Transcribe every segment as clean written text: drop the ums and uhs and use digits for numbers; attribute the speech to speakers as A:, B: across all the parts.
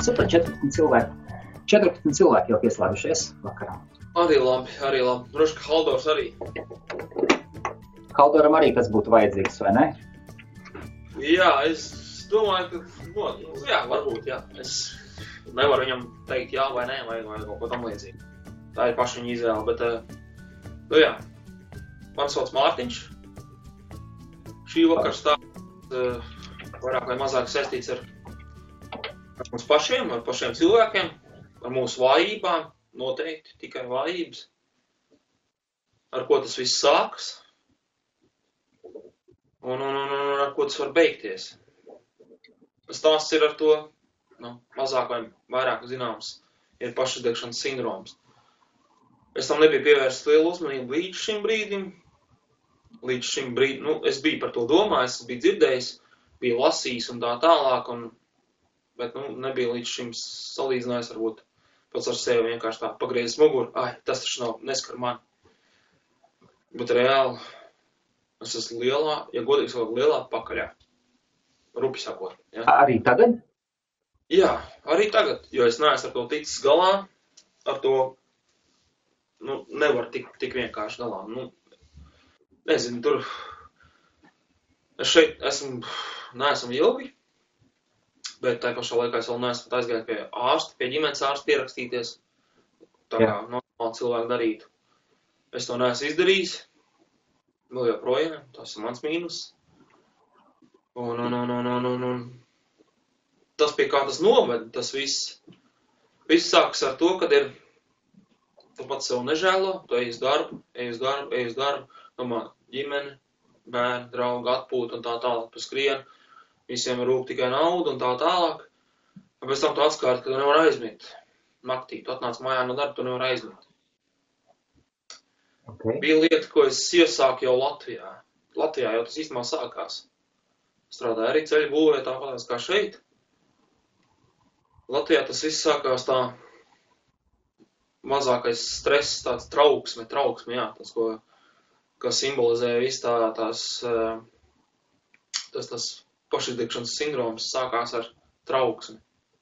A: Super, 14 cilvēki. 14 cilvēki jau pieslēgušies vakarā.
B: Arī labi. Droši, ka Haldors arī.
A: Haldoram arī tas būtu vajadzīgs, vai ne?
B: Jā, es domāju, ka, jā, varbūt, jā. Es nevaru viņam teikt jā vai nē, vai kaut ko tam līdzīgi. Tā ir paša viņa izvēle, bet, jā. Man sauc Mārtiņš. Šī vakar stāsts vairāk vai mazāk saistīts ar mums pašiem, ar pašiem cilvēkiem, ar mūsu vājībām, noteikti tikai vājības. Ar ko tas viss sākas un ar ko tas var beigties. Stāsts ir ar to, mazāk vai vairāk zināms, ir pašuzdegšanas sindroms. Es tam nebiju pievērsts lielu uzmanību līdz šim brīdim. Es biju par to domājis, es biju dzirdējis, biju lasījis un tā tālāk, bet nebija līdz šim salīdzinājis, varbūt pats ar sevi vienkārši tā pagriezis muguru. Tas taču neskar mani. Bet reāli es esmu ja godīgi sakot, lielā pakaļā. Rupi sakot. Ja?
A: Arī tagad?
B: Jā, arī tagad, jo es neesmu ar to ticis galā, ar to nevar tik vienkārši galā. Nezinu, tur es šeit neesmu ilgi, bet tā pašā laikā es vēl neesmu aizgājis pie ārsta, pie ģimenes ārsta pierakstīties, tā kā normāli cilvēki darītu. Es to neesmu izdarījis, vēl joprojām, tas ir mans mīnus. Un tas pie kā tas noved, tas viss sākas ar to, kad tu pats sev nežēlo, tu ej uz darbu, domā ģimene, bērni, draugi, atpūta un tā tālāk, tu skrien, visiem rūp tikai nauda un tā tālāk. Un pēc tam tu atskārti, ka tu nevar aizmigt naktī, tu atnāc mājā no darba, tu nevar aizmigt.
A: Okay.
B: Bija lieta, ko es iesāku jau Latvijā. Latvijā jau tas īstenībā sākās. Strādāju arī ceļu būvē, tāpēc kā šeit. Latvijā tas viss sākās tā mazākais stress, tāds trauksme, jā, tas, ko simbolizē viss tas pašizdegšanas sindroms sākās ar trauksmi.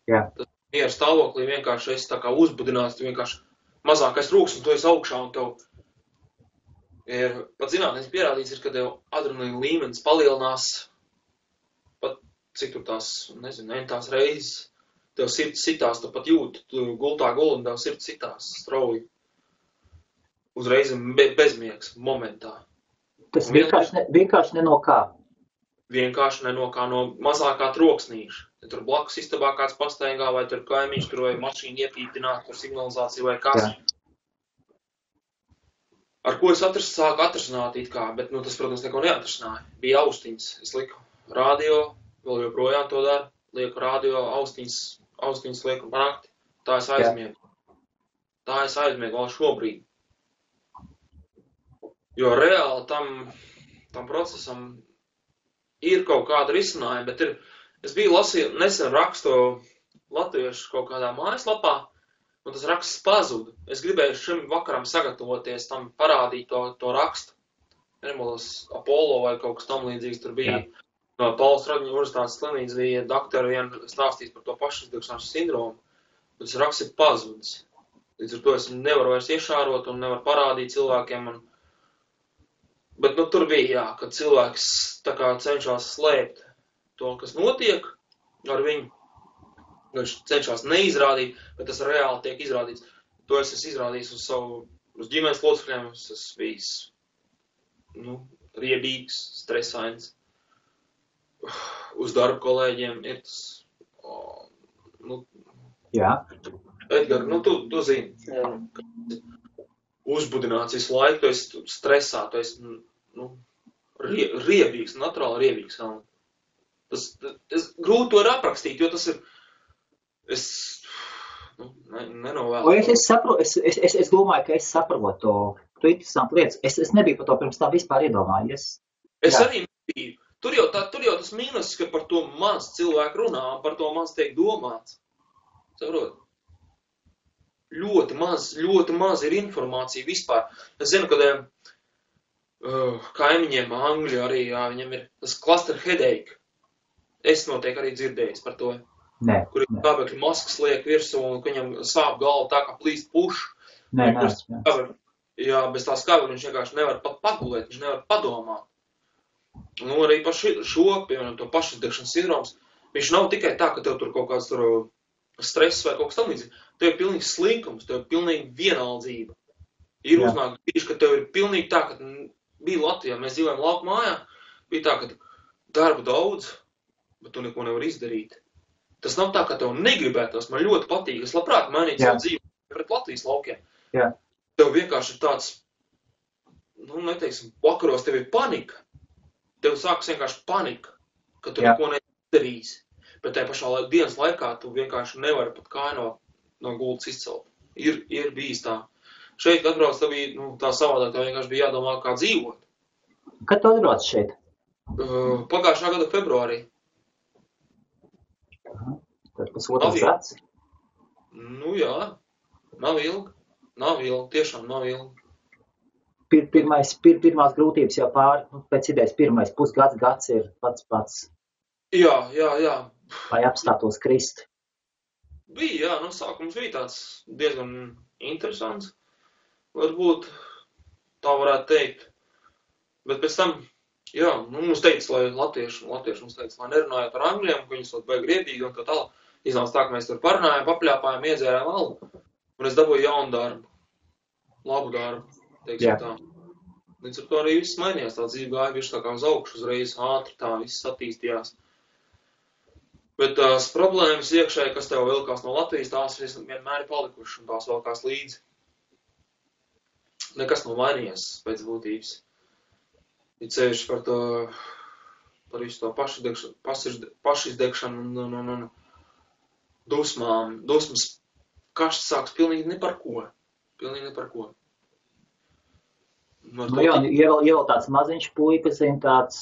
A: Jā.
B: Tas miera stāvoklī vienkārši esi tā kā uzbudināts, tu vienkārši mazākais rūks, un tu esi augšā, un tev ir, pat zinātnēs pierādīts, kad tev adrenalīna līmenis palielinās, pat cik tur tās, nezinu, tās reizes, tev sirds sitās, tu pat jūti, tu gultā guli, un tev sirds sitās strauji. Uzreiz bezmiegs momentā.
A: Tas vienkārši ne no kā.
B: Vienkārši ne no kā, no mazākā troksnīša. Ja tur blakus istabā kāds pastaigā, vai tur kaimiņš, tur vai mašīna iepītināt, tur signalizācija vai kas. Jā. Ar ko es sāku atrasināt it kā, bet, tas, protams, neko neatrasināja. Bija austiņas, es liku radio, vēl joprojām to daru, lieku radio, austiņas lieku pa nakti. Tā es aizmiegu. Tā es aizmiegu vēl šobrīd. Jo reāli tam procesam ir kaut kāda risinājuma, bet es biju lasīju, nesen rakstu latviešu kaut kādā mājaslapā, un tas raksts pazuda. Es gribēju šim vakaram sagatavoties, tam parādīt to rakstu. Nemodos Apollo vai kaut kas tam līdzīgs tur bija. Jā. No Pauls Raģiņa universitātes slimnīcas bija doktori stāstījis par to pašizdegšanas sindromu, bet tas raksts ir pazudis. Līdz ar to es nevaru vairs iešārot un nevaru parādīt cilvēkiem. Bet tur bija, jā, kad cilvēks tā kā cenšas slēpt to, kas notiek ar viņu. Viņš cenšas neizrādīt, bet tas reāli tiek izrādīts. To es esmu izrādījis uz ģimenes locekļiem, es esmu bijis, riebīgs, stresains. Uz darba kolēģiem ir tas,
A: Jā.
B: Edgar, tu zini, uzbudināts visu laiku, tu esi stresā, tu esi, riebīgs, naturāli riebīgs. Tas grūti to ir aprakstīt, jo tas ir, nenovēlu.
A: Es domāju, ka es saprotu to interesantu lietas. Es nebiju par to pirms tā vispār iedomājies.
B: Es arī nebiju. Tur jau tas mīnus, ka par to maz cilvēku runā, par to maz tiek domāts. Saprot? Ļoti maz ir informācija vispār. Es zinu, ka kaimiņiem Angļi arī, jā, viņam ir tas cluster headache. Es noteikti arī dzirdējis par to. kur ir skābekļa maskas liek virsū un viņam sāp galva tā, kā plīst puš.
A: Nē,
B: Jā, bez tā skābekļa viņš vienkārši nevar pat pagulēt, viņš nevar padomāt. Nu, arī par šo, piemēram, to pašizdegšanas sindroms, viņš nav tikai tā, ka tev tur kaut kāds tur stress vai kaut kas tam līdzīgi. Tev ir pilnīgi slinkums, tev ir pilnīgi vienaldzība. Ir uznāk brīži, ka tev ir pilnīgi tā, ka bija Latvijā, mēs dzīvojam lauku mājā, bija tā, ka darba daudz, bet tu neko nevar izdarīt. Tas nav tā, ka tev negribētos, man ļoti patīk, es labprāt mainītu savu dzīvi pret Latvijas laukiem.
A: Jā.
B: Tev vienkārši ir tāds, nu, neteiksim, vakaros tev ir panika. Tev sākas vienkārši panika, ka tu neko nedarīsi. Bet tajā pašā dienas laikā tu vienkārši nevari pat kāju no gultas izcelt. Ir bijis tā. Šeit, kad atbrauc, tev bija, nu, tā savādāk, tev vienkārši bija jādomā, kā dzīvot.
A: Kad tu atbrauc šeit?
B: Pagājušā gada februārī.
A: Tad pusotrs gads?
B: Nu jā, nav ilgi, tiešām nav ilgi.
A: Pirmās grūtības jau pāri, nu, pēc idejas pirmais gads ir pats.
B: Jā.
A: Lai apstātos krist.
B: Bija, jā, sākums bija tāds diezgan interesants. Varbūt tā varētu teikt. Bet pēc tam, jā, mums teica, lai latvieši mums teica, lai nerunājot ar angļiem, ka viņi sot baigi riebīgi un tā tālāk. Iznāca tā, ka mēs tur parunājām, papļāpājām, iedzērām alu. Un es dabūju jaunu darbu. Labu darbu, teiksim tā. Līdz ar to arī viss mainījās. Tā dzīve gāja virs tā kā uz augšu, uzreiz ātri tā viss attīstījās. Bet tās problēmas iekšēji, kas tev vilkās no Latvijas, tās vienmēr ir palikušas un tās vilkās līdzi. Nekas nav mainījies pēc būtības. Ir ceļš par visu to pašizdegšanu un dusmas kašs sāks pilnīgi ne par ko.
A: Nu jā, jau tāds maziņš puikas, tāds,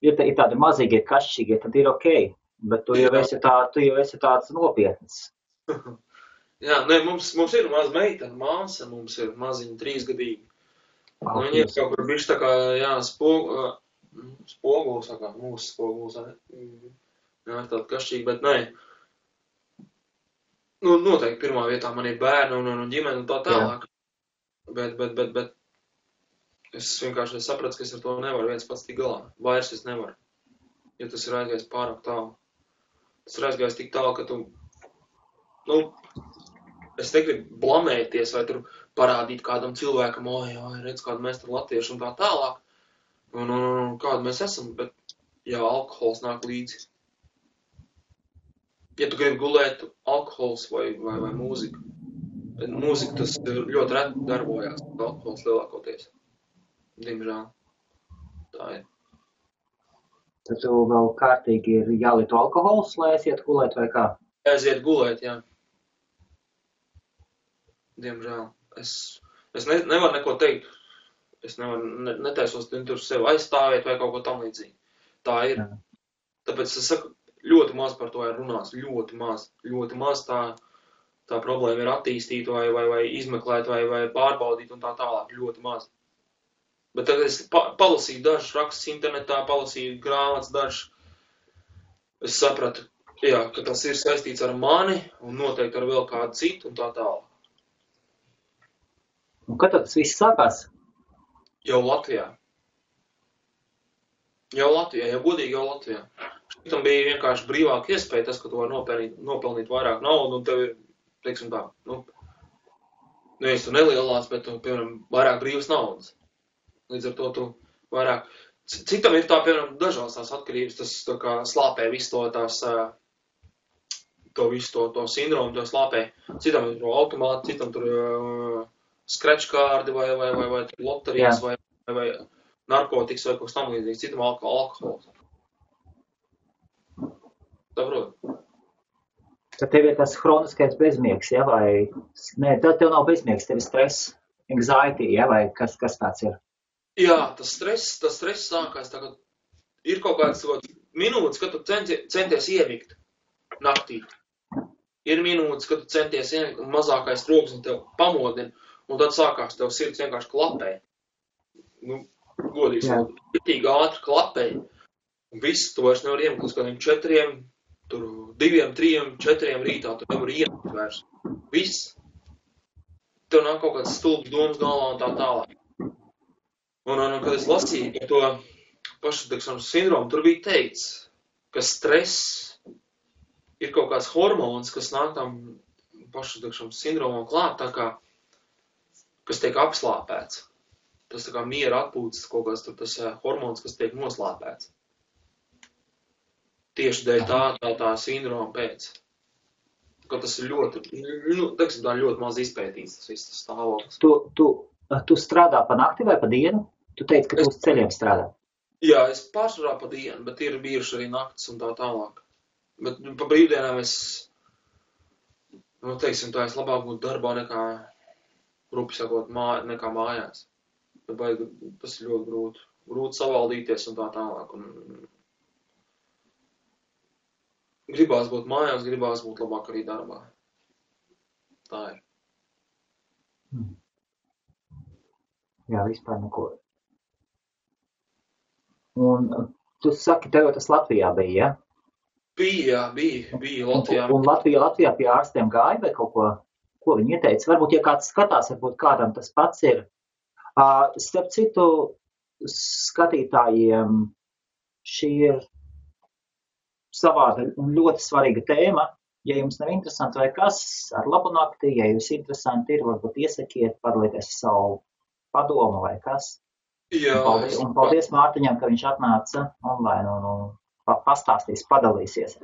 A: ir tādi mazīgi, kašķīgi, tad ir okei. Bet tu jau esi tāds nopietns.
B: Jā, ne, mums ir maza meitene, māsa, mums ir maziņa 3-gadīgi. Viņi ir kaut kur bišķi tā kā, jā, spoguls, kā mūsu spoguls, ne? Jā, ir tāda kašķīga, bet nē. Nu, noteikti pirmā vietā man ir bērni un ģimene un tā tālāk. Bet es vienkārši sapratu, ka es ar to nevaru viens pats tik galā. Vairs es nevaru. Jo tas ir aizgājis pārāk tālu. Tas ir aizgājis tik tālu, ka tu, es negribu blamēties vai tur parādīt kādam cilvēkam, redz, kādu mēs tur latvieši un tā tālāk. Un kādu mēs esam, bet jā, alkohols nāk līdzi. Ja tu gribi gulēt, alkohols vai mūzika. Bet mūzika tas ļoti reti darbojās, alkohols lielākoties. Diemžēl. Tā ir.
A: Tad tu vēl kārtīgi ir jālieto alkohols, lai aiziet gulēt vai kā?
B: Aiziet gulēt, jā. Diemžēl. Es nevaru neko teikt. Es netaisos tur sevi aizstāvēt vai kaut ko tam līdzīgi. Tā ir. Jā. Tāpēc es saku, ļoti maz par to ir runās. Ļoti maz tā problēma ir attīstīt vai izmeklēt vai pārbaudīt un tā tālāk. Ļoti maz. Bet tagad es palasīju dažus rakstus internetā, palasīju grāmatas dažus. Es sapratu, jā, ka tas ir saistīts ar mani un noteikti ar vēl kādu citu un tā tālāk.
A: Un kad tas viss sākās?
B: Jau Latvijā. Jau godīgi jau Latvijā. Šitam bija vienkārši brīvāka iespēja tas, ka tu vari nopelnīt vairāk naudu un tev ir, teiksim tā, nevis tu nelielās, bet tu, piemēram, vairāk brīvas naudas. Līdz ar to tu vairāk. Citam ir tā, piemēram, dažās tās atkarības, tas tā kā slāpē visu to sindromu, to slāpē. Citam ir automāti, citam tur scratch kārdi vai loterijas vai narkotikas vai kaut kas tam līdzīgs. Citam alkohols. Saprot?
A: Tad tev ir tas hroniskais bezmiegs, ja, vai... Nē, tev nav bezmiegs, tev ir stress, anxiety, ja, vai kas tāds ir?
B: Jā, tas stress sākās, tā kā ir kaut kāds minūtes, kad tu centies iemigt naktī. Ir minūtes, kad tu centies iemigt un mazākais troksnis tev pamodina, un tad sākās tev sirds vienkārši klapē. Godīgi, ātri klapē. Un viss, tu vairs nevar iemigt līdz kādiem 4, tur 2, 3, 4 rītā, tu nevar ienākt vairs. Viss. Tev nāk kaut kāds stulbs domas galvā un tā tālāk. Un kad es lasīju par to pašsatikšanas sindromu, tur bija teikts, ka stress ir kaut kāds hormons, kas nāk tam pašsatikšanas sindromam klāt, tā kā, kas tiek apslāpēts. Tas tā kā miera atpūtas kaut kāds tur tas hormons, kas tiek noslāpēts. Tieši dēļ tā sindroma pēc. Ka tas ir ļoti, teiksim, tā ļoti maz izpētīts, tas viss tas stāvoklis.
A: Tu strādā pa nakti vai pa dienu? Tu teici, ka tu uz ceļiem strādā.
B: Jā, es pārsvarā pa dienu, bet ir bijuši arī naktis un tā tālāk. Bet pa brīvdienām es, teiksim, tā es labāk būtu darbā nekā, rupi sakot, nekā mājās. Tas ir ļoti grūti. Grūti savaldīties un tā tālāk. Un gribās būt mājās, gribās būt labāk arī darbā. Tā ir.
A: Jā, vispār neko. Un tu saki, tev tas Latvijā bija, ja?
B: Bija Latvijā.
A: Un Latvijā pie ārstiem gāja vai kaut ko viņi ieteica? Varbūt, ja kāds skatās, varbūt kādam tas pats ir. Starp citu, skatītājiem šī ir savāda un ļoti svarīga tēma. Ja jums nav interesanti vai kas, ar labu nakti, ja jūs interesanti ir, varbūt iesakiet, padalīties savu padomu vai kas.
B: Jā.
A: Un paldies Mārtiņam, ka viņš atnāca online un pastāstīs, padalīsies.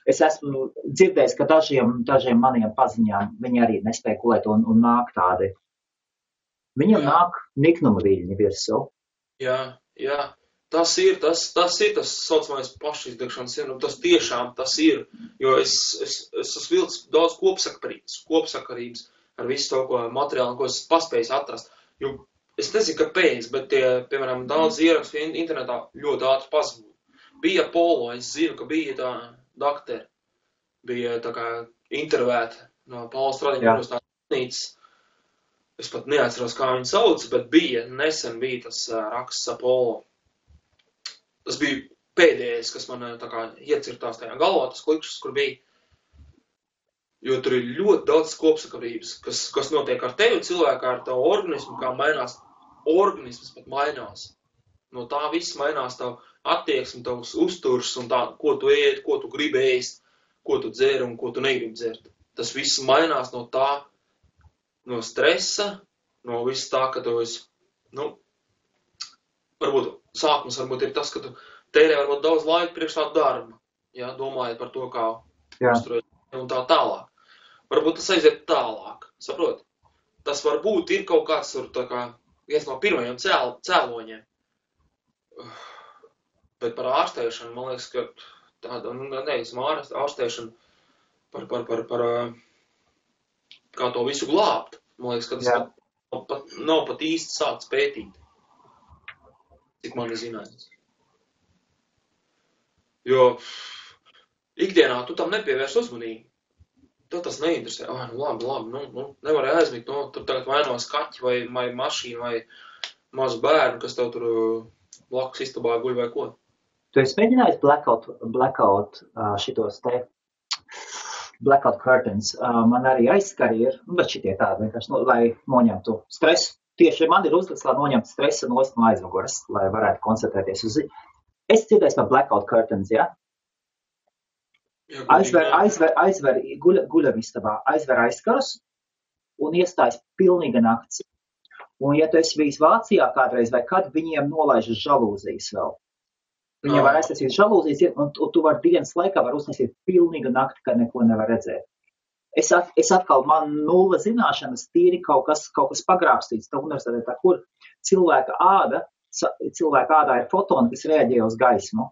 A: Es esmu dzirdējis, ka dažiem maniem paziņām viņi arī nespēja gulēt un nāk tādi. Viņam nāk niknuma viļņi virsū.
B: Jā. Tas ir tas saucamais pašizdegšanas sindroms. Tas tiešām tas ir, jo es esmu vilcis daudz kopsakarības ar visu to, ko materiālu, ko es paspēju atrast. Jo es nezinu, kāpēc, bet piemēram, daudz ierakstu internetā ļoti ātri pazūd. Bija Polo, es zinu, ka bija tā doktori, bija tā kā intervēta no Paula Stradiņa universitātes. Es pat neatceros, kā viņu sauc, bet nesen bija tas raksts Apollo. Tas bija pēdējais, kas man tā kā iecirtās tajā galvā, tas klikšķis, kur bija. Jo tur ir ļoti daudz kopsakarības, kas notiek ar tevi cilvēku, ar tavu organismu, kā mainās. Organisms pat mainās. No tā viss mainās tavu attieksmi, tavs uzturs un tā, ko tu ēd, ko tu gribi ēst, ko tu dzer un ko tu negribi dzert. Tas viss mainās no tā, no stresa, no viss tā, ka tu esi, varbūt sākums varbūt ir tas, ka tu tērē varbūt daudz laika priekš tā darba, ja, domājot par to, kā uzturēt un tā tālāk. Varbūt tas aiziet tālāk, saprot? Tas varbūt ir kaut kāds tur tā kā viens no pirmajiem cēloņiem. Bet par ārstēšanu, man liekas, ka tāda, ārstēšana par kā to visu glābt. Man liekas, ka tas nav pat īsti sākts pētīt. Cik man ir zināms. Jo ikdienā tu tam nepievērs uzmanību. Tev tas neinteresē. Labi, nevarēja aizmigt, tur tagad vainos kaķi vai mašīna vai mazu bērnu, kas tev tur blakus istabā guļ vai ko.
A: Tu esi mēģinājis blackout šitos te blackout curtains. Man arī aizskari ir, bet šitie tādi vienkārši, lai noņemtu stresu. Tieši man ir uzlikts, lai noņemtu stresu no aizmugures, lai varētu koncentrēties uz ziņu. Es dzirdēju par blackout curtains, ja? Aizver guļamistabā, aizver aizkarus un iestājas pilnīga nakts. Un ja tu esi bijis Vācijā kādreiz vai kad, viņiem nolaiž žalūzijas vēl. Viņiem var aiztaisīt žalūzijas, un tu var dienas laikā var uztaisīt pilnīga nakti, kad neko nevar redzēt. Es atkal, man nulle zināšanas, tīri kaut kas pagrābstīts tā universitātē, kur cilvēka ādā ir fotoni, kas reaģē uz gaismu.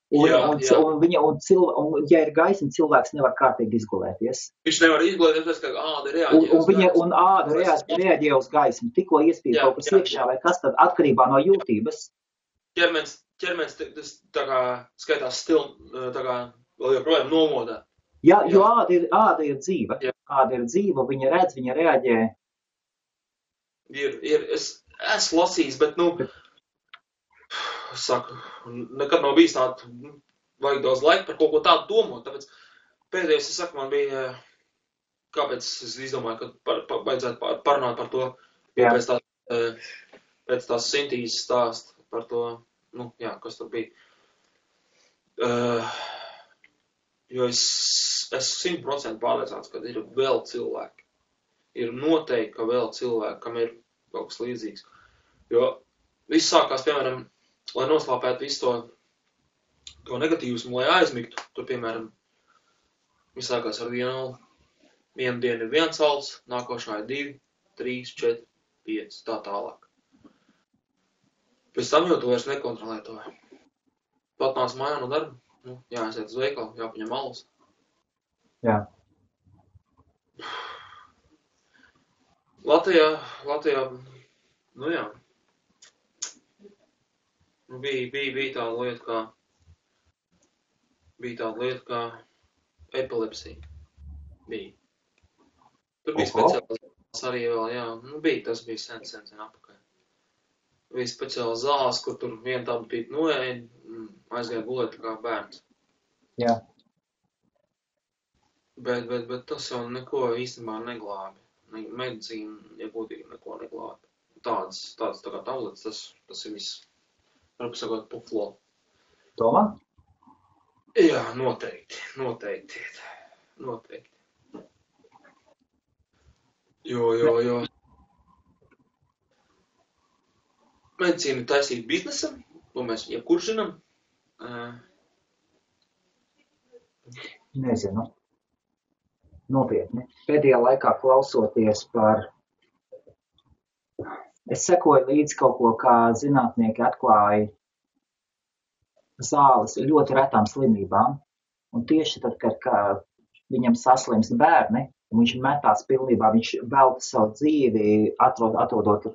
A: Un ja ir gaisma, cilvēks nevar kārtīgi izgulēties.
B: Viņš nevar izgulēties, ka āda reaģē
A: un āda reaģē uz gaismu. Tikko iespīd kaut kas iekšā vai kas tad atkarībā no jūtības.
B: Ķermenis tā kā skaitās tā kā vēl joprojām nomodā.
A: Jā, jo āda ir dzīva. Āda ir dzīva, viņa redz, viņa reaģē.
B: Es lasījis, bet, saku, nekad nav bijis tāda vajag daudz laika par kaut ko tādu domāt. Tāpēc pēdējais, es saku, man bija, kāpēc es izdomāju, ka vajadzētu parunāt par to,
A: Jā.
B: pēc tās Sintīzes stāst par to, nu, jā, kas tur bija. Jo es 100% pārliecināts, ka ir vēl cilvēki. Ir noteikti, ka vēl cilvēki, kam ir kaut kas līdzīgs. Jo viss sākās, piemēram, lai noslāpētu visu to negatīvismu, lai aizmigtu. Tur, piemēram, viss sākās ar vienu dienu ir 1 alts, nākošā ir 2, 3, 4, 5, tā tālāk. Pēc tam jau tu vairs nekontrolē to. Pat nāc mājā no darba, nu, jāaiziet uz veikalu, jāpaņem alus.
A: Jā.
B: Latvijā, nu jā, nu bija tāda lieta kā epilepsija. Bija. Tur bija speciāls arī vēl, jā, nu tas bija sen apakaļ. Bija speciāls zāles, kur tur viena tāda pīt noēja, aizgāja gulēt kā bērns.
A: Jā.
B: Bet tas jau neko īstenībā neglābi. Medicīna, ja būtīgi, neko neglābi. Tādas tā kā tablets, tas ir viss, varbūt sakot, puflo.
A: Tomā?
B: Jā, noteikti. Jo. Medicīna ir taisīta biznesam, to mēs jebkurš zinām.
A: Nezinu. Nopietni. Pēdējā laikā klausoties es sekoju līdz kaut ko, kā zinātnieki atklāja zāles ļoti retām slimībām. Un tieši tad, kad viņam saslimst bērni, un viņš metās pilnībā, viņš velta savu dzīvi, atrodot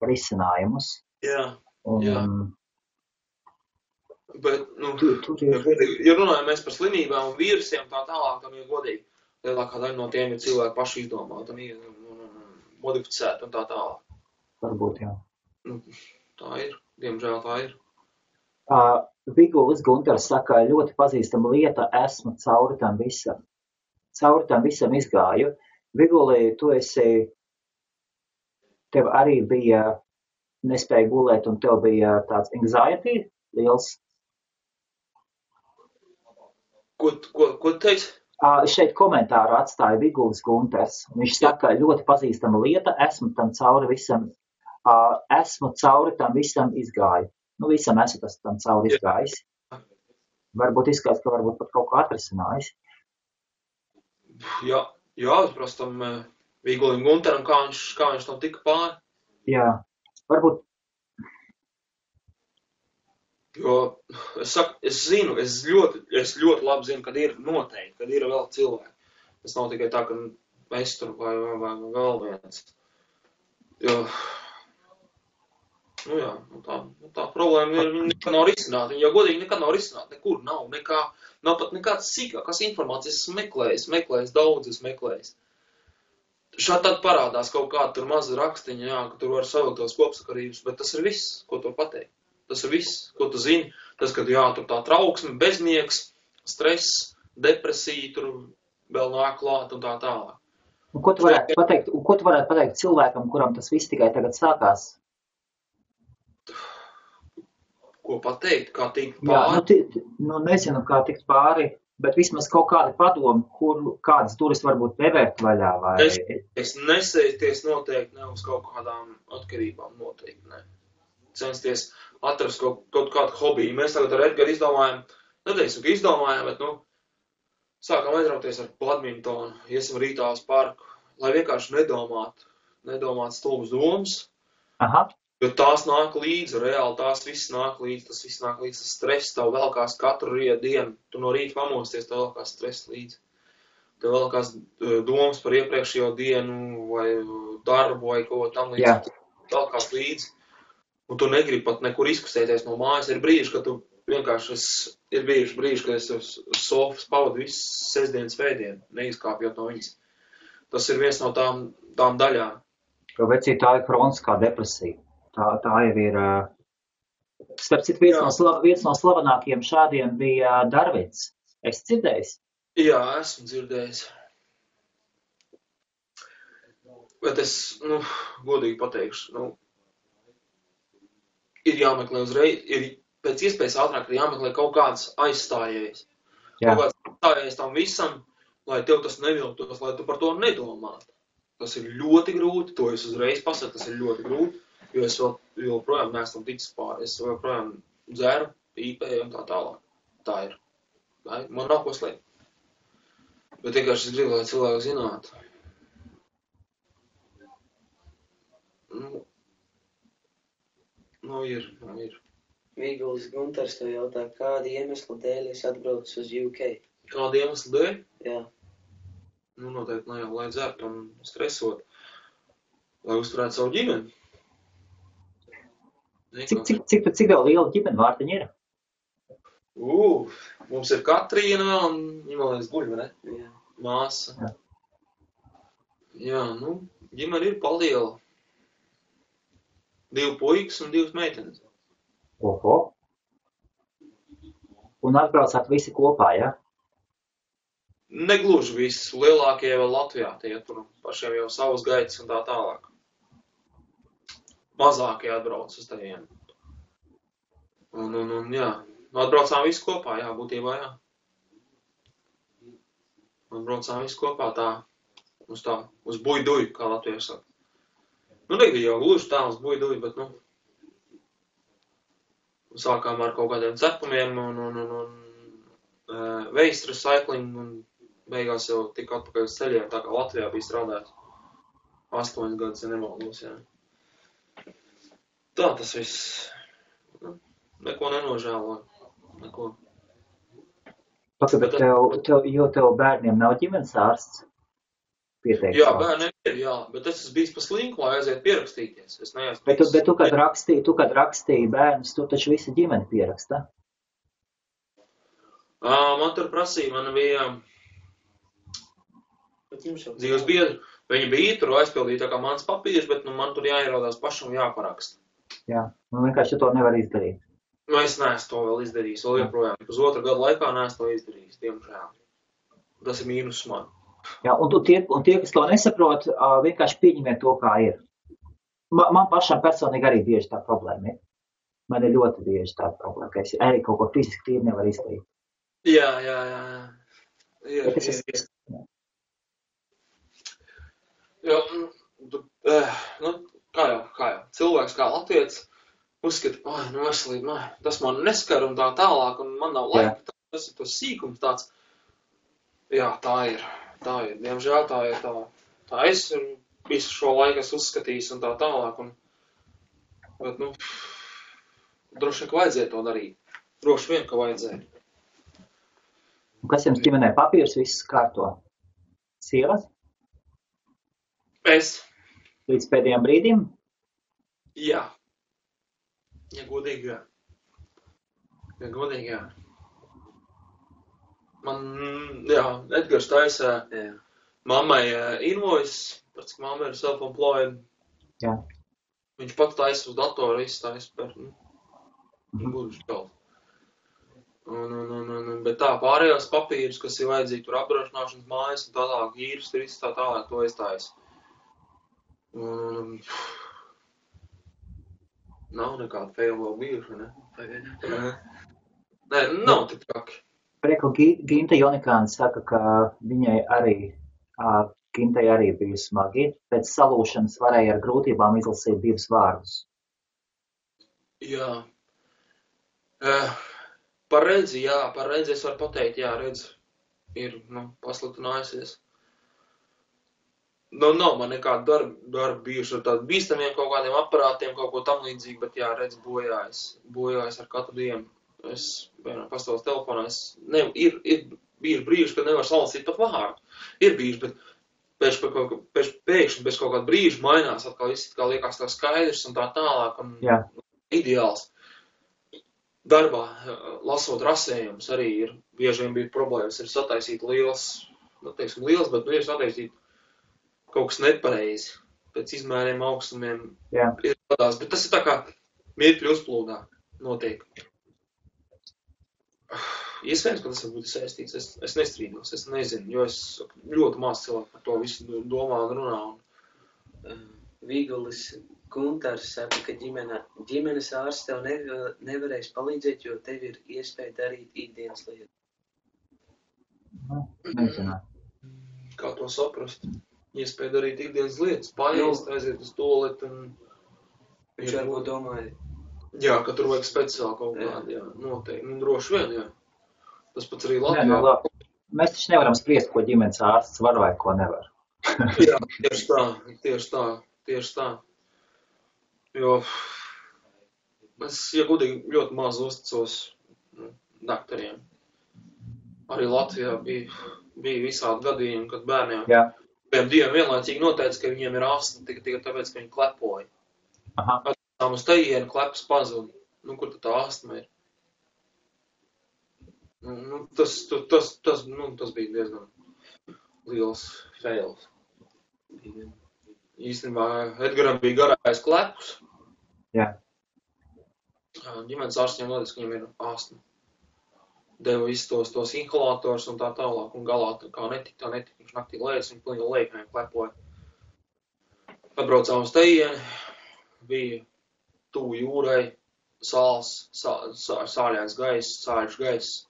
A: risinājumus.
B: Jā.
A: Jā.
B: Bet, nu, ja runājam mēs par slimībām un vīrusiem tā tālāk, tam ir godīgi. Lielākā daļa no tiem ir cilvēki paši izdomāti un modificēti un tā tālāk.
A: Varbūt, jā.
B: Nu, tā ir. Diemžēl tā ir.
A: Vigulis Gunters saka, ļoti pazīstama lieta, esmu cauri tam visam. Cauri tam visam izgāju. Viguli, tev arī bija nespēja gulēt un tev bija tāds anxiety liels.
B: Ko teici?
A: Šeit komentāru atstāja Vigulis Gunters. Viņš saka, ļoti pazīstama lieta, esmu cauri tam visam izgāju. Nu, visam esmu tam cauri izgājis. Varbūt izskatās, ka varbūt pat kaut ko atrisinājis.
B: Jā, prastam Vigulim Gunteram, kā viņš tam tika pāri.
A: Jā, varbūt.
B: Jo, es ļoti labi zinu, kad ir noteikti, kad ir vēl cilvēki. Tas nav tikai tā, ka es tur vai vēl viens. Jo, nu jā, tā problēma ir, viņa nekad nav risināta. Viņa jau godīgi nekad nav risināta, nekur nav pat nekāds sīkākās informācijas, es meklējis. Šādi tad parādās kaut kāda tur maza rakstiņa, jā, ka tur var savilkt tos kopsakarības, bet tas ir viss, ko tu pateikt. Tas ir viss, ko tu zini. Tas, ka jā, tur tā trauksme, bezmiegs, stress, depresija, tur vēl nāk klāt un tā tālāk.
A: Un ko tu varētu pateikt cilvēkam, kuram tas viss tikai tagad sākās?
B: Ko pateikt? Kā tikt pāri?
A: Jā, nezinu, kā tikt pāri, bet vismaz kaut kādi padomi, kādas turis varbūt nevērt vaļā. Vai...
B: Es nesēties noteikti ne uz kaut kādām atkarībām, noteikti ne. Censties atrast kaut kādu hobiju. Mēs tagad ar Edgaru izdomājam, bet, sākam aizrauties ar badmintonu, iesim rītā uz parku, lai vienkārši nedomāt stulbas domas.
A: Aha.
B: Jo tās nāk līdzi, reāli tas viss nāk līdzi, tas stress tev velkās katru dienu. Tu no rīta pamosties, tev velkās stress līdzi. Tev velkās domas par iepriekšējo dienu vai darbu vai ko tam līdzi. Velkās līdzi. Un tu negribi pat nekur izkustēties no mājas. Ir brīži, kad tu vienkārši kad es uz sofas pavadu visu sestdienas svētdienu, neizkāpjot no viņas. Tas ir viens no tām daļām.
A: Jo vecī tā ir kroniskā depresija. Tā jau ir Starp citu, viens no slavenākajiem šādiem bija Darvins. Es dzirdējis?
B: Jā, esmu dzirdējis. Bet es, godīgi pateikšu, ir jāmeklē uzreiz, ir pēc iespējas ātrāk jāmeklē kaut kāds aizstājējs.
A: Jā.
B: Kaut kāds aizstājējs tam visam, lai tev tas nevilktos, lai tu par to nedomātu. Tas ir ļoti grūti, to es uzreiz pasaku, tas ir ļoti grūti, jo es joprojām neesmu ticis pāri. Es joprojām dzeru, pīpēju un tā tālāk. Tā ir. Man nav ko slēpt. Bet vienkārši es gribu, lai cilvēki zinātu. Ir.
C: Vīguls Guntars tev jautā, kādi iemesli dēļ es atbraucu uz UK?
B: Kādi iemesli dēļ?
C: Jā.
B: Noteikti ne jau, lai dzert un stresot, lai uzturētu savu ģimeni.
A: Cik tev liela ģimene vārtiņa ir?
B: Mums ir Katrīna vēl un viņa vēl guļ, vai ne?
C: Jā.
B: Māsa. Jā, ģimene ir paliela. 2 puikas un 2 meitenes.
A: Oho. Un atbraucāt visi kopā, ja?
B: Negluži visi. Lielākie vēl Latvijā, tie tur pašiem jau savas gaitas un tā tālāk. Mazākie atbrauc uz tevienu. Un jā, atbraucām visi kopā, jā, būtībā, jā. Atbraucām visi kopā uz buiduju, kā Latvijā saka. Nebija jau gluži tā uz buiduju, bet, sākām ar kaut kādiem cepumiem un waste recycling un beigās jau tika atpakaļ uz ceļiem, tā kā Latvijā bija strādājis 8 gadus, ja nemaldos, jā. Tā tas viss, neko nenožēloju, neko.
A: Bet tev bērniem nav ģimenes ārsts? Pieteikts.
B: Jā, bērniem ir, jā, bet es esmu bijis pa slinku, lai aiziet pierakstīties. Es neesmu
A: bet tu, kad rakstīji bērnus, tu taču visi ģimeni pieraksta?
B: Man tur prasīja, man bija dzīves biedri. Viņi bija tur aizpildīja tā kā mans papīrs, bet man tur jāierodās pašam jāparaksta.
A: Jā, vienkārši tu to nevar izdarīt.
B: Es neesmu to vēl izdarījis, vēl joprojām. Uz 2 gadu laikā neesmu to izdarījis, diemžēl. Tas ir mīnus man.
A: Jā, un tie, kas to nesaprot, vienkārši pieņemiet to, kā ir. Man pašam personīgi arī bieži tā problēma ir. Man ir ļoti bieži tā problēma, ka es arī kaut ko fiziski tīri nevaru izdarīt.
B: Jā. Kā jau. Cilvēks kā latvietis uzskata, veselība, tas man neskar un tā tālāk, un man nav laika, tas ir tas sīkums tāds. Jā, tā ir. Diemžēl tā ir tā. Tā es visu šo laiku esmu uzskatījis un tā tālāk. Bet, droši vien, ka vajadzēja to darīt. Droši vien, ka vajadzēja.
A: Kas jums ģimenē papīrs viss kārto? Sievas?
B: Es.
A: Līdz pēdējiem brīdim?
B: Jā. Ja godīgi, jā. Man, Edgars taisa mammai invoice, pēc ka mamma ir self-employed.
A: Jā.
B: Viņš pat taisa uz datoru, iztaisa par, gluži kaut. Bet tā, pārējās papīrus, kas ir vajadzīgi tur apdrošināšanas mājas un tā tālāk, īres, tā tālāk, to iztaisa. Nav nekāda fail vēl bijuši, ne? Nē, nav tik traki.
A: Prieku Ginta Jonikāna saka, ka viņai arī bija smagi. Pēc salūšanas varēja ar grūtībām izlasīt 2 vārdus.
B: Jā. Par redzi es varu pateikt, jā, redz ir, pasliktinājusies. Nav man nekāda darba bijuši ar tādiem bīstamiem kaut kādiem aparātiem, kaut ko tam līdzīgi, bet jā, redz bojājas ar katru dienu. Es, pastāvos telefonā, ir bijuši brīži, kad nevar salasīt pat vārdu. Ir bijuši, bet pēkšņi bez kaut kāda brīža mainās, atkal viss kā liekas tā skaidrs un tā tālāk un ideāls. Darbā, lasot rasējumus, arī ir bieži vien bija problēmas, ir sataisīt liels, bet ir sataisīt kaut kas nepareizi, pēc izmēriem, augstumiem ir tādās, bet tas ir tā kā mirkļu uzplūdā. notiek. Iespējams, ka tas var būt saistīts. Es nestrīdos, es nezinu, jo es ļoti maz cilvēku par to visu domā un runā.
C: Vīgulis Guntars saka, ka ģimenes ārsts tev nevarēs palīdzēt, jo tev ir iespēja darīt ikdienas lietas.
A: Nezinu.
B: Kā to saprast? Iespēja darīt ikdienas lietas, paēst, aiziet uz toaleti un...
C: Viņš varbūt domāja.
B: Jā, ka tur vajag speciāli kaut kādi, jā, noteikti. Nu, droši vien, jā. Tas pats arī Latvijā.
A: Nē, labi. Mēs taču nevaram spriest, ko ģimenes ārsts var vai ko nevar.
B: Jā, tieši tā. Jo es, ja godīgi, ļoti maz uzticos daktariem. Arī Latvijā bija visādi gadījumi, kad bērniem diviem vienlaicīgi noteica, ka viņiem ir astma tikai tāpēc, ka viņi klepoja. Atstām uz tejienu kleps pazud. Nu, kur tad tā astma ir? Nu, tas bija diezgan liels fails. Īstenībā Edgaram bija garais klepus.
A: Jā.
B: Ģimenes ārstiem noteica, ka viņam ir astma. Deva visus tos inhalators un tā tālāk, un galā kā netika, viņš naktī lējas, viņa pilnīgi lēknēm klepoja. Atbraucām uz tejieni, bija tuvu jūrai, sāls, sāļains gaiss, sāļš gaiss,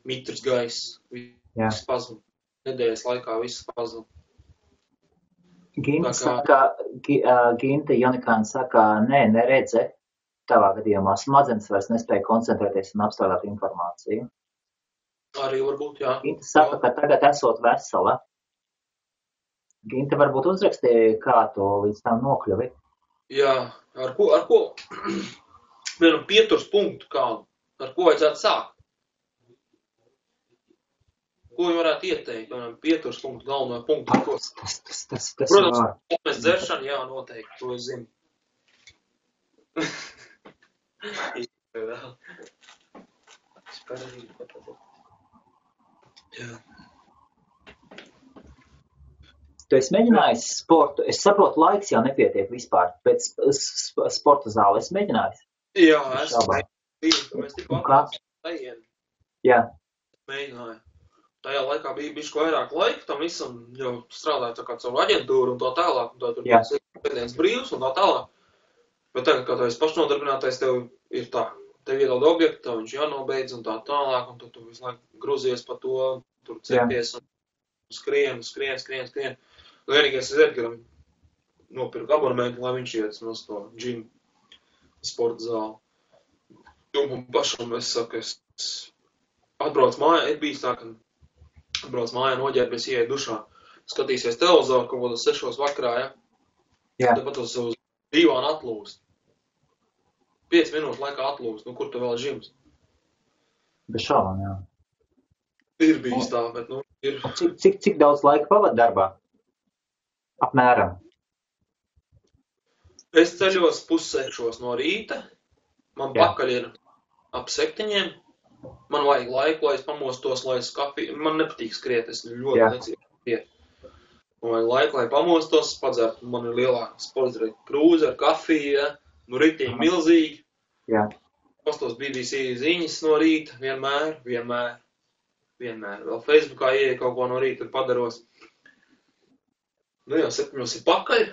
B: mitrs gaiss, viss pazud. Nedēļas laikā viss pazud.
A: Ginta Janikāna saka, neredze, tavā gadījumā smadzenes vairs nespēja koncentrēties un apstrādāt informāciju.
B: Arī varbūt, jā.
A: Ginta saka, ka tagad esot vesela. Ginta varbūt uzrakstīja, kā to līdz tam nokļuvi.
B: Jā, ar ko? Vienam pieturs punktu kādu. Ar ko vajadzētu sākt? Ko viņi varētu ieteikt? Vienam pieturs punktu, galveno punktu. Protams, mēs dzeršana, jā, noteikti, to es zinu. Jā.
A: Tu esi mēģinājis sportu? Es saprotu, laiks jau nepietiek vispār. Pēc sporta zāli esi mēģinājis?
B: Jā, mēs tikko atklājām.
A: Jā.
B: Mēģināju. Tajā laikā bija bišķi vairāk laika, tam visam jau strādāja tā kā caur aģentūru un tā tālāk, un tā tur bija pēdienas brīvs un tā tālāk. Bet tagad, kā tu esi pašnodarbinātais, tev ir tā, tev iedod objektu, tev viņš jānobeidz un tā tālāk, un tu visu laiku gruzies pa to, tur cepties un skrien. Vienīgais es Edgaram nopirku abonementu, lai viņš iet no to džimu sporta zāli. Un pašam es saku, es atbraucu mājā, ir bijis tā, ka atbrauc mājā, noģērbies, ieeja dušā, skatīsies televizoru kaut kādā 6 vakarā, ja?
A: Jā.
B: Tāpat uz divānu atlūst. 5 minūšu laikā atlūst, nu kur tu vēl džims?
A: Bez šaubām, jā.
B: Ir bijis tā, bet, nu, ir...
A: Cik daudz laika pavad darbā? Apmēram.
B: Es ceļos 5:30 no rīta, man pakaļ ir ap 7. Man vajag laiku, lai es pamostos, lai es kafiju. Man nepatīk skriet, es ļoti necieku skriet. Man vajag laiku, lai pamostos, padzert. Man ir lielā sporta krūze ar kafiju, ja? Nu ritīgi milzīgi.
A: Jā.
B: Pastos BBC ziņas no rīta, vienmēr. Vēl Facebookā ieeja kaut ko no rīta, tur padaros. Nu jau 7 ir pakaļ.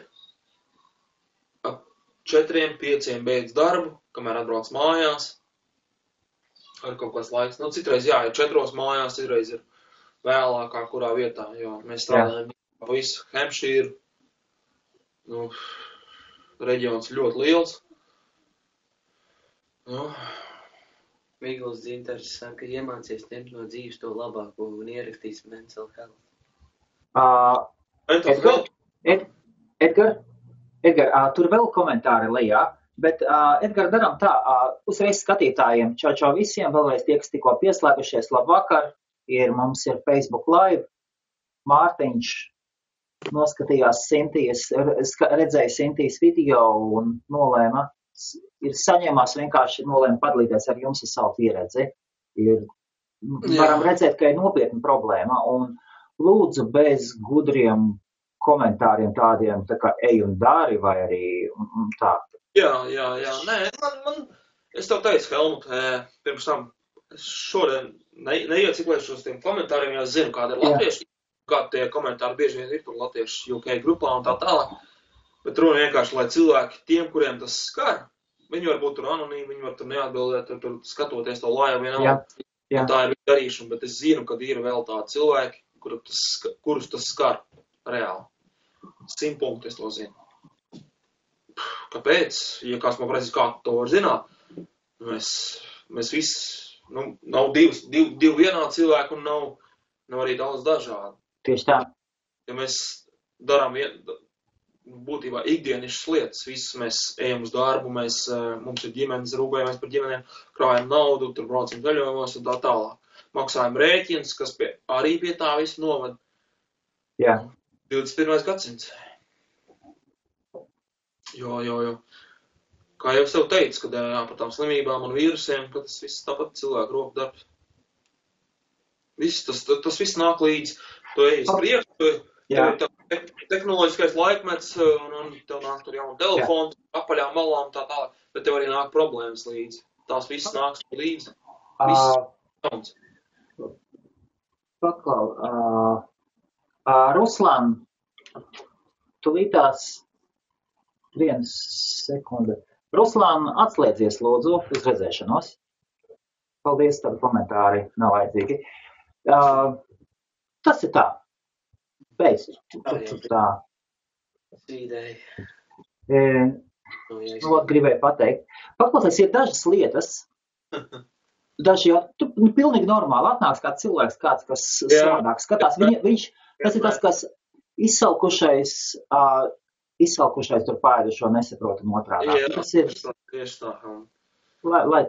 B: Ap 4-5 beidz darbu, kamēr atbrauc mājās. Ar kaut kāds laiks. Nu, citreiz, jā, ir 4 mājās, citreiz ir vēlākā, kurā vietā, jo mēs strādājam pa visu Hampshire. Nu, reģions ļoti liels. Nu.
C: Vīguls Dzintars saka, iemācies ņemt no dzīves to labāko un ierakstīs mental health.
A: Edgar, tur vēl komentāri lejā. Bet, Edgar, daram tā, uzreiz skatītājiem, čau visiem, vēlreiz tie, kas tikko pieslēgušies, labvakar, mums ir Facebook live, Mārtiņš noskatījās redzēja Sintijas video un nolēma, saņēmās vienkārši nolēma padalīties ar jums ar savu pieredzi. Varam redzēt, ka ir nopietna problēma un lūdzu bez gudriem komentāriem tādiem, tā kā ej un dari vai arī tā.
B: Jā. Nē, Es tev teicu, Helmut, pirms tam, es šodien neieciklēšu uz tiem komentāriem, jo es zinu, kāda ir latvieši, kādi tie komentāri bieži vien ir tur latvieši UK grupā un tā tālāk. Bet runa vienkārši, lai cilvēki tiem, kuriem tas skar, viņi var būt tur anonīmi, viņi var tur neatbildēt, tur skatoties to laivu vienalga. Tā ir darīšana, bet es zinu, ka ir vēl tādi cilvēki, kurus tas skar reāli. 100 punkti es to zinu. Kāpēc? Ja kāds man prasīs, kā to var zināt, mēs visi, nav divi vienādi cilvēki un nav arī daudz dažādi.
A: Tieši tā.
B: Ja mēs darām būtībā ikdienišas lietas, visus mēs ejam uz darbu, mums ir ģimenes, rūpējamies par ģimenēm, krājam naudu, tur braucam ceļojumos un tā tālāk. Maksājam rēķinus, kas arī pie tā visu novad.
A: Jā.
B: 21. gadsimts. Jo. Kā jau es tev teicu, kad par tām slimībām un vīrusiem, ka tas viss tāpat cilvēku roku darbs. Tas viss nāk līdz, tu ej uz priekšu, tehnoloģiskais laikmets, un tev nāk tur jaunu telefonu, apaļām malām tā tālāk, bet tev arī nāk problēmas līdzi. Tās viss nāks līdzi. Viss.
A: Paklau, Ruslan, tu lītās 1 sekunde. Ruslan, atslēdzies lūdzu uz redzēšanos. Paldies, tādi komentāri nav vajadzīgi. Tas ir tā. Beidz. Tā.
C: Sīdēji.
A: Gribēju pateikt. Paklausies, ir dažas lietas. Daži jau, pilnīgi normāli atnāks kāds cilvēks, kāds, kas savādāk skatās. Tas ir tas, kas izsalkušais tur pārēdušo nesaprotam otrādā. Tas ir,
B: tieši tā.
A: lai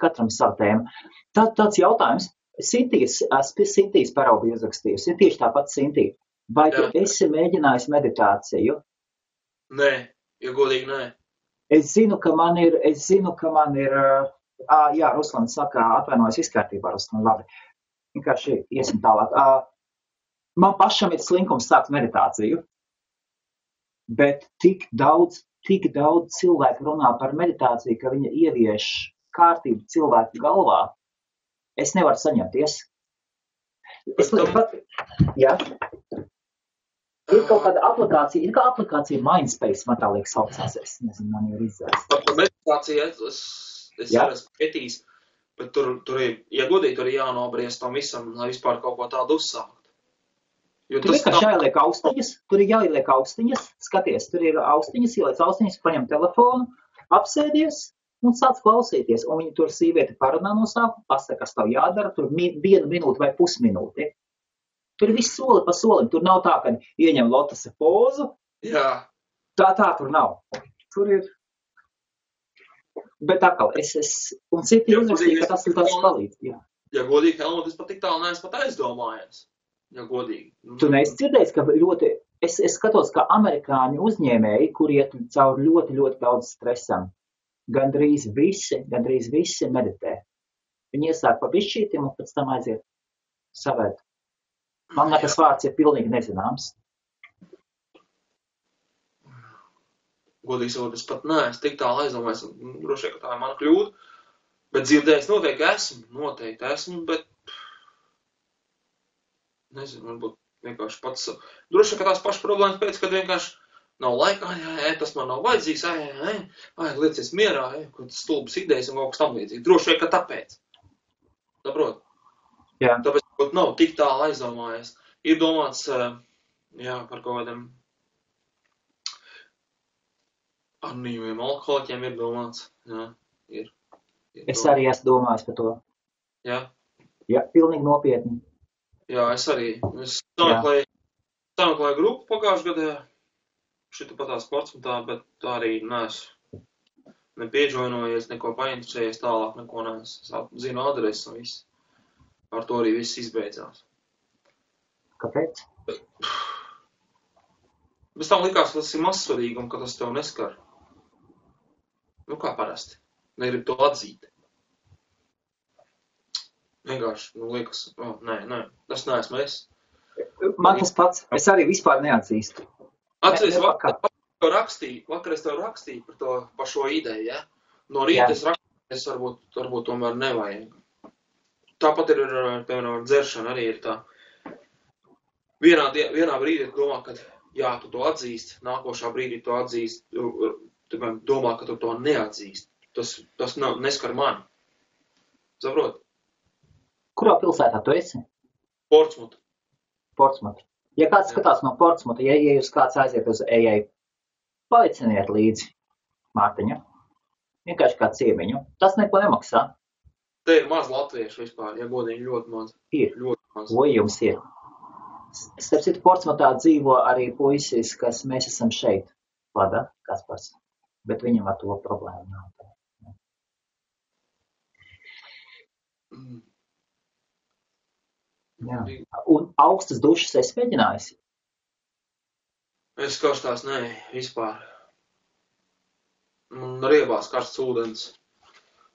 A: katram savu tēmu. Tāds jautājums. Sintīs paraugu iezrakstījusi. Ir tieši tāpat Sintī. Vai tu esi mēģinājis meditāciju?
B: Nē, ja godīgi nē.
A: Es zinu, ka man ir, jā, Ruslan saka, atvainojas izkārtībā, Ruslan, labi. Vienkārši iesim tālāk. Man pašam ir slinkums sākt meditāciju, bet tik daudz cilvēku runā par meditāciju, ka viņa ievieš kārtību cilvēku galvā. Es nevaru saņemties. Jā. Ir kaut kāda aplikācija, aplikācija Mindspace, man tā liekas saucās, es nezinu, man jau ir izdzēst.
B: Par meditāciju es arī esmu pētījis, bet tur ir, ja godīgi, tur ir jānobriest tam visam, lai vispār kaut ko tādu uzsākt.
A: Tur vienkārši jāieliek austiņas, skaties, tur ir austiņas, ieliec austiņas, paņem telefonu, apsēdies un sāc klausīties. Un viņi tur sīvieti parunā no sākuma, pasaka, kas tev jādara, tur 1 minūte vai pusminūti. Tur ir viss soli pa solim. Tur nav tā, ka ieņem lotasa pozu.
B: Jā.
A: Tā tur nav. Tur ir. Bet atkal, un citi uzrakstīja, ka tas ir tāds palīdz. Jā.
B: Ja godīgi, Helmut, es pat tik tālu neesmu pat aizdomājies. Ja godīgi.
A: Tu neesi dzirdējis, ka es skatos, ka amerikāņu uzņēmēji, kur iet caur ļoti, ļoti daudz stresam, gandrīz visi meditē. Viņi iesāk pa bišķītim un pēc tam aiziet savēt. Man tas vārds ir pilnīgi nezināms.
B: Godīgi sakot, es pat neesmu tik tālu aizdomājies, droši vien, ka tā ir mana kļūda, bet dzirdējis noteikti esmu, bet nezinu, varbūt vienkārši pats, droši vien, ka tās pašas problēmas pēc, kad vienkārši nav laikā, tas man nav vajadzīgs, liecies mierā, kaut tas stulbas idejas un kaut kas tam līdzīgi. Droši vien, ka tāpēc. Saprot?
A: Jā.
B: Tāpēc nav tik tālu aizdomājies. Ir domāts, par kaut kādiem anonīmiem alkoholiķiem ir domāts. Jā, ir
A: es arī esmu domājis par to.
B: Jā?
A: Jā, pilnīgi nopietni.
B: Jā, es arī. Es sameklēju grupu pagājušajā gadā, šita patā sports un tā, bet tā arī neesmu nepieģoinojies, neko painteresējies tālāk, neko neesmu. Zinu adresi un viss. Ar to arī viss izbeidzās.
A: Kāpēc?
B: Bez tam likās, ka tas ir mazsvarīgi un ka tas tev neskar. Kā parasti. Negrib to atzīt. Vienkārši, liekas, nē, tas neesmu es.
A: Man tas pats, es arī vispār neatzīstu.
B: Vakar es tev rakstīju par šo ideju, ja? No rīta es Es varbūt tomēr nevajag. Tāpat ir, piemēram, dzeršana arī ir tā. Vienā brīdī domā, ka jā, tu to atzīst, nākošā brīdī to atzīst, tu domā, ka tu to neatzīst. Tas neskar mani. Saprot?
A: Kurā pilsētā tu esi?
B: Portsmut.
A: Ja kāds skatās no Portsmuta, ja jūs kāds aiziet uz AA, paliciniet līdzi Mārtiņa. Vienkārši kā ciemiņu. Tas neko nemaksā.
B: Te ir maz latviešu vispār, ja godīgi ļoti maz.
A: Ir.
B: Ļoti maz.
A: Ko jums ir? Starp citu, Portsmutā dzīvo arī puisis, kas mēs esam šeit. Vlada Kaspars. Bet viņam ar to problēmu nav. Jā. Un augstas dušas esi mēģinājusi?
B: Es karstās, nē, vispār. Man riebās karsts ūdens.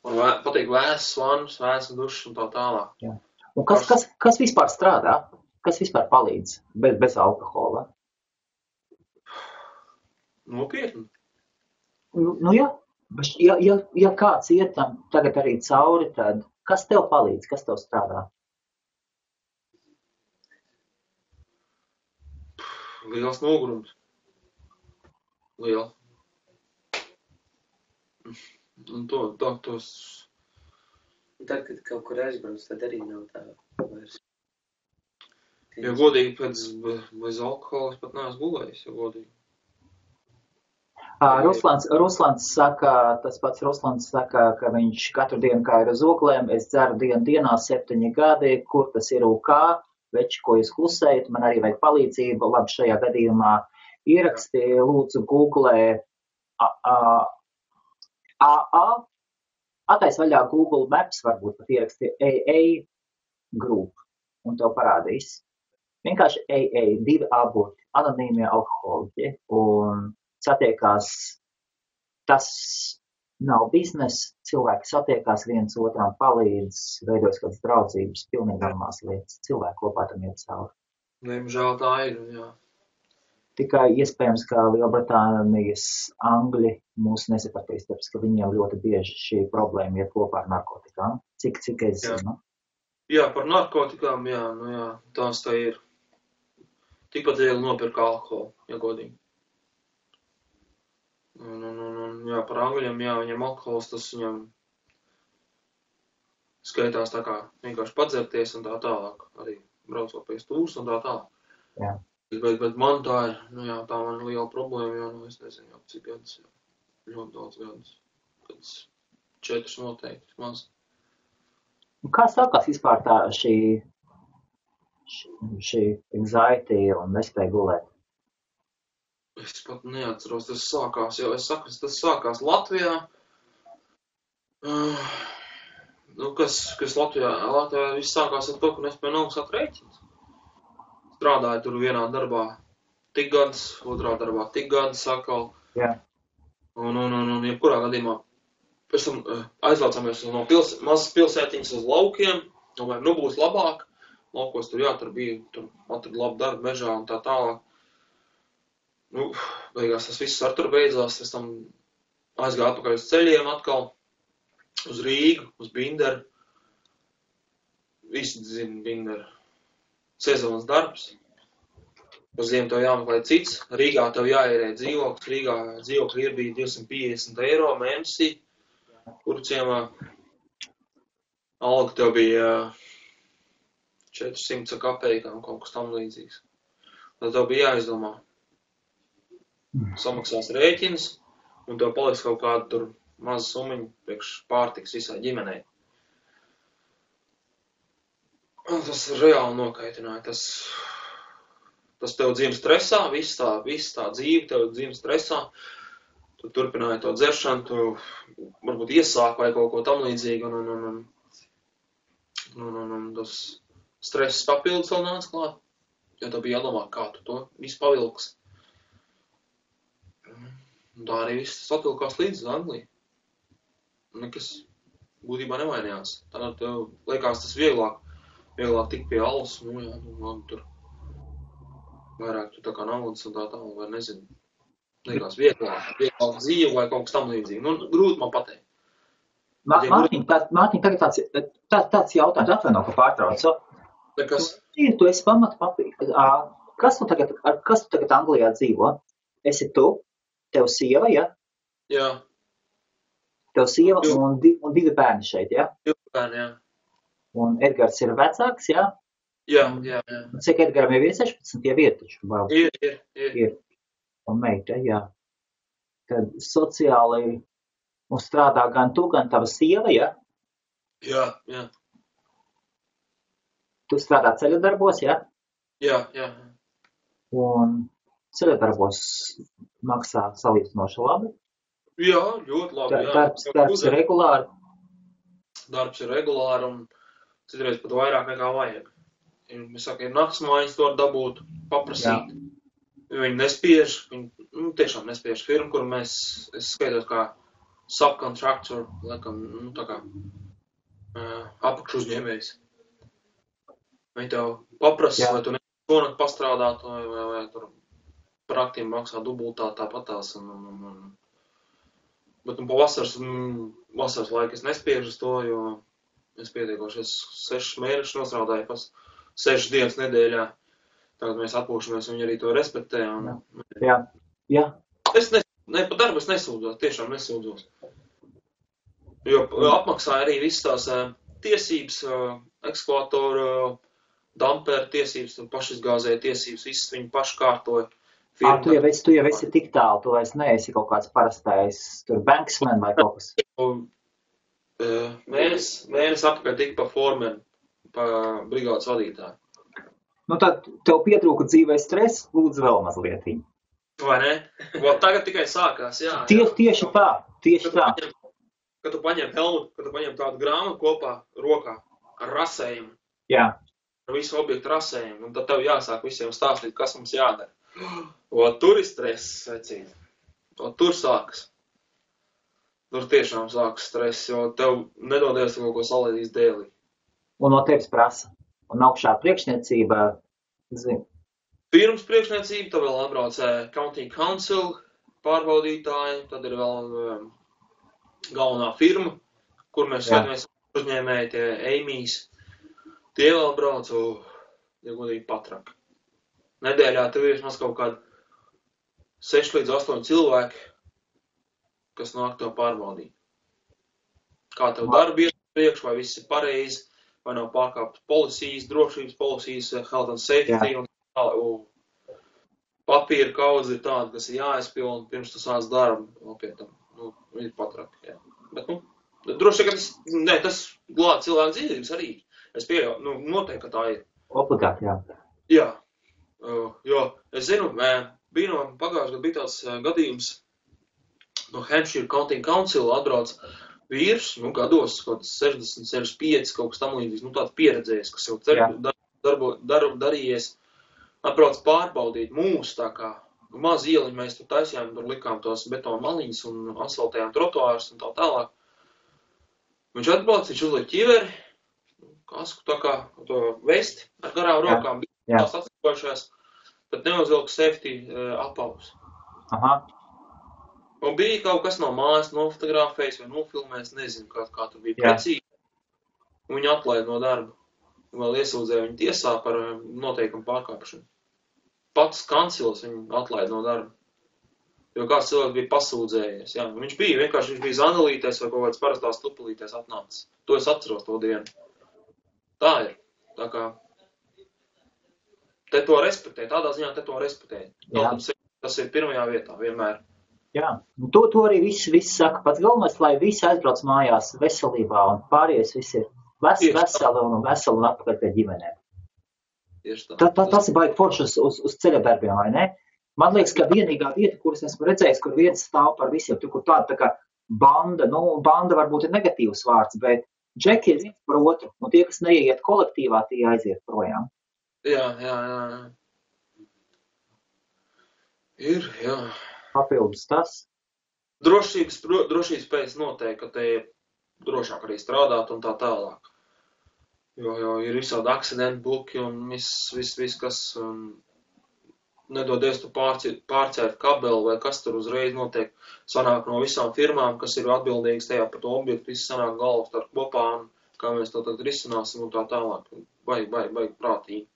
B: Man patīk vēsas vannas, vēsas dušas un tā tālāk.
A: Jā. Un kas vispār strādā? Kas vispār palīdz bez alkohola?
B: Nopietni.
A: Nu jā. Ja kāds iet tam tagad arī cauri, tad kas tev palīdz? Kas tev strādā?
B: Liels nogurums. Liels. Un tos...
C: Tad, kad kaut kur aizbrauc, tad arī nav tā vairs.
B: Ja godīgi, bez alkohola es pat neesmu gulējis, ja godīgi.
A: Ruslans saka, ka viņš katru dienu kā ir uz oglēm, es dzeru dienā 7 gadi, kur tas ir UK, veči, ko jūs klusējat, man arī vajag palīdzību, labi šajā gadījumā ieraksti, lūdzu googlē AA, attais vaļā Google Maps, varbūt pat ieraksti AA Group, un tev parādīs. Vienkārši AA, 2 aborti, anonīmie alkoholiķi, un satiekās, tas nav biznes, cilvēki satiekās viens otram, palīdz, veidojas kādas draudzības, pilnīgi normāls lietas, cilvēki kopā tam iet cauri.
B: Diemžēl tā ir, jā.
A: Tikai iespējams, ka Lielbritānijas angļi mūs nesapratīs, tāpēc, ka viņiem ļoti bieži šī problēma iet kopā ar narkotikām. Cik es zinu?
B: Jā, par narkotikām, jā, tās tā ir. Tikpat viegli nopirkt alkoholu, ja godīgi. Jā, par angļiem, jā, viņam alkohols, tas viņam skaitās tā kā vienkārši padzerties un tā tālāk. Arī braucot pie stūras un tā tālāk.
A: Jā.
B: Bet man tā ir, tā man liela problēma, jo, es nezinu, jau cik gadus, ļoti daudz gadus. Kāds 4 noteikti, maz.
A: Kā sākās vispār tā šī anxiety un nespēja gulēt?
B: Es pat neatceros, tas sākās, jo es saku, tas sākās Latvijā. Kas Latvijā viss sākās ar to, ka nespēja nomaksāt rēķinus. Strādāju tur vienā darbā tik gadus, otrā darbā tik gadus atkal.
A: Jā.
B: Un jebkurā gadījumā pēc tam aizvācāmies no mazas pilsētiņas uz laukiem, domāju, būs labāk. Laukos tur bija, tur atradu labu darbu mežā un tā tālāk. Beigās tas viss ar tur beidzās, es tam aizgāju atpakaļ uz ceļiem atkal, uz Rīgu, uz Binderu. Visi zina Binderu. Sezonas darbs. Uz ziemu tev jāmeklē cits. Rīgā tev jāierē dzīvoklis. Rīgā dzīvokļi bija 250 eiro mēnesī, kuru ciemā. Alga tev bija 400 kapeikām, kaut kas tam līdzīgs. Tad tev bija jāizdomā. Samaksās rēķins, un tev paliks kaut kāda tur maza sumiņa priekš pārtiks visai ģimenei. Un tas reāli nokaitināja. Tas tev dzīve stresā, viss tā dzīve tev dzīve stresā. Tu turpināji to dzeršanu, tu varbūt iesāk vai kaut ko tam līdzīgu, un tas stress papildus vēl nāca klāt, jo tev bija jādomā, kā tu to visu pavilks. Un tā arī viss satilkās līdz Angliju. Nekas būtībā nevainījās. Tad tev liekas tas vieglāk tikt pie alus, tur vairāk tu tā kā naudas un tā tālāk, vai nezinu. Liekas vieglāk dzīve vai kaut kas tam līdzīgi. Grūti man pateikt.
A: Mārtiņ, tagad tāds jautājums, atvaino, ka pārtraucu.
B: Nekas.
A: Tu esi kas tu tagad Anglijā dzīvo? Esi tu, tev sieva, ja?
B: Jā.
A: Tev sieva un divi bērni šeit, ja?
B: Divi bērni, jā.
A: Un Edgars ir vecāks, ja?
B: Jā.
A: Cik Edgaram jau ir 16, jau ir taču?
B: Ir.
A: Un meita, jā. Tad sociāli un strādā gan tu, gan tava sieva, ja?
B: Jā.
A: Tu strādā ceļadarbos, ja?
B: Jā.
A: Un ceļadarbos maksā salīdzinoši labi.
B: Jā, ļoti labi.
A: Darbs ir regulāri.
B: Darbs ir regulāri un citreiz pat vairāk nekā vajag. Es saku, ir naktsmājas to dabūt, paprasīt. Viņi nespiež, viņi tiešām nespiež firmu, kur es skaitos kā subcontractor, laikam, tā kā apakšu uzņēmējs. Viņi tev paprasa, vai tu šonakt pastrādāt, vai tur par aktiem maksā dubultā tāpatās. Bet pa vasaras laiku es nespiežu uz to, jo es pietiekoši 6 mēnešus nostrādāju pas 6 dienas nedēļā. Tagad mēs atpūšamies, viņi arī to respektē.
A: Jā.
B: Pa darbu es nesūdzos, tiešām nesūdzos. Jo apmaksāja arī visas tās tiesības, ekskvātoru, damperu tiesības, pašizgāzēja tiesības, visas viņi paši kārtoja.
A: Tu jau esi tik tālu, tu vairs neesi kaut kāds parastais tur banksman vai kaut kas.
B: Mēnesi apakaļ tik pa formenu, pa brigādes vadītāju.
A: Tad tev pietrūka dzīvē stress, lūdzu vēl mazliet.
B: Vai ne? Tagad tikai sākās, jā.
A: Tieši tā.
B: Kad tu paņem helmutu, kad tu paņem tādu grāmatu kopā rokā ar rasējumu.
A: Jā.
B: Ar visu objektu rasējumu, un tad tev jāsāk visiem stāstīt, kas mums jādara. Tur ir stress, vecīt. Tur sākas. Tur tiešām sākas stress, jo tev nedodies kaut ko salēdīs dēlī.
A: Un no tevis prasa. Un augšā priekšniecība, zini.
B: Pirms priekšniecība, tad vēl atbrauc County Council pārbaudītāji, tad ir vēl galvenā firma, kur mēs skatāmies uzņēmēji, tie Amy's. Tie vēl brauc, ja godīgi patraki. Nedēļā tev ir vismaz kaut kādi 6 līdz 8 cilvēki, kas nāk to pārbaudīt. Kā tev darbi iet priekš, vai viss ir pareizi, vai nav pārkāptas policijas, drošības policijas, health and safety, un papīra kaudze ir tāda, kas ir jāizpilna, pirms tu sāc darbu, nopietnam, ir patraki, jā. Bet, droši, ka tas glāb cilvēku dzīvības arī. Es pieļauju, noteikti, ka tā ir.
A: Obligāti, jā.
B: Jā. Jo, es zinu, pagājušajā gadā bija tāds gadījums no Hampshire County Council atbrauc vīrs, gados, kaut 60, 65, kaut kas tam līdzīgs, tāds pieredzējis, kas jau darbu darījies, atbrauc pārbaudīt mūs, tā kā maz ieliņu mēs tur taisījām, tur likām tos betonu maliņas un asfaltējām trotuārus un tā tālāk. Viņš atbrauc, viņš uzliek ķiveri, kasku tā kā to vesti ar garām rokām, bija tās atslikojušās, tad neuzvilka safety apavus.
A: Aha.
B: Un bija kaut kas no mājas nofotografējis vai nofilmējis, nezinu, kā tur bija precīzi. Un viņu atlaid no darba. Vēl iesūdzēja viņu tiesā par noteikumu pārkāpšanu. Pats kancils viņu atlaid no darba. Jo kāds cilvēks bija pasūdzējies. Jā. Viņš bija zanalīties vai kaut kāds parastās tupulīties atnācis. To es atceros to dienu. Tā ir. Tā kā te to respektē. Tādā ziņā te to respektē. Tas ir pirmajā vietā vienmēr.
A: Jā. To arī visi saka. Pats galvenais, lai visi aizbrauc mājās veselībā un pārējais visi ir veseli un atpakaļ pie ģimenēm. Tas ir baigi forši uz ceļa darbiem, vai ne? Man liekas, ka vienīgā vieta, kuras esmu redzējis, kur viens stāv par visiem, tur kur tāda tā kā banda, banda varbūt ir negatīvs vārds, bet džeki ir viens par otru, un tie, kas neieiet kolektīvā, tie aiziet projām.
B: Jā. Ir, jā.
A: Papildus tas.
B: Drošības pēc noteikti, ka te ir drošāk arī strādāt un tā tālāk. Jo ir visādi akcidentu buki un viss, kas... nedodies tu pārcērt kabeli vai kas tur uzreiz notiek. Sanāk no visām firmām, kas ir atbildīgas tajā par to objektu, visi sanāk galvas ar kopā un kā mēs to tad risināsim un tā tālāk. Baigi prātīgi.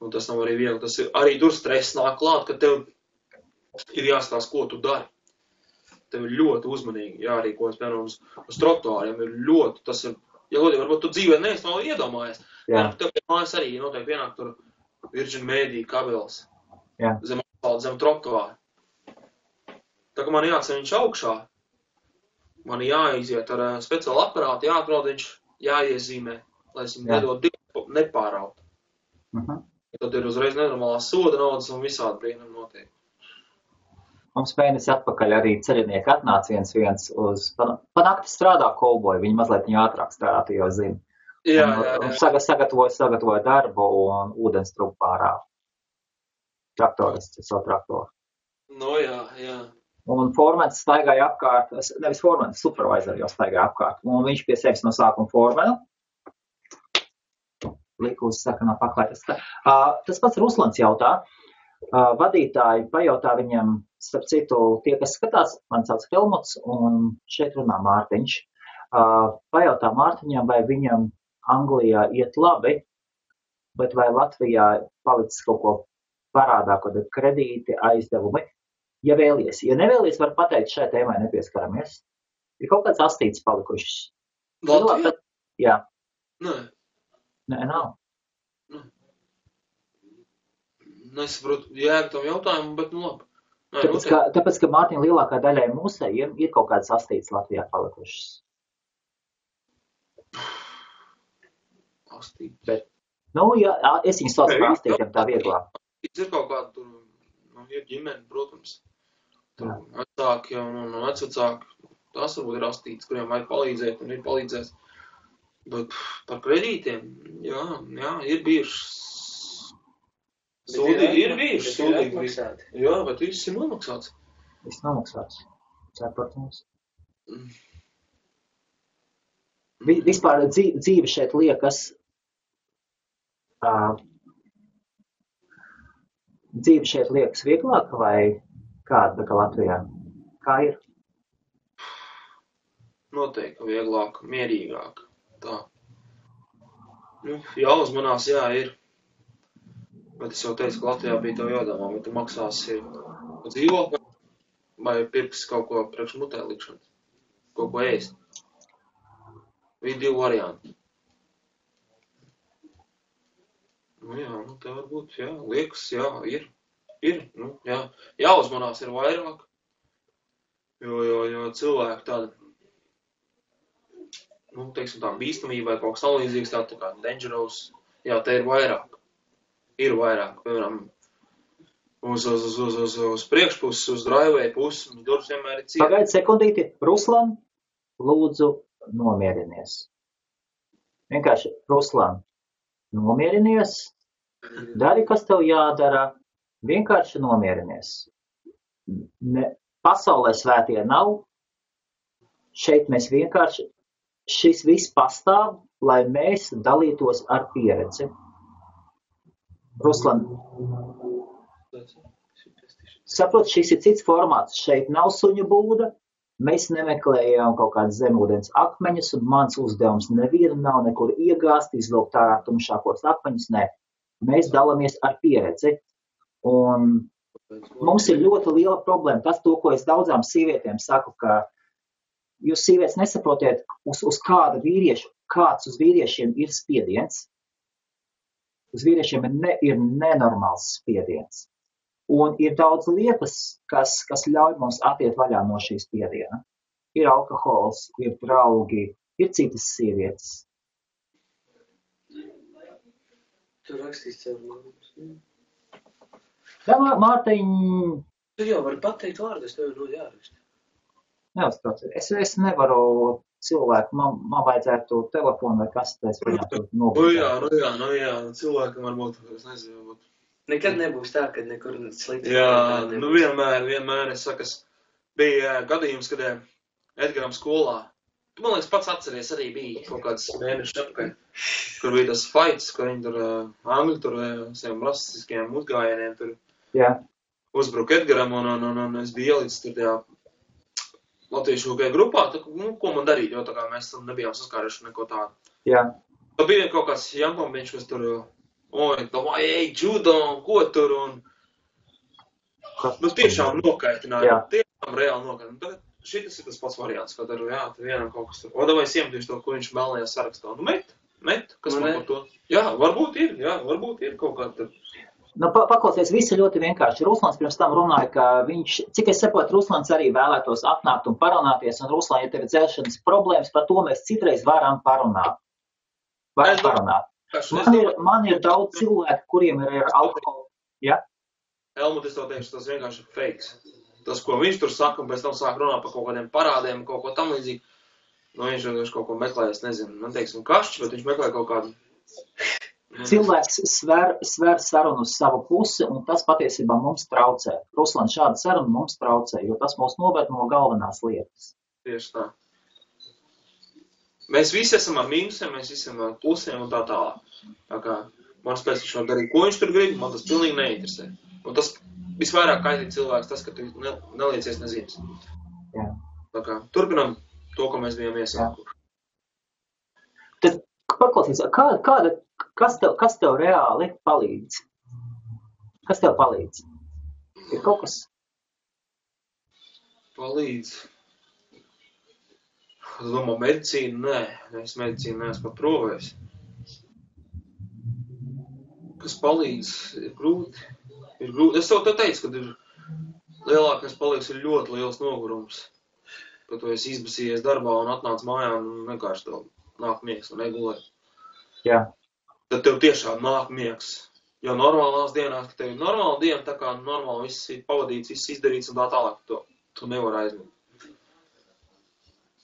B: Un tas nav arī viegli. Tas ir arī tur stress nāk klāt, ka tev ir jāstāsta, ko tu dari. Tev ir ļoti uzmanīgi jārīkojas, piemēram, uz trotuāriem ir ļoti, tas ir, ja godīgi, varbūt tu dzīvē neesi vēl iedomājies. Tev pie mājas arī noteikti pienāk tur Virgin Media kabelis. Zem asfalta, zem trotuāra. Tā kā man jāceļ viņš augšā, man jāiziet ar speciālu aparātu, jāatrod viņš, jāiezīmē, lai es viņu nedod nepāraut. Tad ir uzreiz nenormālās soda naudas un visādi brīnumi notiek.
A: Mums mēnesi atpakaļ arī ceļinieki atnāca viens uz, panakti strādā kolboju, viņi mazliet viņu ātrāk strādā, tu jau zini.
B: Jā.
A: Sagatavoja darbu un ūdens trupu pārā. Traktorists, savu traktoru.
B: No jā.
A: Un formens staigāja apkārt, nevis formens, supervisor jau staigāja apkārt. Un viņš pie sevis no sākuma formenu. Lika uz sakanā paklājas. Tas pats Ruslans jautā. Vadītāji pajautā viņam, starp citu, tie, kas skatās, man sauc Helmuts, un šeit runā Mārtiņš. Pajautā Mārtiņam, vai viņam Anglijā iet labi, bet vai Latvijā palicis kaut ko parādā, kaut kādi kredīti, aizdevumi. Ja vēlies, ja nevēlies, var pateikt, šai tēmai nepieskaramies. Ir kaut kāds astīts palikušas.
B: Latvijā?
A: Jā.
B: Nē,
A: nav.
B: Nesaprotu jēgu tam jautājumu, bet nu labi.
A: Tāpēc, ka Mārtiņa lielākā daļai mūsējiem ir kaut kāds astīts Latvijā palikušas.
B: Astīts.
A: Bet, es viņu saucu par astītiem tā vieglāk.
B: Ir kaut kāda tur, ir ģimene, protams. Tur vecāki un vecvecāki. Tas varbūt ir astīts, kuriem vajag palīdzēt un ir palīdzēs. Bet par kredītiem, jā, ir bijušas. Ir bijuši sūdīgi. Jā, bet viss ir nomaksāts.
A: Viss nomaksāts. Protams. Vispār dzīve šeit liekas, vieglāka vai kāda kā Latvijā? Kā ir?
B: Noteikti vieglāka, mierīgāka. Tā. Jāuzmanās, jā, ir. Bet es jau teicu, ka Latvijā bija tev jādomā, vai tu maksāsi dzīvokli vai pirksi kaut ko priekš mutē likšanas. Kaut ko ēst. Bija 2 varianti. Te varbūt, liekas, ir. Jāuzmanās ir vairāk. Jo cilvēki tāda, teiksim tā, bīstamība vai kaut kas tālīdzīgs, tā kā dangerous, te ir vairāk. Ir vairāk, piemēram, uz priekšpuses, uz driveway puses, durvis vienmēr ir ciet.
A: Pagaid sekundīti, Ruslan, lūdzu, nomierinies. Vienkārši, Ruslan, nomierinies, dari, kas tev jādara, vienkārši nomierinies. Pasaulē svētie nav, šeit mēs vienkārši, šis viss pastāv, lai mēs dalītos ar pieredzi. Ruslan, saprot, šis ir cits formāts. Šeit nav suņu būda, mēs nemeklējām kaut kādas zemūdens akmeņus, un mans uzdevums nevienu nav nekur iegāzt, izvilkt ārā tumšākos akmeņus, nē. Mēs dalāmies ar pieredzi, un mums ir ļoti liela problēma. Tas, to, ko es daudzām sievietēm saku, ka jūs sievietes nesaprotiet, uz kāda vīriešu, kāds uz vīriešiem ir spiediens. Uz vīriešiem ir nenormāls spiediens. Un ir daudz lietas, kas ļauj mums atiet vaļā no šīs spiediena. Ir alkohols, ir draugi, ir citas sievietes.
C: Tu rakstīsi caur vārdus.
A: Jā, Mārtiņ...
C: Tu jau vari pateikt vārdus, tev ir jāraksta.
A: Neuztrauc. Es nevaru cilvēku, man vajadzētu telefonu vai kas, es viņam tur nobūtu.
B: Jā, cilvēkam varbūt, es nezinu, varbūt.
C: Nekad nebūs tā, kad nekur slikti.
B: Jā, vienmēr, es saku, bija gadījums, kad Edgaram skolā, tu, man liekas, pats atceries, arī bija kaut kāds mēnešus apakaļ, kur bija tas fights, kur viņi tur, angļu tur, saviem rasistiskajiem uzgājieniem tur
A: Jā.
B: uzbruka Edgaram, un es biju ielicis tur tajā latviešu UK grupā, ko man darīt, jo tā kā mēs tam nebijām saskāruši neko tādu.
A: Jā.
B: Tad bija kaut kāds jankombiņš, kas tur, vai, judo, ko tur, un tiešām nokaitināja, tiešām reāli nokaitināja. Šitas ir tas pats variants, kad ar, tur vienam kaut kas tur, vai es iemetīšu to, ko viņš melnajā sarakstā. Met, kas man par to? Jā, varbūt ir kaut kā tur.
A: Paklausies, viss ir ļoti vienkārši. Ruslans pirms tam runāja, ka viņš, cik es saprotu, Ruslans arī vēlētos atnākt un parunāties, un Ruslan, ja tev ir dzēšanas problēmas, par to mēs citreiz varam parunāt. Man ir daudz cilvēku, kuriem ir alkoholu. Ja?
B: Helmut, es tev teikšu, tas vienkārši ir fakes. Tas, ko viņš tur saka, un pēc tam sāk runāt par kaut kādiem parādiem, kaut ko tam līdzīgi. Viņš vienkārši kaut ko meklē, es nezinu, man teiksim kašķi, bet viņš meklē kaut kādu.
A: Cilvēks sver sarunu uz savu pusi, un tas patiesībā mums traucē. Ruslan, šāda saruna mums traucē, jo tas mūs noved no galvenās lietas.
B: Tieši tā. Mēs visi esam ar mīnusiem, mēs visi esam ar plusiem un tā tālāk. Tā kā man spēc viņš var darīt, ko viņš tur grib, man tas pilnīgi neinteresē. Un tas visvairāk kaitīt cilvēks, tas, ka tu neliecies nezīmes.
A: Jā.
B: Tā kā turpinam to, ko mēs bijām iesākuši.
A: Tad paklausies, kas tev reāli palīdz? Kas tev palīdz? Ir kaut kas?
B: Palīdz. Es domāju, medicīnu, nē. Es medicīnu neesmu pat provējis. Kas palīdz? Ir grūti. Es tev teicu, ka ir lielākais palīgs ir ļoti liels nogurums. Ka tu esi izbasījies darbā un atnāc mājā un vienkārši tev nāk miegs un negulē.
A: Jā.
B: Tad tev tiešām nāk miegs. Jo normālās dienās, ka tev ir normāla diena, tā kā normāli viss ir pavadīts, viss izdarīts un tā tālāk, tu nevar aizmigt.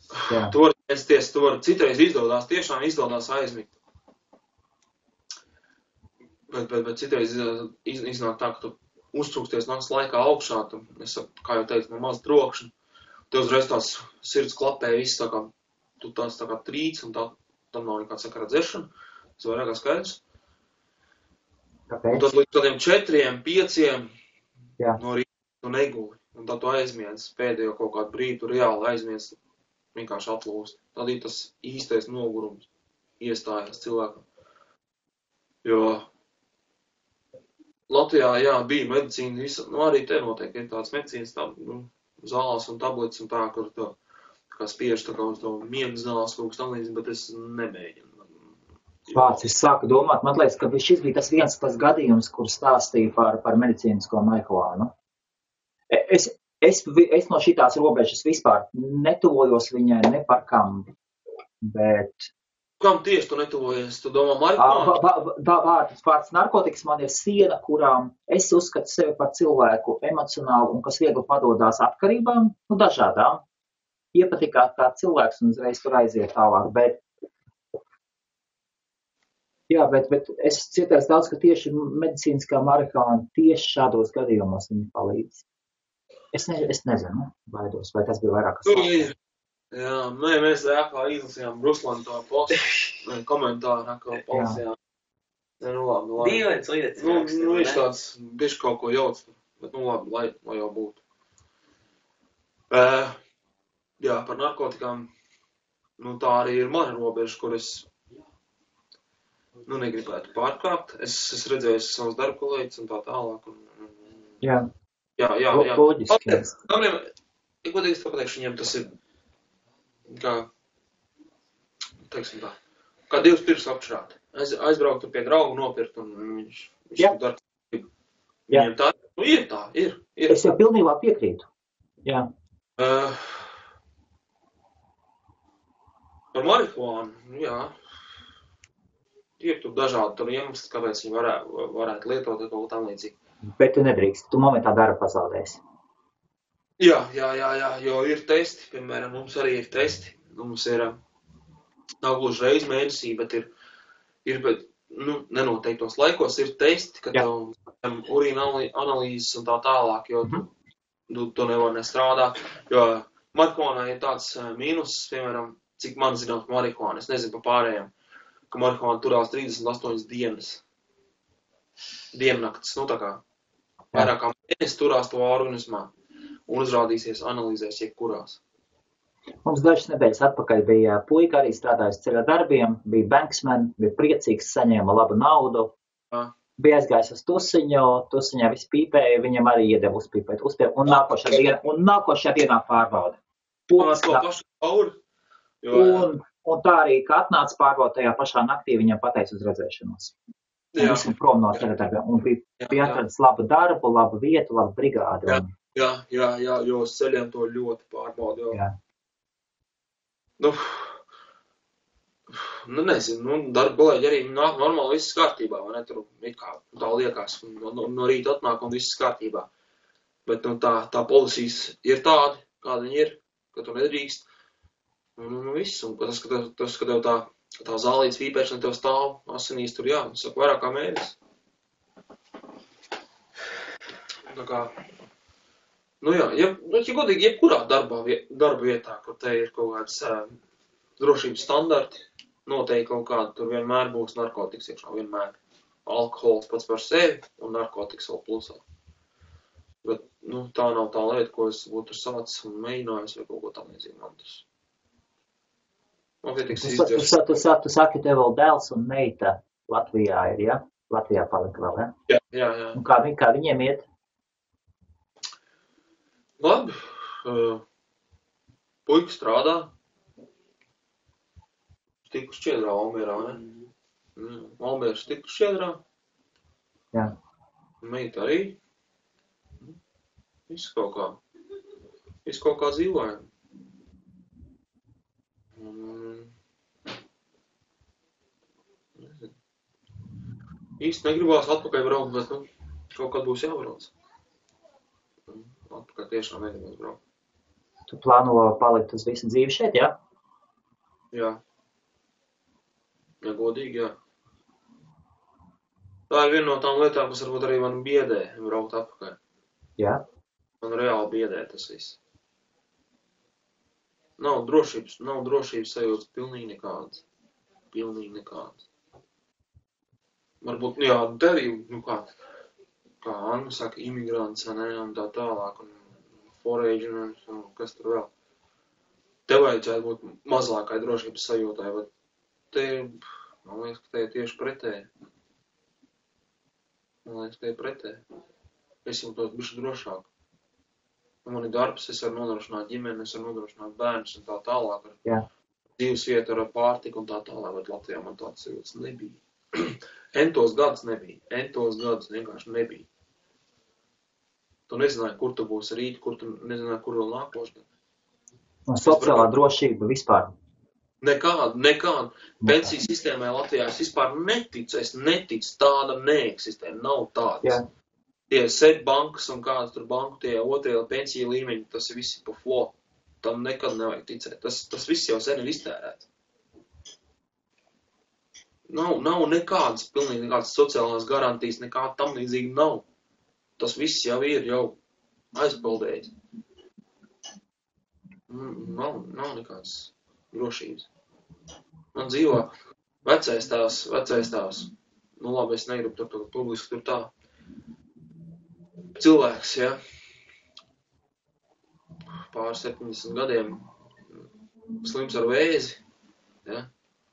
B: Tu vari censties, tu vari citreiz tiešām izdodās aizmigt. Bet citreiz iznāk tā, ka tu uztrūksties nakts laikā augšā, kā jau teicu, no maz trokšņa. Tev uzreiz tās sirds klapē, viss tā kā, tu tās tā kā trīc un tam nav nekāds sakara dzeršana. Tas vairāk kā skaidrs.
A: Kāpēc?
B: Un tad līdz tādiem 4, 5 no rīta tu neguli. Un tad tu aizmiedz pēdējo kaut kādu brīdi, tu reāli aizmiedz vienkārši atlūst. Tad ir tas īstais nogurums iestājās cilvēkam. Jo Latvijā, bija medicīna, arī te notiek, ir tāds medicīnas zālās un tablets un tā, kur to kā spiež tā kā uz to miegu zāles kaut kas tam līdzi, bet es nemēģinu.
A: Vārds, es sāku domāt, man liekas, ka šis bija tas gadījums, kur stāstīja par medicīnisko marihuānu. Es no šitās robežas vispār netuvojos viņai ne par kam, bet...
B: Kam tieši tu netuvojies? Tu domā marihuānu?
A: Vārds narkotikas man ir siena, kurām es uzskatu sevi par cilvēku emocionālu un kas viegli padodās atkarībām, dažādām. Iepatikāt kā cilvēks un uzreiz tur aiziet tālāk, bet es cietēs daudz, ka tieši medicīniskā marihuāna tieši šādos gadījumos viņa palīdz. Es nezinu, baidos, vai tas bija vairāk kas.
B: Jā, mēs kā izlasījām Ruslanu to postu, komentāru, kā polijām. Labi.
C: Dīvains lietas.
B: Viņš tāds, bišķi kaut ko jauc, bet labi, lai jau būtu. Jā, par narkotikām, tā arī ir mana robeža, kur es negribētu pārkāpt. Es redzēju savus darba kolēģus un tā tālāk.
A: Jā.
B: Jā.
A: Loģiski.
B: Godīgi pateikšu, viņiem tas ir kā, teiksim tā, kā 2 pirks apšrāt. Aizbraukt pie draugu nopirkt un viņš dara. Viņiem tā, ir.
A: Es jau pilnībā piekrītu. Jā.
B: Par marihuānu, jā. Ir tur dažādi iemesli, kāpēc viņi varētu lietot kaut ko tam līdzīgi. Bet
A: tu nedrīkst, tu momentā darbu pazaudēsi.
B: Jā, jo ir testi, piemēram, mums arī ir testi. Mums ir, nav gluži reiz mēnesī, bet ir nenoteiktos laikos ir testi, kad urīna analīzes un tā tālāk, jo tu nevar nestrādāt. Jo marihuānā ir tāds mīnus, piemēram, cik man zināms marihuāna, es nezinu pa pārējiem, ka marihuāna turās 38 dienas. Diennakts, tā kā. vairāk kā mēnesi turās to organismā un uzrādīsies analīzēs jebkurās.
A: Mums dažas nedēļas atpakaļ bija puika arī strādājis ceļa darbiem, bija banksmen, bija priecīgs, saņēma labu naudu, bija aizgājis uz tusiņā viss pīpēja, viņam arī iedeva uzpīpēt, un nākošajā dienā pārbauda. Un tā arī, ka atnāca pārbauda tajā pašā naktī, viņam pateica uz redzēšanos. Un visam prom no ceļa darbiem. Un bija atradis labu darbu, labu vietu, labu brigādi.
B: Jā, jo uz ceļiem to ļoti pārbauda.
A: Jā.
B: Nezinu, darba kolēģi arī nāk normāli viss kārtībā, vai ne? Tur kā tā liekas, no rīta atnāk un viss kārtībā. Bet tā policijas ir tāda, kāda viņi ir, ka tu nedrīkst. Un viss, un tas, ka tev tā zālītes vīpēšana tev stāv asinīs tur, saka, vairāk kā mēnesis. Tā kā, ja godīgi, jebkurā darba vietā, kur te ir kaut kāds drošības standarti, noteikti kaut kāda, tur vienmēr būs narkotikas iekšā, vienmēr. Alkohols pats par sevi un narkotikas vēl plusā. Bet, tā nav tā lieta, ko es būtu sācis un mēģinājis vai kaut ko tam līdzīgi man tas.
A: Tu saki, tev vēl dēls un meita Latvijā ir, ja? Latvijā palika vēl, ja?
B: Jā.
A: Un kā viņiem iet?
B: Labi. Puika strādā. Tiku šķiedrā Almierā, ne? Almieras tiku šķiedrā.
A: Jā.
B: Meita arī. Viss kaut kā dzīvojam. Īsti negribās atpakaļ braukt, bet kaut kad būs jābrauc. Atpakaļ tiešām negribās braukt.
A: Tu plāno palikt uz visu dzīvi šeit, ja?
B: Jā. Ja godīgi, jā. Tā ir viena no tām lietām, kas varbūt arī man biedē braukt atpakaļ.
A: Jā.
B: Man reāli biedē tas viss. Nav drošības sajūtas pilnīgi nekādas. Varbūt, te arī, kā Anna saka, imigrants, ne, un tā tālāk, un foraģinājums, un kas tur vēl. Te vajadzētu būt mazākai drošības sajūtai, bet te, man liekas, ka te ir tieši pretēji. Es jūtos bišķi drošāk. Man ir darbs, es varu nodrošināt ģimeni, es varu nodrošināt bērnus un tā tālāk.
A: Jā.
B: Dzīves vieta ar pārtiku un tā tālāk, bet Latvijā man tāds sajūtas nebija. Entos gadus vienkārši nebija. Tu nezināji, kur tu būsi rīt, kur tu nezināji, kur vēl nākošais.
A: Un sociālā drošība vispār?
B: Nekāda. Pensiju sistēmai Latvijā es vispār neticu, tāda neeksistē, nav tādas.
A: Jā.
B: Tie sēd bankas un kādas tur banku, tie otrie pensiju līmeņi, tas ir visi pa flo. Tam nekad nevajag ticēt. Tas viss jau sen ir iztērēts. Nav nekādas, pilnīgi nekādas sociālās garantijas, nekāda tam līdzīgi nav. Tas viss jau ir aizpildējis. Nav nekādas drošības. Man dzīvo vecais tās. Labi, es negribu tur publiski tur tā. Cilvēks, pār 70 gadiem slims ar vēzi,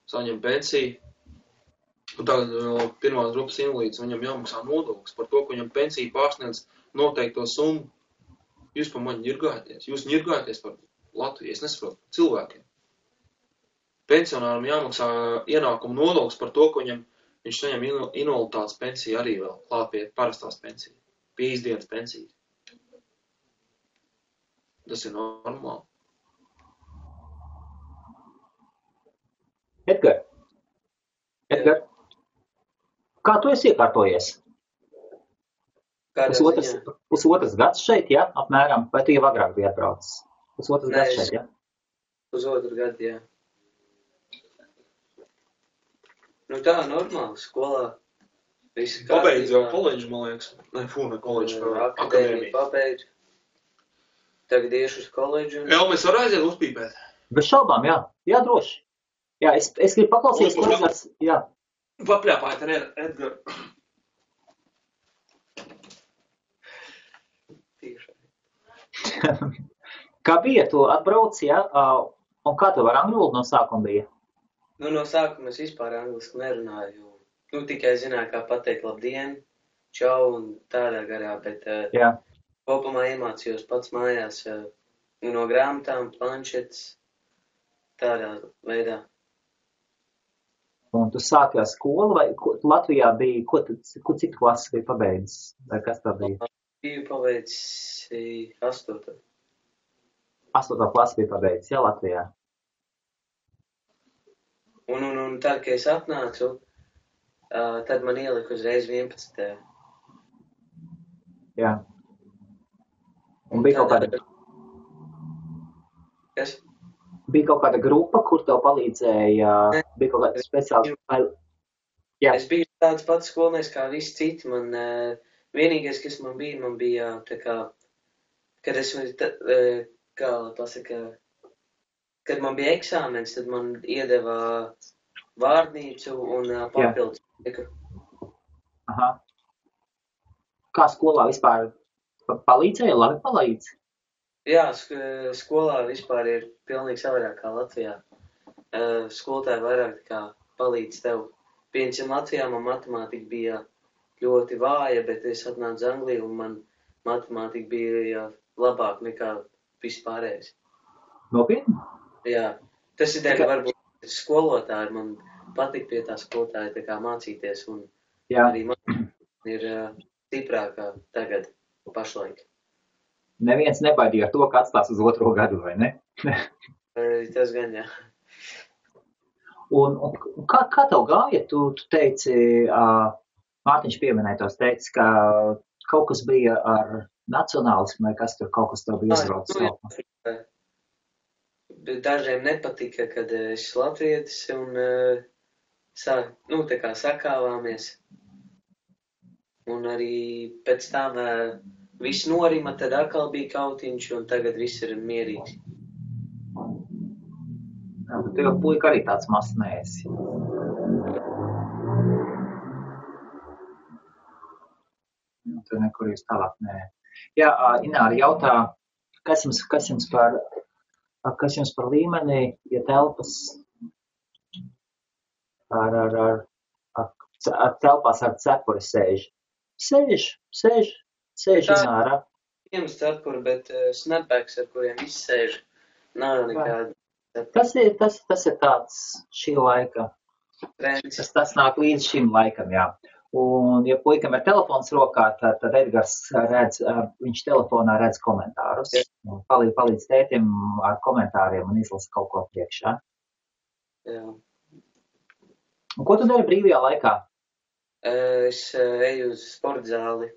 B: saņem pensiju. Un tagad pirmās grupas invalīds, viņam jāmaksā nodoklis par to, ka viņam pensija pārsniedz noteikto summu. Jūs pa mani ņirgājaties. Jūs ņirgājaties par Latviju. Es nesaprotu cilvēkiem. Pensionāram jāmaksā ienākumu nodoklis par to, ka viņš saņem invaliditātes pensiju arī vēl klāt pie parastās pensijas. Pie izdienas pensijas. Tas ir normāli.
A: Edgar, kā tu esi iekārtojies? Pusotras gads šeit, ja? Apmēram, vai tu jau agrāk biji atbraucis? Pusotras gads šeit, ja?
C: Pusotru gadu, jā. Tā normāli, skolā.
B: Pabeidz jau koledžu, man liekas. Ne koledžu,
C: akadēmiju pabeidz. Tagad iešu uz koledžu.
B: Mēs varam aiziet uzpīpēt?
A: Bez šaubām, jā. Jā, droši. Jā, es gribu paklausīties, klausies. Jā.
B: Papļāpājiet ar Edgaru.
A: Kā bija, tu atbrauci, ja? Un kā tev ar angļu valodu no sākuma bija?
C: Nu, no sākuma es vispār angliski nerunāju. Nu, tikai zināju, kā pateikt labdien, čau un tādā garā, bet
A: Jā.
C: kopumā iemācījos pats mājās no grāmatām, planšetes, tādā veidā.
A: Un tu sāki ar skolu, vai Latvijā bija, cik klases bija pabeidzis? Vai kas tā bija?
C: Biju pabeidzis 8.
A: 8. klasi bija pabeidzis, jā, Latvijā.
C: Un tad, kad es atnācu, tad man ielika uzreiz 11.
A: Jā. Un bija kaut kāda...
C: Kas?
A: Bija kaut kāda grupa, kur tev palīdzēja, bija kaut kāda speciāla... Jā.
C: Es biju tāds pats skolnieks kā visi citi. Man vienīgais, kas man bija tā kā, kad es, kā pasaka, kad man bija eksāmens, tad man iedeva vārdnīcu un papildus.
A: Aha. Kā skolā vispār palīdzēja? Labi palīdz?
C: Jā, skolā vispār ir pilnīgi savādāk kā Latvijā. Skolotāji vairāk kā palīdz tev. Piemēram, Latvijā man matemātika bija ļoti vāja, bet es atnācu uz Angliju un man matemātika bija labāk nekā vispārējais.
A: Nopietni?
C: Jā, tas ir dēļ varbūt skolotāji. Man patīk pie tā skolotāja tā kā mācīties un arī man ir stiprākā tagad pašlaik.
A: Neviens nebaidīja ar to, ka atstās uz 2. gadu, vai ne?
C: Tas gan, jā.
A: Un kā tev gāja? Tu teici, Mārtiņš pieminēja tos, teici, ka kaut kas bija ar nacionālismu, vai kas tur kaut kas tev bija izraucis.
C: Dažiem nepatika, kad es latvietis un tā kā sakāvāmies. Un arī pēc tam viss norima, tad atkal bija kautiņš, un tagad viss ir mierīgs.
A: Jā, bet tev puika arī tāds mazs neesi. Tur nekur jūs tālāk nē. Jā, Ināra jautā, kas jums par līmeni, ja telpas ar telpās ar cepuri sēž? Sēž, Ināra.
C: Viens cepuri, bet snapbacks, ar kuriem viss sēž, nav nekāda.
A: Tas ir tāds šī laika. Tas nāk līdz šim laikam, jā. Un, ja puikam ir telefons rokā, tad Edgars redz, viņš telefonā redz komentārus. Palīdz tētim ar komentāriem un izlasa kaut ko priekšā.
C: Jā.
A: Un ko tu dari brīvajā laikā?
C: Es eju uz sportzāli,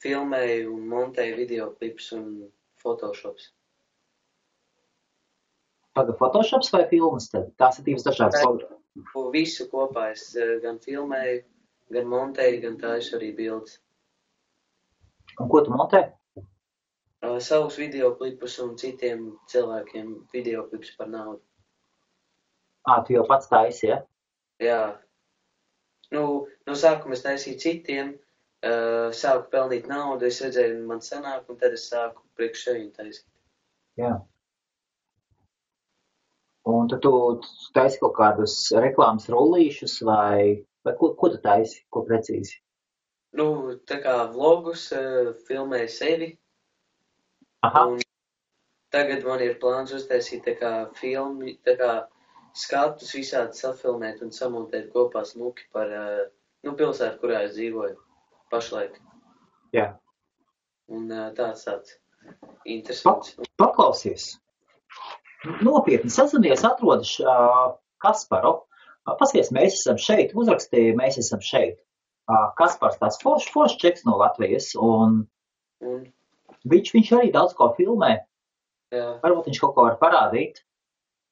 C: filmēju un montēju videoklips un Photoshops.
A: Tagad Photoshops vai filmas tad? Tās ir divas dažādas.
C: Visu kopā es gan filmēju, gan montēju, gan taisu arī bildes.
A: Un ko tu montē?
C: Savus videoklipus un citiem cilvēkiem videoklips par naudu.
A: Tu jau pats taisi, ja?
C: Jā. No sākuma es taisīju citiem, sāku pelnīt naudu, es redzēju, man sanāk, un tad es sāku priekš sevi taisīt.
A: Jā. Un tad tu taisi kaut kādus reklāmas rullīšus vai ko tu taisi, ko precīzi?
C: Tā kā vlogus, filmēju sevi.
A: Aha.
C: Un tagad man ir plāns uztaisīt tā kā filmi, tā kā skatus visādi safilmēt un samontēt kopā smuki par pilsētu, kurā es dzīvoju pašlaik.
A: Jā.
C: Un tāds interesants.
A: Paklausies. Nopietni sazinies, atrodis Kasparu. Paskaties, mēs esam šeit, uzrakstīja, mēs esam šeit. Kaspars tās foršs čeks no Latvijas, un viņš arī daudz ko filmē.
C: Jā.
A: Varbūt viņš kaut ko var parādīt.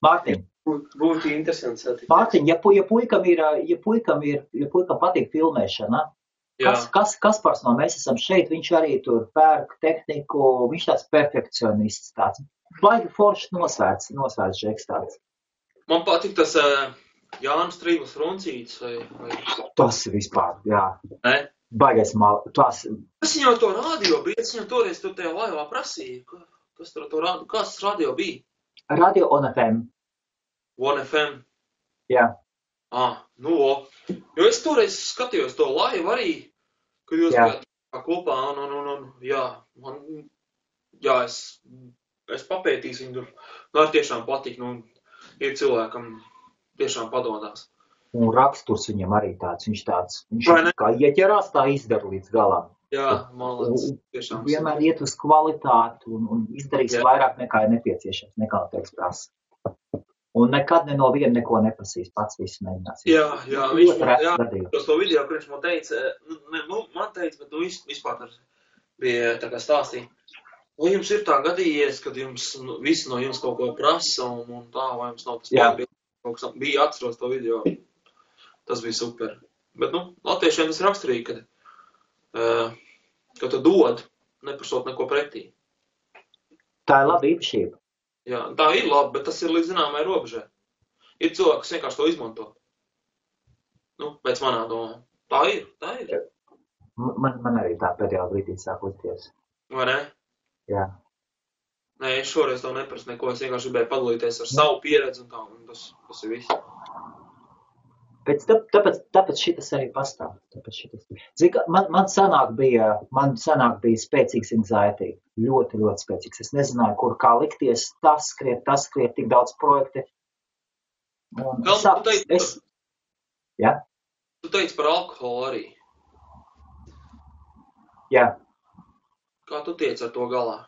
A: Mārtiņ.
C: Būtu interesants satikt.
A: Mārtiņ, ja puikam patīk filmēšana, Kaspars no mēs esam šeit, viņš arī tur pērk tehniku, viņš tāds perfekcionists tāds. Baigi foršs nosvērts žeks tāds.
B: Man patīk tas Jānis Trīvas Runcītis vai...
A: Tas vispār, jā.
B: Ne?
A: Baigais tās.
B: Es viņam to radio bija, es viņam toreiz tur tajā laivā prasīju, kas tur to radio, kāds radio bija?
A: Radio on FM.
B: One FM?
A: Jā.
B: Nu, jo es toreiz skatījos to laivu arī, kad jūs bijāt kopā, es papētīšu viņu tur, ar tiešām patīk, ir cilvēkam tiešām padomās.
A: Un raksturs viņam arī tāds, viņš kā ieķerās, tā izdara līdz galam.
B: Jā, malāc, tiešām.
A: Vienmēr iet uz kvalitāti un izdarīs vairāk nekā ir nepieciešams, nekā teiks prasa. Un nekad no viena neko neprasīs, pats visu mēģinās.
B: Jā, viņš to video, kurš man teica, bet vispār bija tā kā stāstīja. Vai jums ir tā gadījies, kad jums visi no jums kaut ko prasa un tā, vai jums nav tas pārbīdījums? Bija atceros to video. Tas bija super. Bet, latviešiem tas raksturīgi, ka tu dod, neprasot neko pretī.
A: Tā ir laba īpašība.
B: Jā, tā ir labi, bet tas ir līdz zināmai robežai. Ir cilvēki, kas vienkārši to izmanto. Pēc manā domā. Tā ir.
A: Man arī tā pēdējā brīdī sāk likties.
B: Vai ne?
A: Jā.
B: Nē, es šoreiz to neprasu neko, es vienkārši gribēju padalīties ar savu pieredzi un tā, un tas ir viss.
A: Tāpēc šitas arī pastāv. Man sanāk bija spēcīgs anxiety. Ļoti, ļoti spēcīgs. Es nezināju, kur kā likties. Tas skriet, tik daudz projekti.
B: Tu teici par alkoholu arī.
A: Jā.
B: Kā tu tiec ar to galā?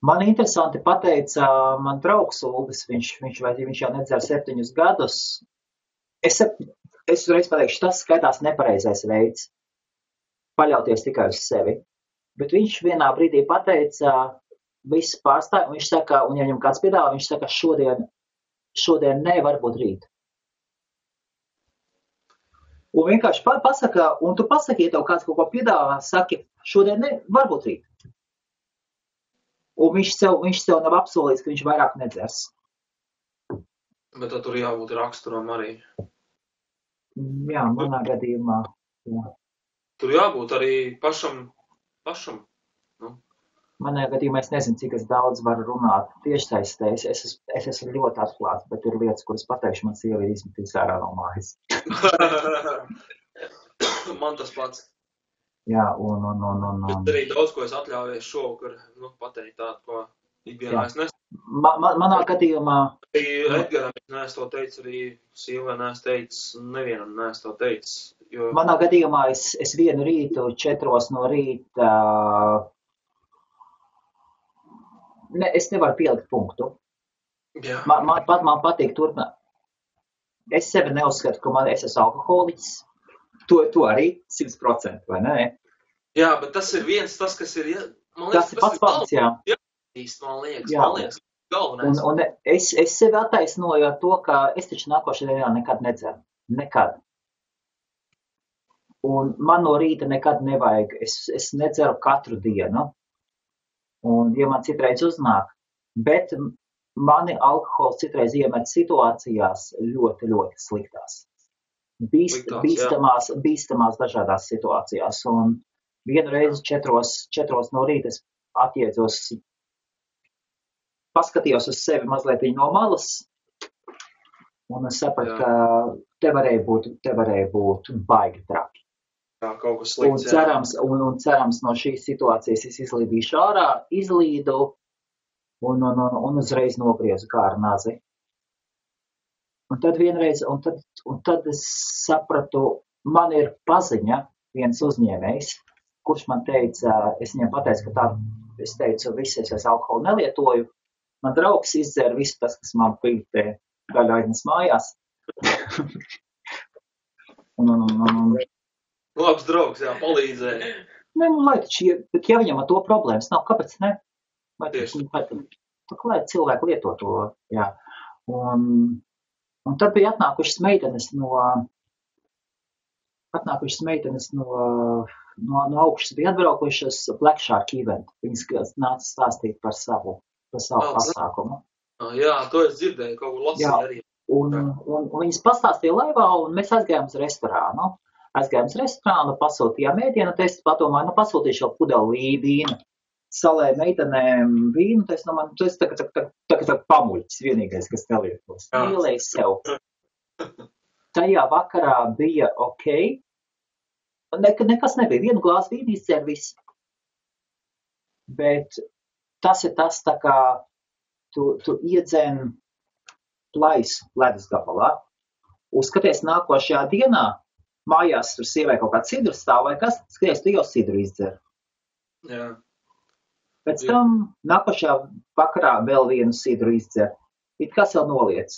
A: Man interesanti pateica man draugs Ulvis, viņš jau nedzer 7 gadus. Es uzreiz pateikšu, tas skaitās nepareizais veids paļauties tikai uz sevi. Bet viņš vienā brīdī pateica, viss pārstāj, un viņš saka, un ja viņam kāds piedāvā, viņš saka, šodien ne, varbūt rīt. Un vienkārši pasaka, un tu pasaki, ja tev kāds kaut ko piedāvā, saki, šodien ne, varbūt rīt. Un viņš sev nav apsolījis, ka viņš vairāk nedzers.
B: Bet tad tur jābūt raksturam arī.
A: Jā, manā gadījumā. Jā.
B: Tur jābūt arī pašam.
A: Manā gadījumā es nezinu, cik es daudz varu runāt tiešsaistē. Es esmu ļoti atklāts, bet ir lietas, kuras pateikšu, man sieva ir izmetīs ārā no mājas.
B: Man tas pats.
A: Jā,
B: Bet arī daudz, ko es atļaujies šovakar, pateikt tādu, ko ikdienā es nesaku.
A: Manā gadījumā...
B: Edgaram es neesmu to teicis, arī sievai neesmu teicis, nevienam neesmu to teicis. Jo...
A: Manā gadījumā es vienu rītu, 4 no rīta, es nevaru pielikt punktu.
B: Jā.
A: Man patīk turpināt. Es sevi neuzskatu, ka es esmu alkoholiķis. To arī 100%, vai ne?
B: Jā, bet tas ir tas, kas ir...
A: Tas ir pats, jā.
B: Man liekas, galvenais.
A: Un es sevi attaisnoju ar to, ka es taču nākošajā dienā nekad nedzeru. Nekad. Un man no rīta nekad nevajag. Es nedzeru katru dienu. Un, ja man citreiz uznāk, bet mani alkohols citreiz iemet situācijās ļoti, ļoti sliktās. Bīstamās dažādās situācijās. Un vienu reizi 4 no rīta es atjēdzos, paskatījos uz sevi mazliet no malas, un es sapratu, ka te varēja būt baigi traki.
B: Jā, kaut kas slikts.
A: Un cerams no šīs situācijas es izlīdīšu ārā, izlīdu un uzreiz nogriezu kā ar nazi. Un tad vienreiz, un tad es sapratu, man ir paziņa viens uzņēmējs, kurš man teica, es viņam pateicu, ka tā, es teicu, es alkoholu nelietoju. Man draugs izdzer visu tas, kas man bija daļa aiznes mājās.
B: Labs draugs, jā, palīdzēja.
A: Bet ja viņam ar to problēmas nav, kāpēc ne?
B: Tieši.
A: Lai cilvēki lieto to, jā. Un tad bija atnākušas meitenes no augšas, bija atbraukušas Black Shark event. Viņas nāca stāstīt par savu pasākumu.
B: Jā, to es dzirdēju, kaut kur lasīju arī.
A: Un viņas pastāstīja laivā, un mēs aizgājām uz restorānu. Aizgājām uz restorānu, pasūtījām ēdienu, un es padomāju, pasūtīšu vēl pudeli vīnu. Salēju meitenēm vīnu, tas tagad pamuļķis vienīgais, kas nelietos. Ielēju sev. Tajā vakarā bija ok. Nekas nebija. Vienu glāzi vīnu izdzēr viss. Bet tas ir tas, tā kā tu iedzen plaisu ledus gabalā. Uzskaties nākošajā dienā, mājās tur sievai kaut kā sidru stāv vai kas, skaties, tu jau sidru izdzer.
B: Jā.
A: Pēc tam nākošajā vakarā vēl vienu sidru izdzer. It kas jau noliec.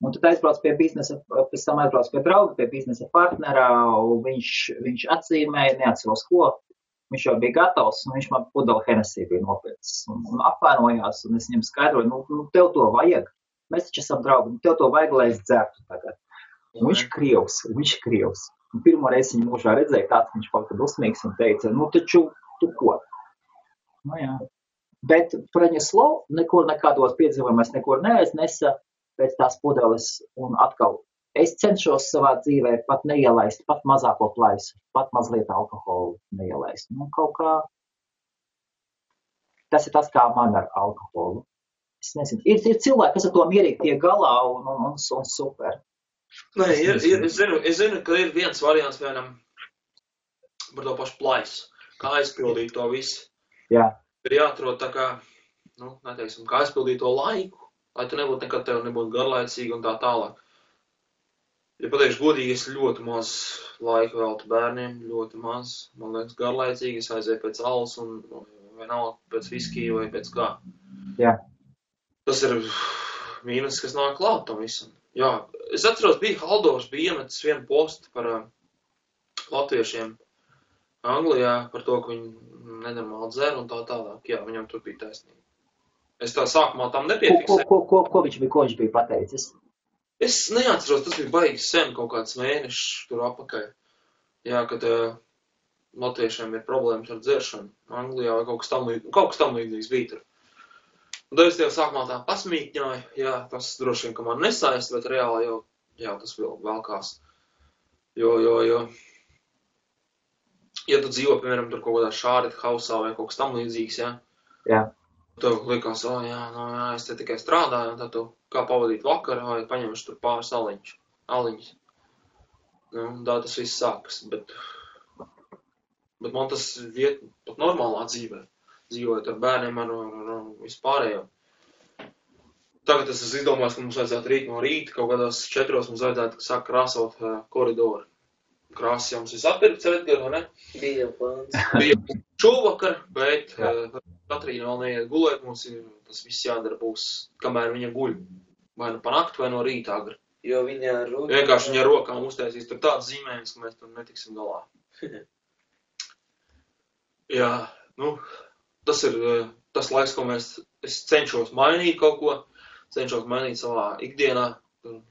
A: Un tad aizbrauc pie biznesa, pēc tam aizbrauc pie drauga, pie biznesa partnerā, un viņš atzīmēja, neatceros ko. Viņš jau bija gatavs, un viņš man pudeli Hennessy bija nopircis. Un apvainojās, un es viņam skaidroju, tev to vajag. Mēs taču esam draugi, tev to vajag, lai es dzertu tagad. Un viņš ir krievs. Un pirmo reizi viņu mūžā redzēja tāds, viņš palika dusmīgs un teica, taču, tu ko? Jā. Bet Praņeslo nekur nekādos piedzīvojumos nekur neaiznesa pēc tās pudeles. Un atkal, es cenšos savā dzīvē pat neielaist, pat mazāko plaisu, pat mazliet alkoholu neielaist. Kaut kā, tas ir tas, kā man ar alkoholu. Es nezinu, ir cilvēki, kas ar to mierīgi tiek galā un super.
B: Nē, es zinu, ka ir viens variants vienam par to pašu plaisu, kā aizpildīt to visu.
A: Jā.
B: Ir jāatrod tā kā, neteiksim, kā aizpildīt to laiku, lai tu nebūtu nekad tev nebūtu garlaicīgi un tā tālāk. Ja pateikšu godīgi, es ļoti maz laika veltu bērniem, ļoti maz, man liekas, garlaicīgi, es aizēju pēc alas un vienalga pēc viskija vai pēc kā.
A: Jā.
B: Tas ir mīnus, kas nāk klāt tam visam. Jā, es atceros, Haldors bija iemetis vienu postu par latviešiem Anglijā, par to, ka viņi nenormāli dzer un tā tālāk. Jā, viņam tur bija taisnība. Es tā sākumā tam nepiefiksēju.
A: Ko viņš bija pateicis?
B: Es neatceros, tas bija baigi sen, kaut kāds mēnešs tur apakaļ. Jā, kad latviešiem ir problēmas ar dzeršanu Anglijā vai kaut kas tam līdzīgs bija tur. Un tad es tev sākumā tā pasmīkņoju, jā, tas droši vien, ka man nesaist, bet reāli jau tas vēl kās. Jo, ja tu dzīvo, piemēram, tur kaut kādā šāret hausā vai kaut kas tam līdzīgs, jā.
A: Jā.
B: Tev likās, es te tikai strādāju, un tad tu kā pavadīt vakaru, vai paņemšu tur pāris aliņus. Tā tas viss sākas, bet man tas viet pat normālā dzīvē. Dzīvojot ar bērniem, ar vispārējo. Tagad es esmu izdomājis, ka mums vajadzētu rīt no rīta, kaut kādās 4 mums vajadzētu sākt krāsot koridoru. Krāsas jau mums viss atpirkts, Edgar, vai ne?
C: Bija plāns.
B: Bija šovakar, bet Katrīna vēl neiet gulēt, mums tas viss jādara būs, kamēr viņa guļ. Vai nu pa nakti, vai no rīta agri.
C: Jo viņa rokām...
B: Vienkārši viņa rokām uztaisīs tur tāds zīmējums, ka mēs tur netiksim galā. Jā, tas ir tas laiks, ko es cenšos mainīt kaut ko, cenšos mainīt savā ikdienā,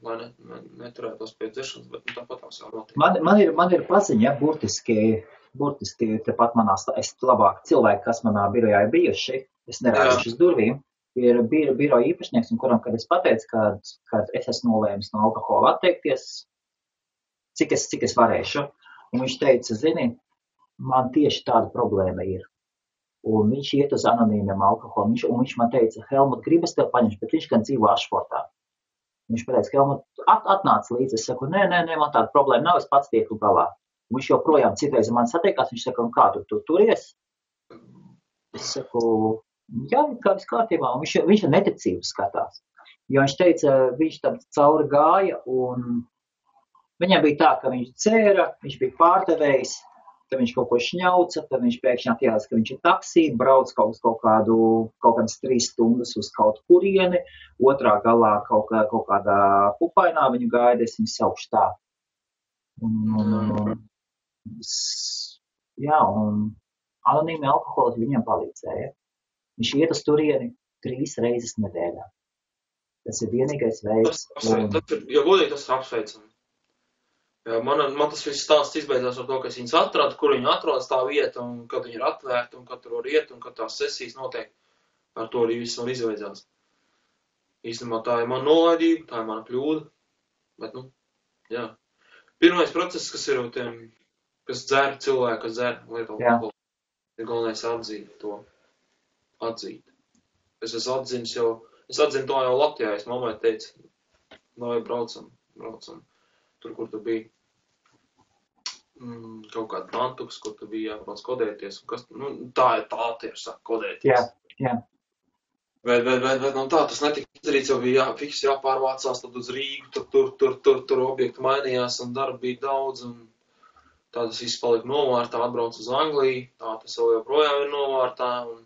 B: lai neturētos pie dzeršanas, bet tāpat tās jau notiek.
A: Man ir paziņa, burtiski tepat es labāk cilvēki, kas manā birojā ir bijuši, es nerāduši uz durvīm, ir biroja īpašnieks, un kuram, kad es pateicu, kad es esmu nolēmis no alkohola atteikties, cik es varēšu, un viņš teica, zini, man tieši tāda problēma ir. Un viņš iet uz anonīmiem alkoholu, un viņš man teica, Helmut, gribas tev paņemt, bet viņš gan dzīvo Ašfortā. Viņš pateica, Helmut, atnāc līdzi, es saku, nē, man tāda problēma nav, es pats tieku galā. Un viņš joprojām citreiz man satiekās, viņš saka, un kā tu turies? Es saku, jā, kā viss kārtībā, un viņš ar neticību skatās. Jo viņš teica, viņš tam cauri gāja, un viņam bija tā, ka viņš dzēra, viņš bija pārdevējs, tad viņš kaut ko šņauca, tad viņš pēkšņi atjās, ka viņš ir taksī, brauc kaut kādas 3 stundas uz kaut kurieni, otrā galā kaut kādā pupainā viņu gaida, es viņu saukšu tā. Un anonīmi alkoholiķi viņam palīdzēja. Viņš iet uz turieni 3 reizes nedēļā. Tas ir vienīgais veids.
B: Ja godīgi, tas ir apsveicami. Jā, man tas viss stāsts izbeidzās ar to, ka es viņus atradu, kur viņi atrodas tā vieta, un kad viņi ir atvērti, un kad tur var iet, un kad tās sesijas notiek, ar to arī viss man izbeidzās. Īstenībā tā ir mana nolaidība, tā ir mana kļūda, bet, jā. Pirmais process, kas ir tiem, kas dzer cilvēku, kas dzer lietu alkoholu, ir galvenais atzīt to. Atzīt. Es esmu atzinis jau, es atzinu to jau Latvijā, es mammai teicu, vai braucam, tur, kur tu biji. Kaut kāda Nantuks, kur tu biji jābrauc kodēties, un kas, tā ir tieši saka, kodēties.
A: Jā.
B: Bet tā, tas netika izdarīts, jau bija fiks jāpārvācās, tad uz Rīgu, tur objekti mainījās, un darba bija daudz, un tā tas viss palika novārtā, atbrauc uz Angliju, tā tas vēl joprojām ir novārtā, un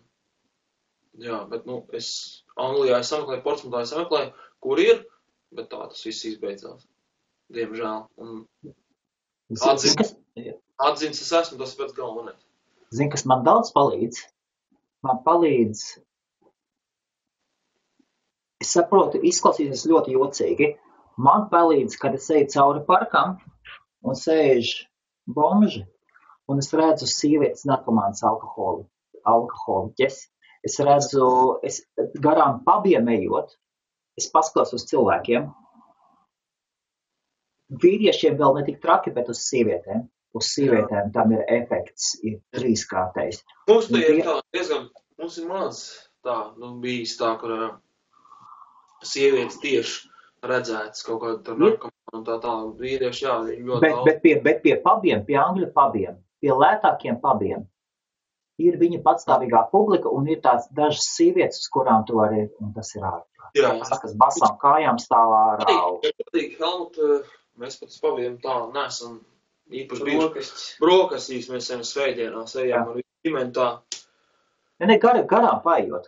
B: jā, bet, es Anglijā sameklēju, Portsmutā sameklēju, kur ir, bet tā tas viss izbeidzās, diemžēl, un atzins es esmu, tas pēc galvenais.
A: Zini, kas man daudz palīdz? Man palīdz, es saprotu, izklausīsies ļoti jocīgi. Man palīdz, kad es eju cauri parkam un sēž bomži, un es redzu sievietes narkomānas alkoholiķes. Es redzu, garām pabiem ejot, es paskatos uz cilvēkiem. Vīriešiem vēl ne tik traki, bet uz sievietēm. Uz sievietēm tam ir efekts, ir trīskārtais.
B: Mums te ir tā, diezgan, mums ir maz tā, bijis tā, kur sievietes tieši redzētas kaut kāda tur narkomāna un tā, vīrieši, jā, viņi ļoti daudz.
A: Bet pie pabiem, pie angļu pabiem, pie lētākiem pabiem, ir viņa patstāvīgā publika un ir tāds dažas sievietes, uz kurām tu arī, un tas ir ārprāt.
B: Jā.
A: Tas, kas basām kājām stāvā ārā.
B: Helmut, mēs pat uz pabiem tā nesam īpaši bijuši. Brokastīs mēs ejam svētdienās, ejam ar ģimeni tā.
A: Ne, garām paiet,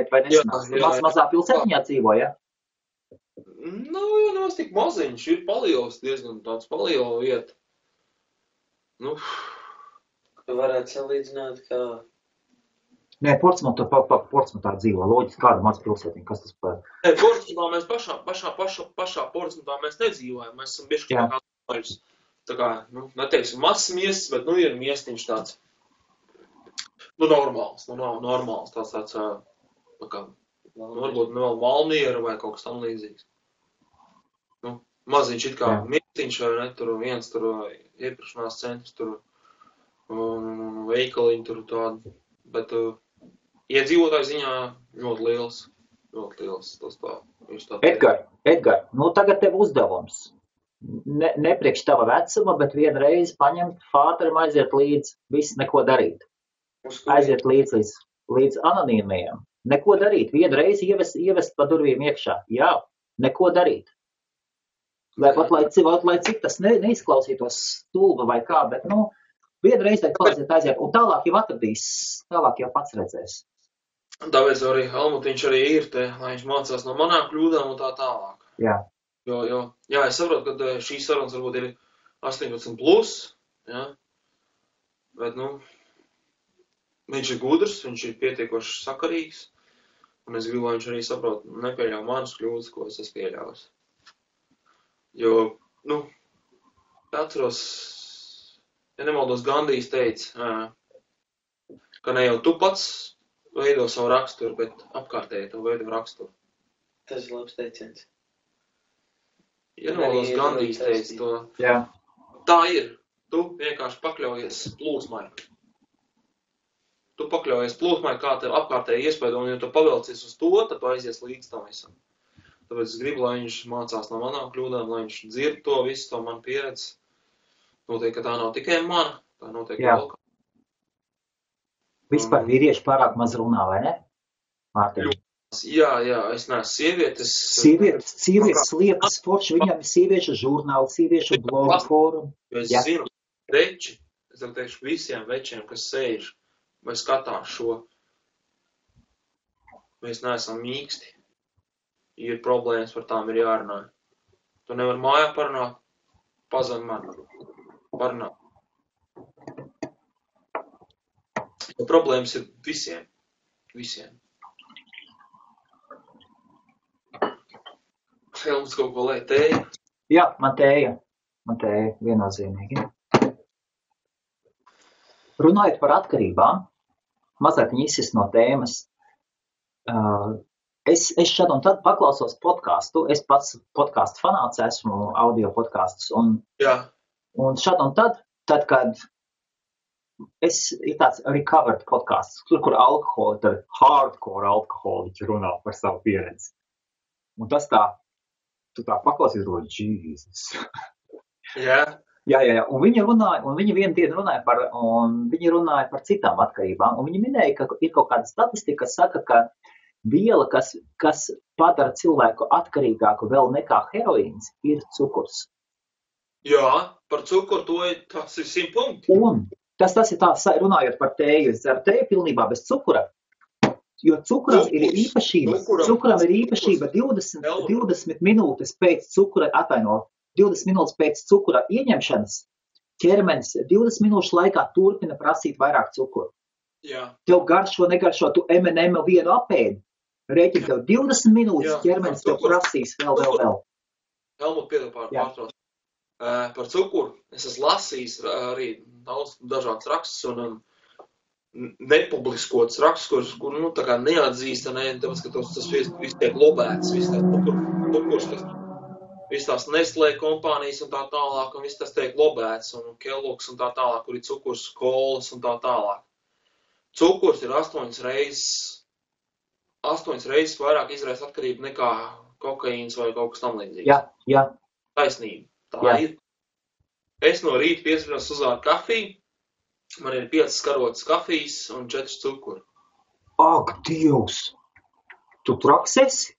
A: vai nesanās. Mazā pilsētiņā dzīvo, ja?
B: Jā, nemaz tik maziņš, ir paliels, diezgan tāds paliela vieta.
C: Tu varētu salīdzināt, kā...
A: Nē, Portsmutā dzīvo, loģiski, kāda maz pilsētiņa, kas tas par...
B: Nē, Portsmutā mēs pašā Portsmutā mēs nedzīvojam, mēs esam bišķi kā kāds. Tā kā, neteiksim, mazs miests, bet, ir miestiņš tāds, normāls, nav normāls, tāds, varbūt vēl Valmiera vai kaut kas tam līdzīgs. Maziņš it kā miestiņš vai ne, tur viens tur iepirkšanās centrs, tur veikaliņi tur tādi, bet iedzīvotāju ziņā ļoti liels, tas tā, viņš tā.
A: Edgar, tagad tev uzdevums. Ne priekš tava vecuma, bet vienreiz paņemt fāterim, aiziet līdz, viss neko darīt. Aiziet līdz anonīmajiem. Neko darīt. Vienreiz ievest pa durvīm iekšā. Jā, neko darīt. Lai cik tas neizklausītos stulba vai kā, bet, vienreiz aiziet. Un tālāk jau atradīs, tālāk jau pats redzēs.
B: Tāpēc arī Helmutiņš arī ir te, lai viņš mācās no manām kļūdām un tā tālāk.
A: Jā.
B: Jā, es saprotu, ka šīs sarunas varbūt ir 18+, jā, bet, viņš ir gudrs, viņš ir pietiekoši sakarīgs, un es gribu, lai viņš arī saprot, nepieļauj manas kļūdas, ko es esmu pieļāvis. Jo, atceros, ja nemaldos, Gandijs teica, ka ne jau tu pats veido savu raksturu, bet apkārtēji tev veido raksturu.
C: Tas ir labs teiciens.
B: Ja nemaldos, Gandijs teica to.
A: Jā.
B: Tā ir. Tu vienkārši pakļaujies plūsmai. Tu pakļaujies plūsmai, kā tev apkārtēji iespēdo, un ja tu pavelcies uz to, tad tu aizies līdz tam visam. Tāpēc es gribu, lai viņš mācās no manām kļūdām, lai viņš dzird to visu, to man pieredzi. Noteikti, ka tā nav tikai mana, tā noteikti vēl kā.
A: Vispār vīrieši pārāk maz runā, vai ne? Mārtiņ.
B: Jā, es neesmu sievietes.
A: Sievietes liekas forši, viņam ir sieviešu žurnāli, sieviešu blogu fórumu.
B: Es zinu, veči, es teikšu visiem večiem, kas sēž vai skatās šo, mēs neesam mīksti. Ir problēmas, par tām ir jārunā. Tu nevar mājā parunāt, pazvan man. Parunāt. Jo problēmas ir visiem. Helmuts kaut ko lai tēja?
A: Jā, man tēja, viennozīmīgi. Runājot par atkarībām, mazliet izsist no tēmas, es šad un tad paklausos podcastu, es pats podcastu fanāts esmu, audio podcastus, un Un šad un tad, kad ir tāds recovered podcasts, kur alkoholi, tad hardcore alkoholiķi runā par savu pieredzi. Un tas tā, tu tā paklausies, Jesus.
B: Jā.
A: Jā. Un viņi vienu dienu runāja par citām atkarībām. Un viņi minēja, ka ir kaut kāda statistika, kas saka, ka viela, kas padara cilvēku atkarīgāku vēl nekā heroīns, ir cukurs.
B: Jā, par cukuru tas ir 100 punkti.
A: Un tas ir tā, runājot par tēju, es dzeru tēju pilnībā bez cukura, jo cukuram ir īpašība 20 minūtes pēc cukura, 20 minūtes pēc cukura ieņemšanas, ķermenis 20 minūšu laikā turpina prasīt vairāk cukuru.
B: Jā.
A: Tev garšo, negaršo, tu M&M vienu apēdi, rēķini tev 20 minūtes, ķermenis tev prasīs vēl.
B: Helmut, piedod pārtrauc. Par cukuru es esmu lasījis arī daudz dažādas rakstus un nepubliskots rakstus, kur tā kā neatzīst, tāpēc, ka tas viss tiek lobēts, viss tās cukurs, viss tās Nestlé kompānijas un tā tālāk, un viss tas tiek lobēts, un Kellogg's un tā tālāk, kur ir cukurs, kolas un tā tālāk. Cukurs ir 8 reizes vairāk izraisa atkarību nekā kokaīns vai kaut kas tam līdzīgs.
A: Jā.
B: Taisnība. Tā ir. Es no rīta piespriežos uzvāru kafiju, man ir 5 karotes kafijas un 4 cukuri.
A: Ak, Dievs! Tu traks esi?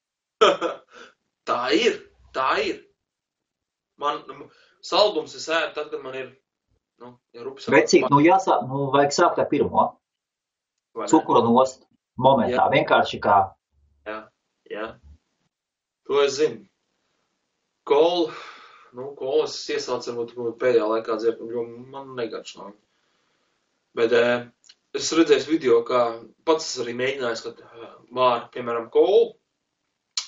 B: Tā ir. Man saldums es ēdu tad, kad man ir, rupjas.
A: Vecīt, vajag sākt ar pirmo. Cukuru nost momentā, vienkārši kā.
B: Jā. To es zinu. Kolas iesācu varbūt pēdējā laikā dzert, jo man negaršo. Bet es redzēju video, kā pats arī mēģinājis, kad māra, piemēram, kolu,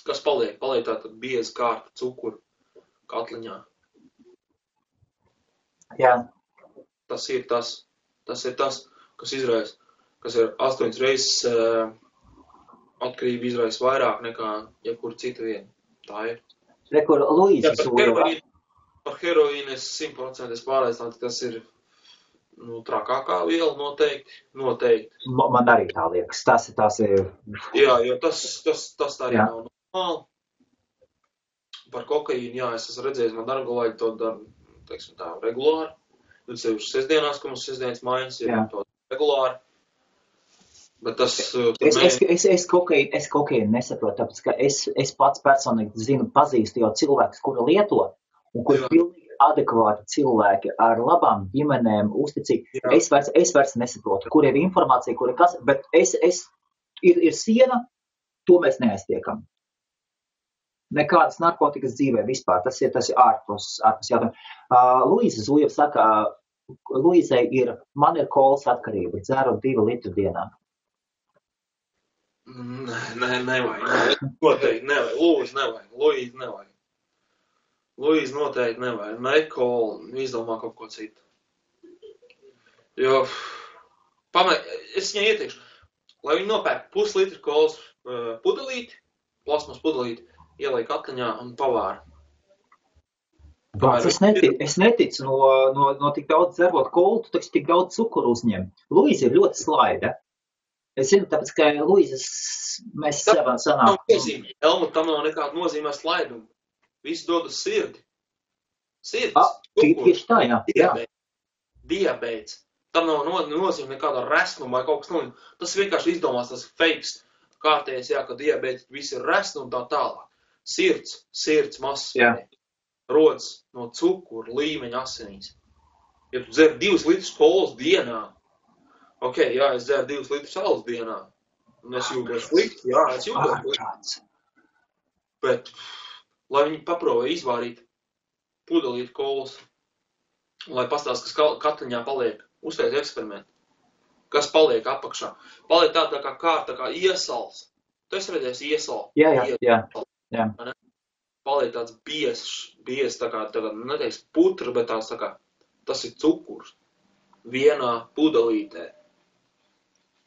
B: kas paliek tātad bieza kārta cukuru katliņā.
A: Jā.
B: Tas ir tas, kas izraisa, kas ir 8 reizes atkarība izraisa vairāk nekā jebkur cita viena. Tā ir.
A: Rekur, Luīza Zūra.
B: Par heroīnu es 100% pārliecināts, ka tas ir trakākā viela noteikti.
A: Man arī tā liekas. Tas ir.
B: Jā, jo tas tā arī nav normāli. Par kokaīnu, jā, es esmu redzējis, man dargolāģi to dara, teiksim tā, regulāri. Tad sevišķi sestdienās, ka mums sestdienas mājas ir to regulāri. Bet tas...
A: Es kokaīnu nesaprotu, tāpēc, ka es pats personīgi pazīstu jau cilvēkus, kuri lieto, un kuri pilnīgi adekvāti cilvēki ar labām ģimenēm, uzticīgi. Es vairs nesaprotu, kur ir informācija, kur ir kas, bet ir siena, to mēs neaiztiekam. Nekādas narkotikas dzīvē vispār, tas ir ārpus jautājumu. Luīza Zūja saka, Luīzai man ir kolas atkarība, dzeru 2 litru dienā.
B: Nevajag. Noteikti nevajag. Luīza nevajag. Luīza noteikti nevajag. Nekol, izdomā kaut ko citu. Jo, es viņai ieteikšu, lai viņi nopērk puslitru kolas pudelīti, plasmas pudelīti, ieliek katliņā un pavāra.
A: Es neticu no tik daudz dzerot kolu, tu taču tik daudz cukuru uzņem. Luīza ir ļoti slaida. Es zinu, tāpēc, ka Luīzas mēs sevam sanāk.
B: Helmut, tam nav nekāda nozīmē slaidumu. Visu dod uz sirdi. Sirds.
A: Tieši tā, jā.
B: Diabēts. Tam nav nozīmē nekāda resnuma vai kaut kas nozīmē. Tas vienkārši izdomās, tas fakes kārtējais, ka diabēts visi ir resni un tā tālāk. Sirds masas. Rodas no cukuru līmeņa asinīs. Ja tu dzer 2 litrus kolas dienā, es dzeru 2 litrus salas dienā, un es jūtos slikti, es jūtos slikti. Bet, lai viņi paprobē izvārīt pudelīti kolas, lai pastāst, kas katliņā paliek, uztais eksperimentu, kas paliek apakšā. Paliek tā kā kārta, kā iesals. Tu esi redzējis iesalu?
A: Jā.
B: Paliek tāds biezs, tā kā neteiks putra, bet tas ir cukurs. Vienā pudelītē.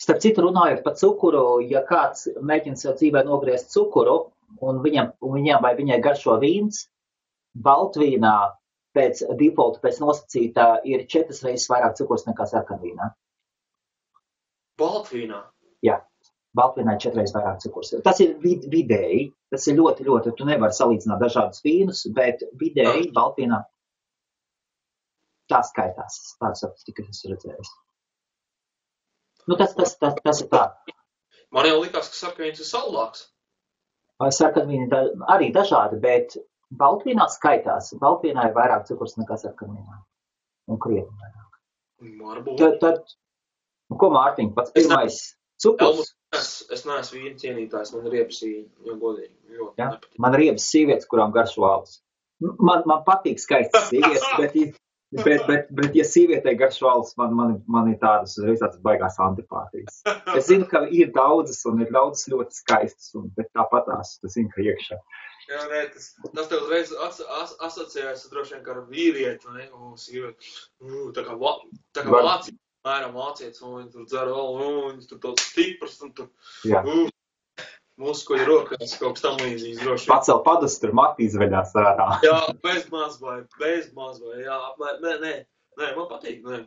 A: Starp citu, runājot par cukuru, ja kāds mēģina sev dzīvē nogriezt cukuru, un viņam vai viņai garšo vīns, baltvīnā pēc defaulta, pēc nosacītā ir 4 reizes vairāk cukurs nekā sarkanvīnā.
B: Baltvīnā?
A: Jā, baltvīnā ir 4 reizes vairāk cukurs. Tas ir vidēji, tas ir ļoti, ļoti, tu nevari salīdzināt dažādus vīnus, bet vidēji baltvīnā tā skaitās. Tādu statistiku es redzējis. Nu, tas ir tā.
B: Man jau likās, ka sarkanvīns ir saldāks.
A: Sarkanvīni arī dažādi, bet baltvīnā skaitās. Baltvīnā ir vairāk cukurs nekā sarkanvīnā. Un krietni vairāk.
B: Varbūt.
A: Tad, ko Mārtiņ, pats pirmais cukurs?
B: Es neesmu vīna cienītājs, man riebas vīni, jo godīgi. Ļoti nepatīk.
A: Man riebas sievietes, kurām garšo alus. Man patīk skaistas sievietes, bet ja sievietei garšo alus, man ir tādas baigās antipātijas. Es zinu, ka ir daudzas un ir daudzas ļoti skaistas, bet tāpatās, tas zinu, ka iekšā.
B: Jā, nē, tas tev uzreiz asociējas droši vien kā ar vīrieti, ne? Sievieti. Tā kā vācietis, mēram vācietis, un viņi tur dzer, viņi tur tāds stiprs, un tur muskuļi rokās, kaut kas tam līdzīgs droši vien.
A: Pacel padus, tur mati izveļās ārā.
B: Jā, bez mazvai, jā, nē, man patīk, nē.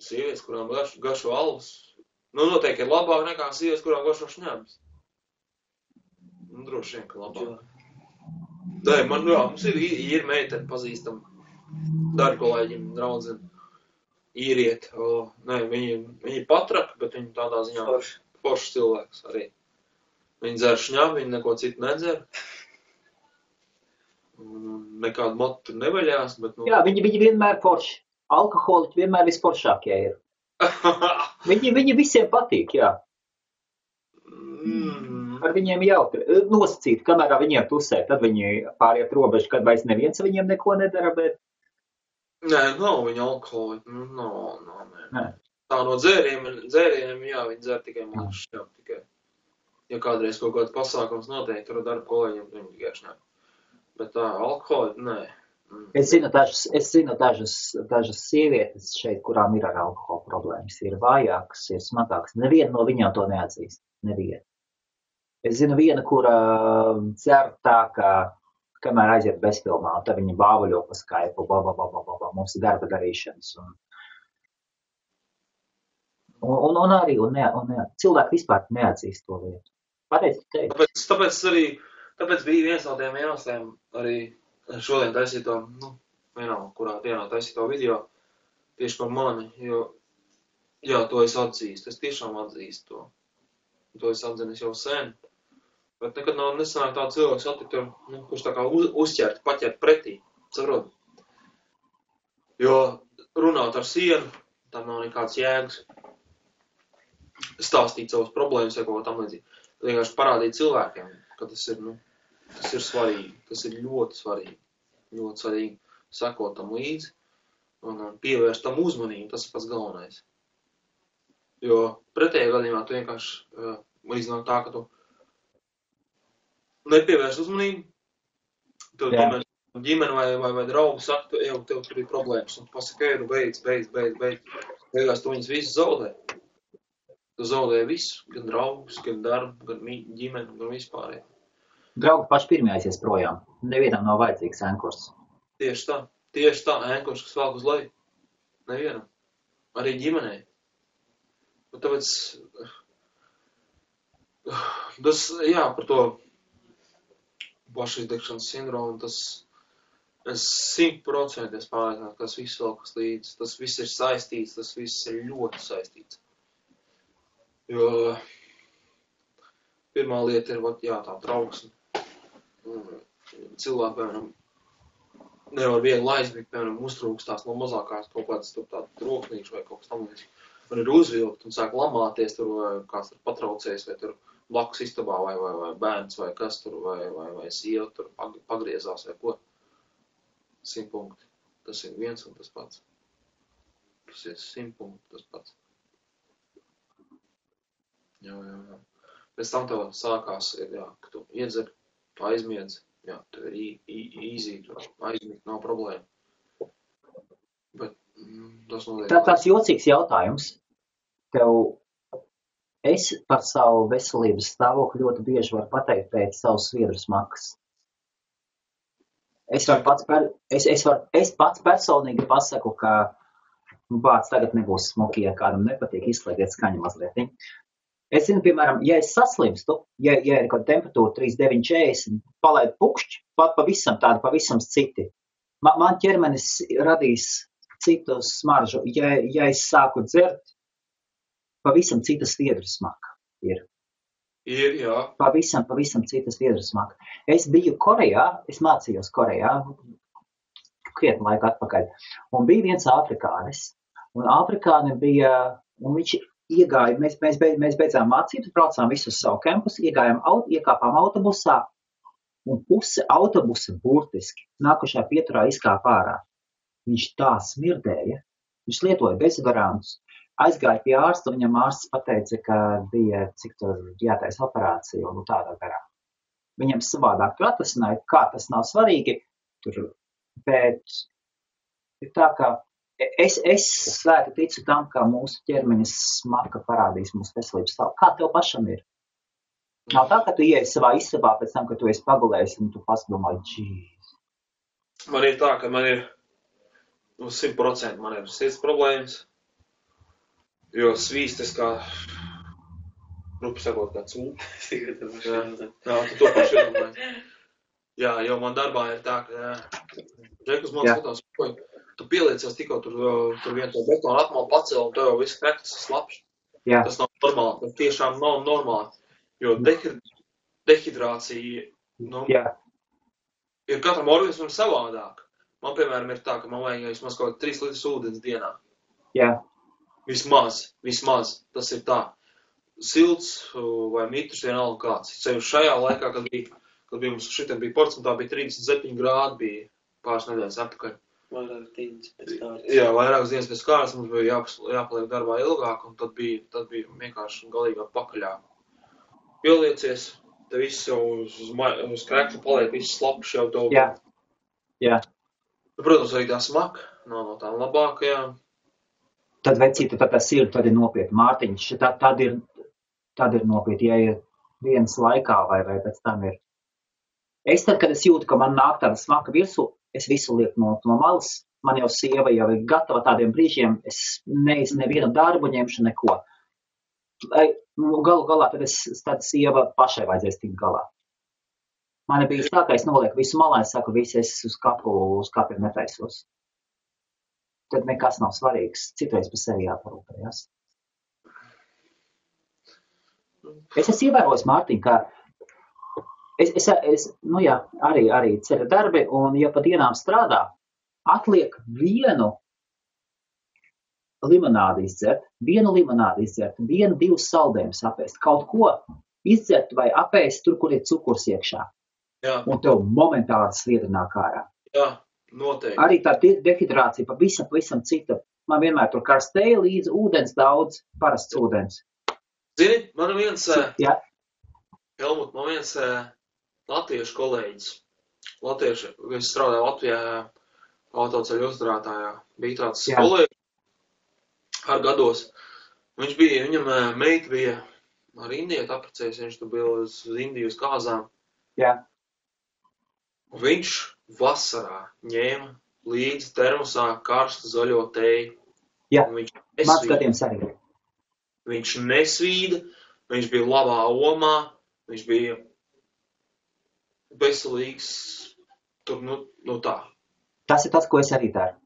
B: Sievietes, kurām garšo alus, noteikti ir labāk nekā sievietes, kurām garšo šņabis. Droši vien, ka labāk. Nē, mums ir meiteni pazīstam, darkolēģim, draudzeni, īrieti. Nē, viņi patraka, bet viņi tādā ziņā foršs cilvēks arī. Viņi dzer šņabi, viņi neko citu nedzer. Nekādu motu tur nevaļās, bet... Jā,
A: viņi vienmēr forši. Alkoholiķi vienmēr visforšākie ir. Viņi visiem patīk, jā. Ar viņiem jautri. Nosacīt, kamēr viņiem tusē, tad viņi pāriet robežu, kad vairs neviens viņiem neko nedara, bet...
B: Nē, nav viņa alkoholiķi. Nē. Tā no dzērieniem, jā, viņi dzer tikai mazu šņabu tikai. Ja kādreiz kaut kāds pasākums noteikti, tur darba kolēģiem, viņi tikai šņabu. Bet tā, alkoholiķi, nē.
A: Es zinu dažas sievietes šeit, kurām ir ar alkohola problēmas. Ir vājākas, ir smagākas. Neviena no viņām to neatzīst. Neviena. Es zinu viena, kura dzer tā, ka kamēr aiziet bezfilmā, tad viņa bāvaļo pa Skype, mums ir darba darīšanas. Un arī cilvēki vispār neatzīst to lietu. Pareizi teikt.
B: Tāpēc bija viens no tiem iemesliem arī šodien taisīto, kurā dienā taisīto video tieši par mani, jo, jā, to es atzīstu, es tiešām atzīstu to. To es atzinis jau sen, bet nekad nav nesanāk tā cilvēks attikt, kurš tā kā uzķert, paķert pretī, saprot? Jo runāt ar sienu, tam nav nekāds jēgas. Stāstīt savas problēmas vai kaut ko tam līdzīgi. Vienkārši parādīt cilvēkiem, ka tas ir svarīgi, tas ir ļoti svarīgi sekot tam līdzi un pievērst tam uzmanību, tas ir pats galvenais. Jo pretējā gadījumā tu vienkārši līdzināt tā, ka tu nepievērst uzmanību, tev ģimene vai draugi saka, tev tur ir problēmas, un tu pasaka, beidz. Beigās tu viņus visus zaudē. Tu zaudēji visu, gan draugus, gan darbu, gan ģimeni, gan vispār.
A: Draugi paši pirmie aizies projām. Nevienam nav vajadzīgs ēnkurs.
B: Tieši tā, ēnkurs, kas velk uz leju. Nevienam. Arī ģimenei. Un tāpēc, par to pašizdegšanas sindromu, es 100% pārliecināts, ka tas viss velkas līdzi. Tas viss ir saistīts, tas viss ir ļoti saistīts. Jo pirmā lieta ir, tā trauksme. Cilvēki, piemēram, nevar viegli aizmigt, piemēram, uztrūkstās no mazākās kaut kādas tādu troknīšu vai kaut kas tam līdzīgs. Un ir uzvilkt un sāk lamāties tur, vai kāds tur patraucējis, vai tur blakus istabā, vai bērns, vai kas tur, vai sieva tur pagriezās, vai ko. 100 punkti. Tas ir viens un tas pats. Tas ir 100 punkti tas pats. Jā. Pēc tam tev sākās, ka tu iedzer, tu aizmiedz, tev ir easy, tu aizmigt, nav problēma. Bet tas notiek.
A: Tāds jocīgs jautājums. Es par savu veselības stāvokli ļoti bieži varu pateikt pēc savas sviedru smakas. Es pats personīgi pasaku, ka vārds tagad nebūs smuki, ja kādam nepatīk, izslēgiet skaņu mazliet. Es zinu, piemēram, ja es saslimstu, ja ir kaut temperatūra 39,40, palaid pukšķi, pavisam citi. Man ķermenis radīs citu smaržu. Ja es sāku dzert, pavisam cita sviedru smaka ir.
B: Ir, jā.
A: Pavisam citas viedras smaka. Es biju Korejā, es mācījos Korejā, krietni laika atpakaļ, un bija viens afrikānis, un afrikāni bija, un viņš iegāja, mēs beidzām mācības, braucām visu uz savu kampusu, iekāpām autobusā, un puse autobusa burtiski nākušā pieturā izkāpa ārā. Viņš tā smirdēja, viņš lietoja bezvarantus. Aizgāja pie ārsta, viņam ārsts pateica, ka bija cik tur jātais operācija un tādā garā. Viņam savādāk tur atrasināja, kā tas nav svarīgi, bet ir tā, ka es svēti ticu tam, ka mūsu ķermenis smaka parādīs mūsu veselības stāvu. Kā tev pašam ir? Nav tā, ka tu ieej savā istabā pēc tam, ka tu esi pagulējis un tu padomāji, džīs.
B: Man ir tā, ka man ir 100% man ir sirds problēmas. Jo svīstas kā, rupi sakot, kā cūp. Jā, tu to paši iedomājies. Jā, jo man darbā ir tā, ka Džekus man skatās, tu pieliecies tikko tur vien to betonu atmalu pacēl, un tev jau viss krektas slapš.
A: Jā.
B: Tas nav normāli, tas tiešām nav normāli. Jo dehidrācija, ir katram organismam savādāk. Man, piemēram, ir tā, ka man vajag vismaz kaut 3 litras ūdens dienā.
A: Jā.
B: Vismaz, tas ir tā. Silts vai mitrs vienalga kāds. Ceļš šajā laikā, kad bija mums šitiem bija ports, un tā bija 37 grādi, bija pāris nedēļas atpakaļ.
C: Vairākas dienas pēc kārtas.
B: Jā, vairākas dienas pēc kārtas, mums bija jāpaliek darbā ilgāk, un tad bija vienkārši galīgā pakaļā. Pieliecies, te viss jau uz krekļa paliek, viss slapš jau tev.
A: Jā.
B: Protams, arī tā smaka nav no tām labākajām.
A: Tad vecīta, tad tas ir, tad ir nopietni. Mārtiņš, tad ir nopietni, ja ir dienas laikā vai pēc tam ir. Es tad, kad es jūtu, ka man nāk tāda smaka virsū, es visu lieku no malas. Man jau sieva jau ir gatava tādiem brīžiem, es nevienu darbu ņemšu neko. Galu galā tad sieva pašai vajadzēs tikt galā. Man bija tā, ka es nolieku visu malā, es saku, es uz kapiem netaisos. Tad nekas nav svarīgs. Citreiz par sevi jāparūpējas. Es esmu ievērojis, Mārtiņ, ka arī ceļa darbi, un ja pa dienām strādā, atliek vienu limonādi izdzert, 1-2 saldējumus apēst, kaut ko izdzert vai apēst tur, kur ir cukurs iekšā.
B: Jā.
A: Un tev momentāli sviedra nāk ārā.
B: Jā, noteikti.
A: Arī tā dehidrācija pavisam cita. Man vienmēr tur karstēja līdz ūdens daudz, parasts ūdens.
B: Zini, man viens latviešu kolēģis. Es strādāju Latvijā autoceļu uzturētājā. Bija tāds kolēģis ar gados. Viņam meita bija ar indieti apprecējis, viņš tu bija uz Indiju uz kāzām.
A: Jā.
B: Viņš vasarā ņēma līdzi termosā karstu zaļo teju.
A: Jā, mans gadījums arī.
B: Viņš nesvīda, viņš bija labā omā, viņš bija veselīgs, tur, tā.
A: Tas ir tas, ko es arī daru.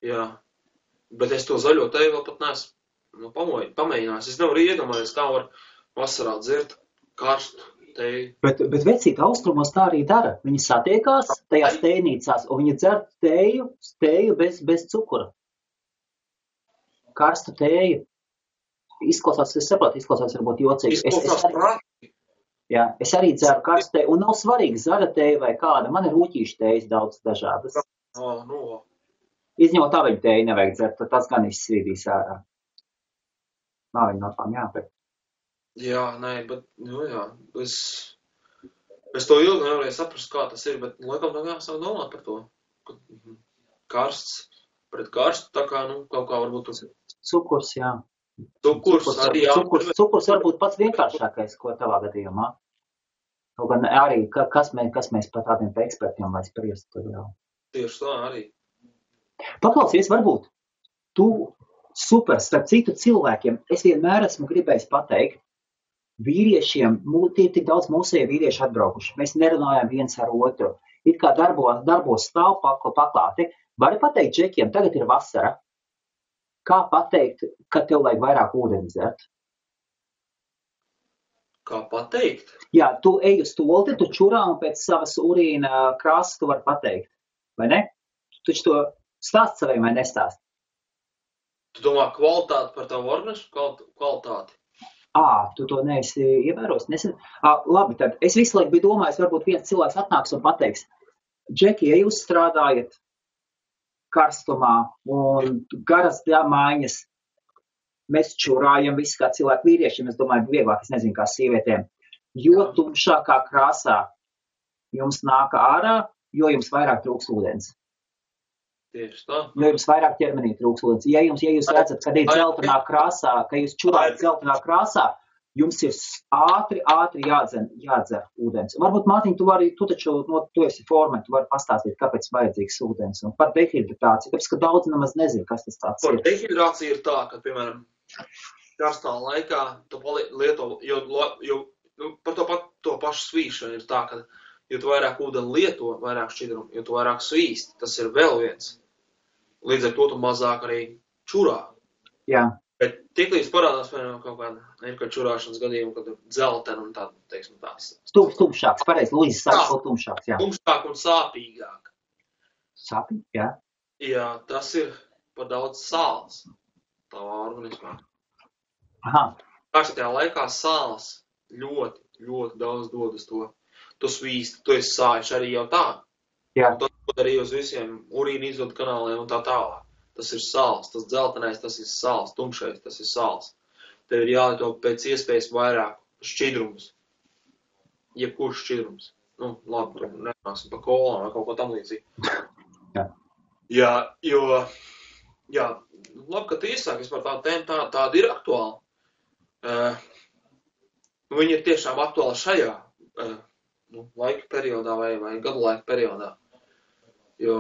B: Jā, bet es to zaļo teju vēl pat neesmu pamēģinājis. Es nevaru iedomāties, kā var vasarā dzert karstu teju.
A: Bet vecīt austrumos tā arī dara. Viņi satiekās tajās tējnīcās, un viņi dzer teju bez cukura. Karstu teju. Izklausās varbūt jocīgi. Es arī dzeru karstu teju, un nav svarīgi zaļa teja vai kāda. Man ir rūķīšu tejas daudz dažādas. Izņemot aveņu teju nevajag dzert, tas gan izsvīdīs ārā. Nav viņa no tām jāpēc.
B: Jā, bet, es to ilgi nevarēju saprast, kā tas ir, bet laikam tā jāsāk domāt par to. Karsts pret karstu, tā kā, kaut kā varbūt tas ir.
A: Cukurs, jā.
B: Cukurs arī jā.
A: Cukurs varbūt pats vienkāršākais, ko tavā gadījumā. Kaut gan arī, kas mēs par tādiem ekspertiem vai spriest, tad jau.
B: Tieši tā arī.
A: Paklausies, varbūt tu super, starp citu cilvēkiem, es vienmēr esmu gribējis pateikt, vīriešiem, tie tik daudz mūsējie vīrieši atbraukuši, mēs nerunājam viens ar otru, it kā darbos stāv paklāti. Vari pateikt džekiem, tagad ir vasara, kā pateikt, ka tev vajag vairāk ūdeni dzert?
B: Kā pateikt?
A: Jā, tu ej uz tolti, tu čurā un pēc savas urīna krāsas tu vari pateikt, vai ne? Tu taču to stāst saviem vai nestāst?
B: Tu domā kvalitāti par tavu organismu? Kvalitāti?
A: Tu to neesi ievēros? Labi, tad es visu laiku biju domājis, varbūt viens cilvēks atnāks un pateiks, Džeki, ja jūs strādājat karstumā un garas mājas, mēs čurājam visi kā cilvēki vīriešiem, es domāju, vieglāk, es nezinu, kā sievietēm, jo tumšākā krāsā jums nāk ārā, jo jums vairāk trūks ūdens.
B: Tieši tā.
A: Jo jums vairāk ķermenī trūks ūdens. Ja jūs redzat, kad ir dzeltenā krāsā, ka jūs čurājat dzeltenā krāsā, jums ir ātri jādzer ūdens. Varbūt, Mārtiņ, tu taču, tu esi formē, tu vari pastāstīt, kāpēc vajadzīgs ūdens. Un par dehidratāciju, tāpēc, ka daudz nemaz nezinu, kas tas tāds ir.
B: Par dehidratāciju ir tā, ka, piemēram, karstā laikā tu lieto, jo par to pašu svīšanu ir tā, ka, jo tu vairāk ūdeni lieto, vairāk šķidrumu, jo tu vairāk svīsti, tas ir vēl viens. Līdz ar to tu mazāk arī čurā.
A: Jā.
B: Bet tiklīdz parādās, piemēram, kaut kāda čurāšanas gadījuma, kad ir dzeltena un tāda, teiksim, tās.
A: Tumšāks, pareizi, Luīzes saka, ko tumšāks, jā.
B: Tumšāk un sāpīgāk.
A: Sāpīgi, jā.
B: Jā, tas ir par daudz sāls tavā organismā.
A: Aha.
B: Karstajā laikā sāls ļoti, ļoti daudz dod uz to. Tu svīsti, tu esi sājuši arī jau tā.
A: Jā.
B: Un tas arī uz visiem urīna izvadu kanāliem un tā tālāk. Tas ir sāls, tas dzeltenais, tas ir sāls, tumšais, tas ir sāls. Tev ir jālieto pēc iespējas vairāk šķidrums. Jebkurš šķidrums. Nu, labi, tur nenāksim pa kolām vai kaut ko tam līdzīgi.
A: Jā.
B: Jā, jo, jā, labi, ka tu iesāki vispār tādu tēmu, tāda ir aktuāla. Viņa ir tiešām aktuāla šajā laika periodā vai gadu laika periodā. Jo,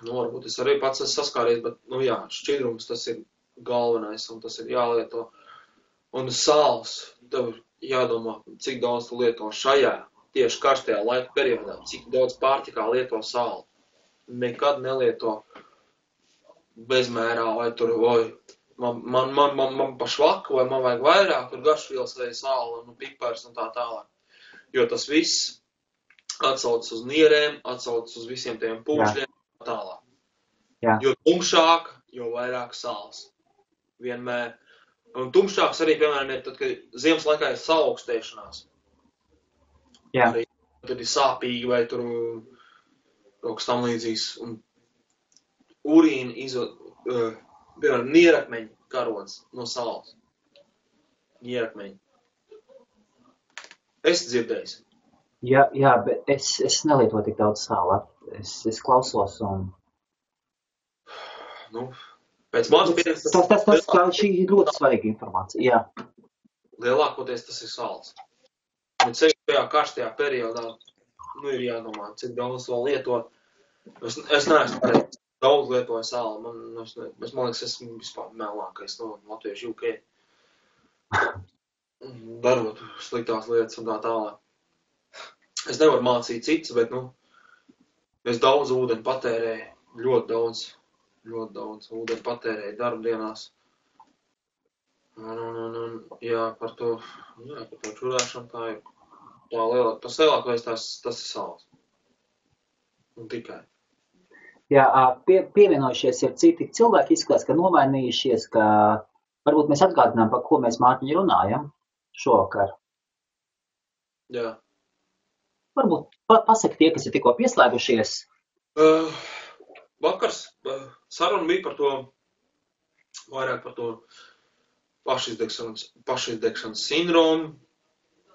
B: varbūt es arī pats esmu saskāries, bet, jā, šķidrums tas ir galvenais un tas ir jālieto. Un sāls, tev jādomā, cik daudz tu lieto šajā, tieši karstajā laika periodā, cik daudz pārtikā lieto sāli. Nekad nelieto bezmērā vai tur, man pa švaku vai man vajag vairāk, tur garšvielas vai sāli un pipars un tā tālāk. Jo tas viss atsaucas uz nierēm, atsaucas uz visiem tiem pūšļiem un tālāk.
A: Jā.
B: Jo tumšāk, jo vairāk sāls. Vienmēr. Un tumšāks arī, piemēram, ir tad, kad ziemas laikā ir saaugstēšanās.
A: Jā.
B: Arī tad ir sāpīgi vai tur kaut kas tam līdzīgs. Un urīna izvod, piemēram, nierakmeņi karods no sāls. Nierakmeņi. Es dzirdējis.
A: Jā, bet es nelietoju tik daudz sāla. Es klausos un...
B: Pēc manas pieredzes...
A: Tas šī ir ļoti svarīga informācija, jā.
B: Lielākoties tas ir sāls. Un ceļ tajā karstajā periodā, ir jādomā, cik daudz to lieto. Es neesmu daudz lietoju sāli. Man liekas, esmu vispār melākais no latviešu UK. Darot sliktās lietas un tā tālāk. Es nevaru mācīt citus, bet, es daudz ūdeni patērēju, ļoti daudz ūdeni patērēju darbdienās. Jā, par to čurāšanu tā ir. Tas lielākais tas ir sāls. Un tikai.
A: Jā, pievienojušies ir citi cilvēki, izskatās, ka nomainījušies, ka varbūt mēs atgādinām, par ko mēs, Mārtiņ, runājam šovakar.
B: Jā.
A: Varbūt pasaka tie, kas ir tikko pieslēgušies.
B: Vakars saruna bija par to, vairāk par to pašizdegšanas sindromu,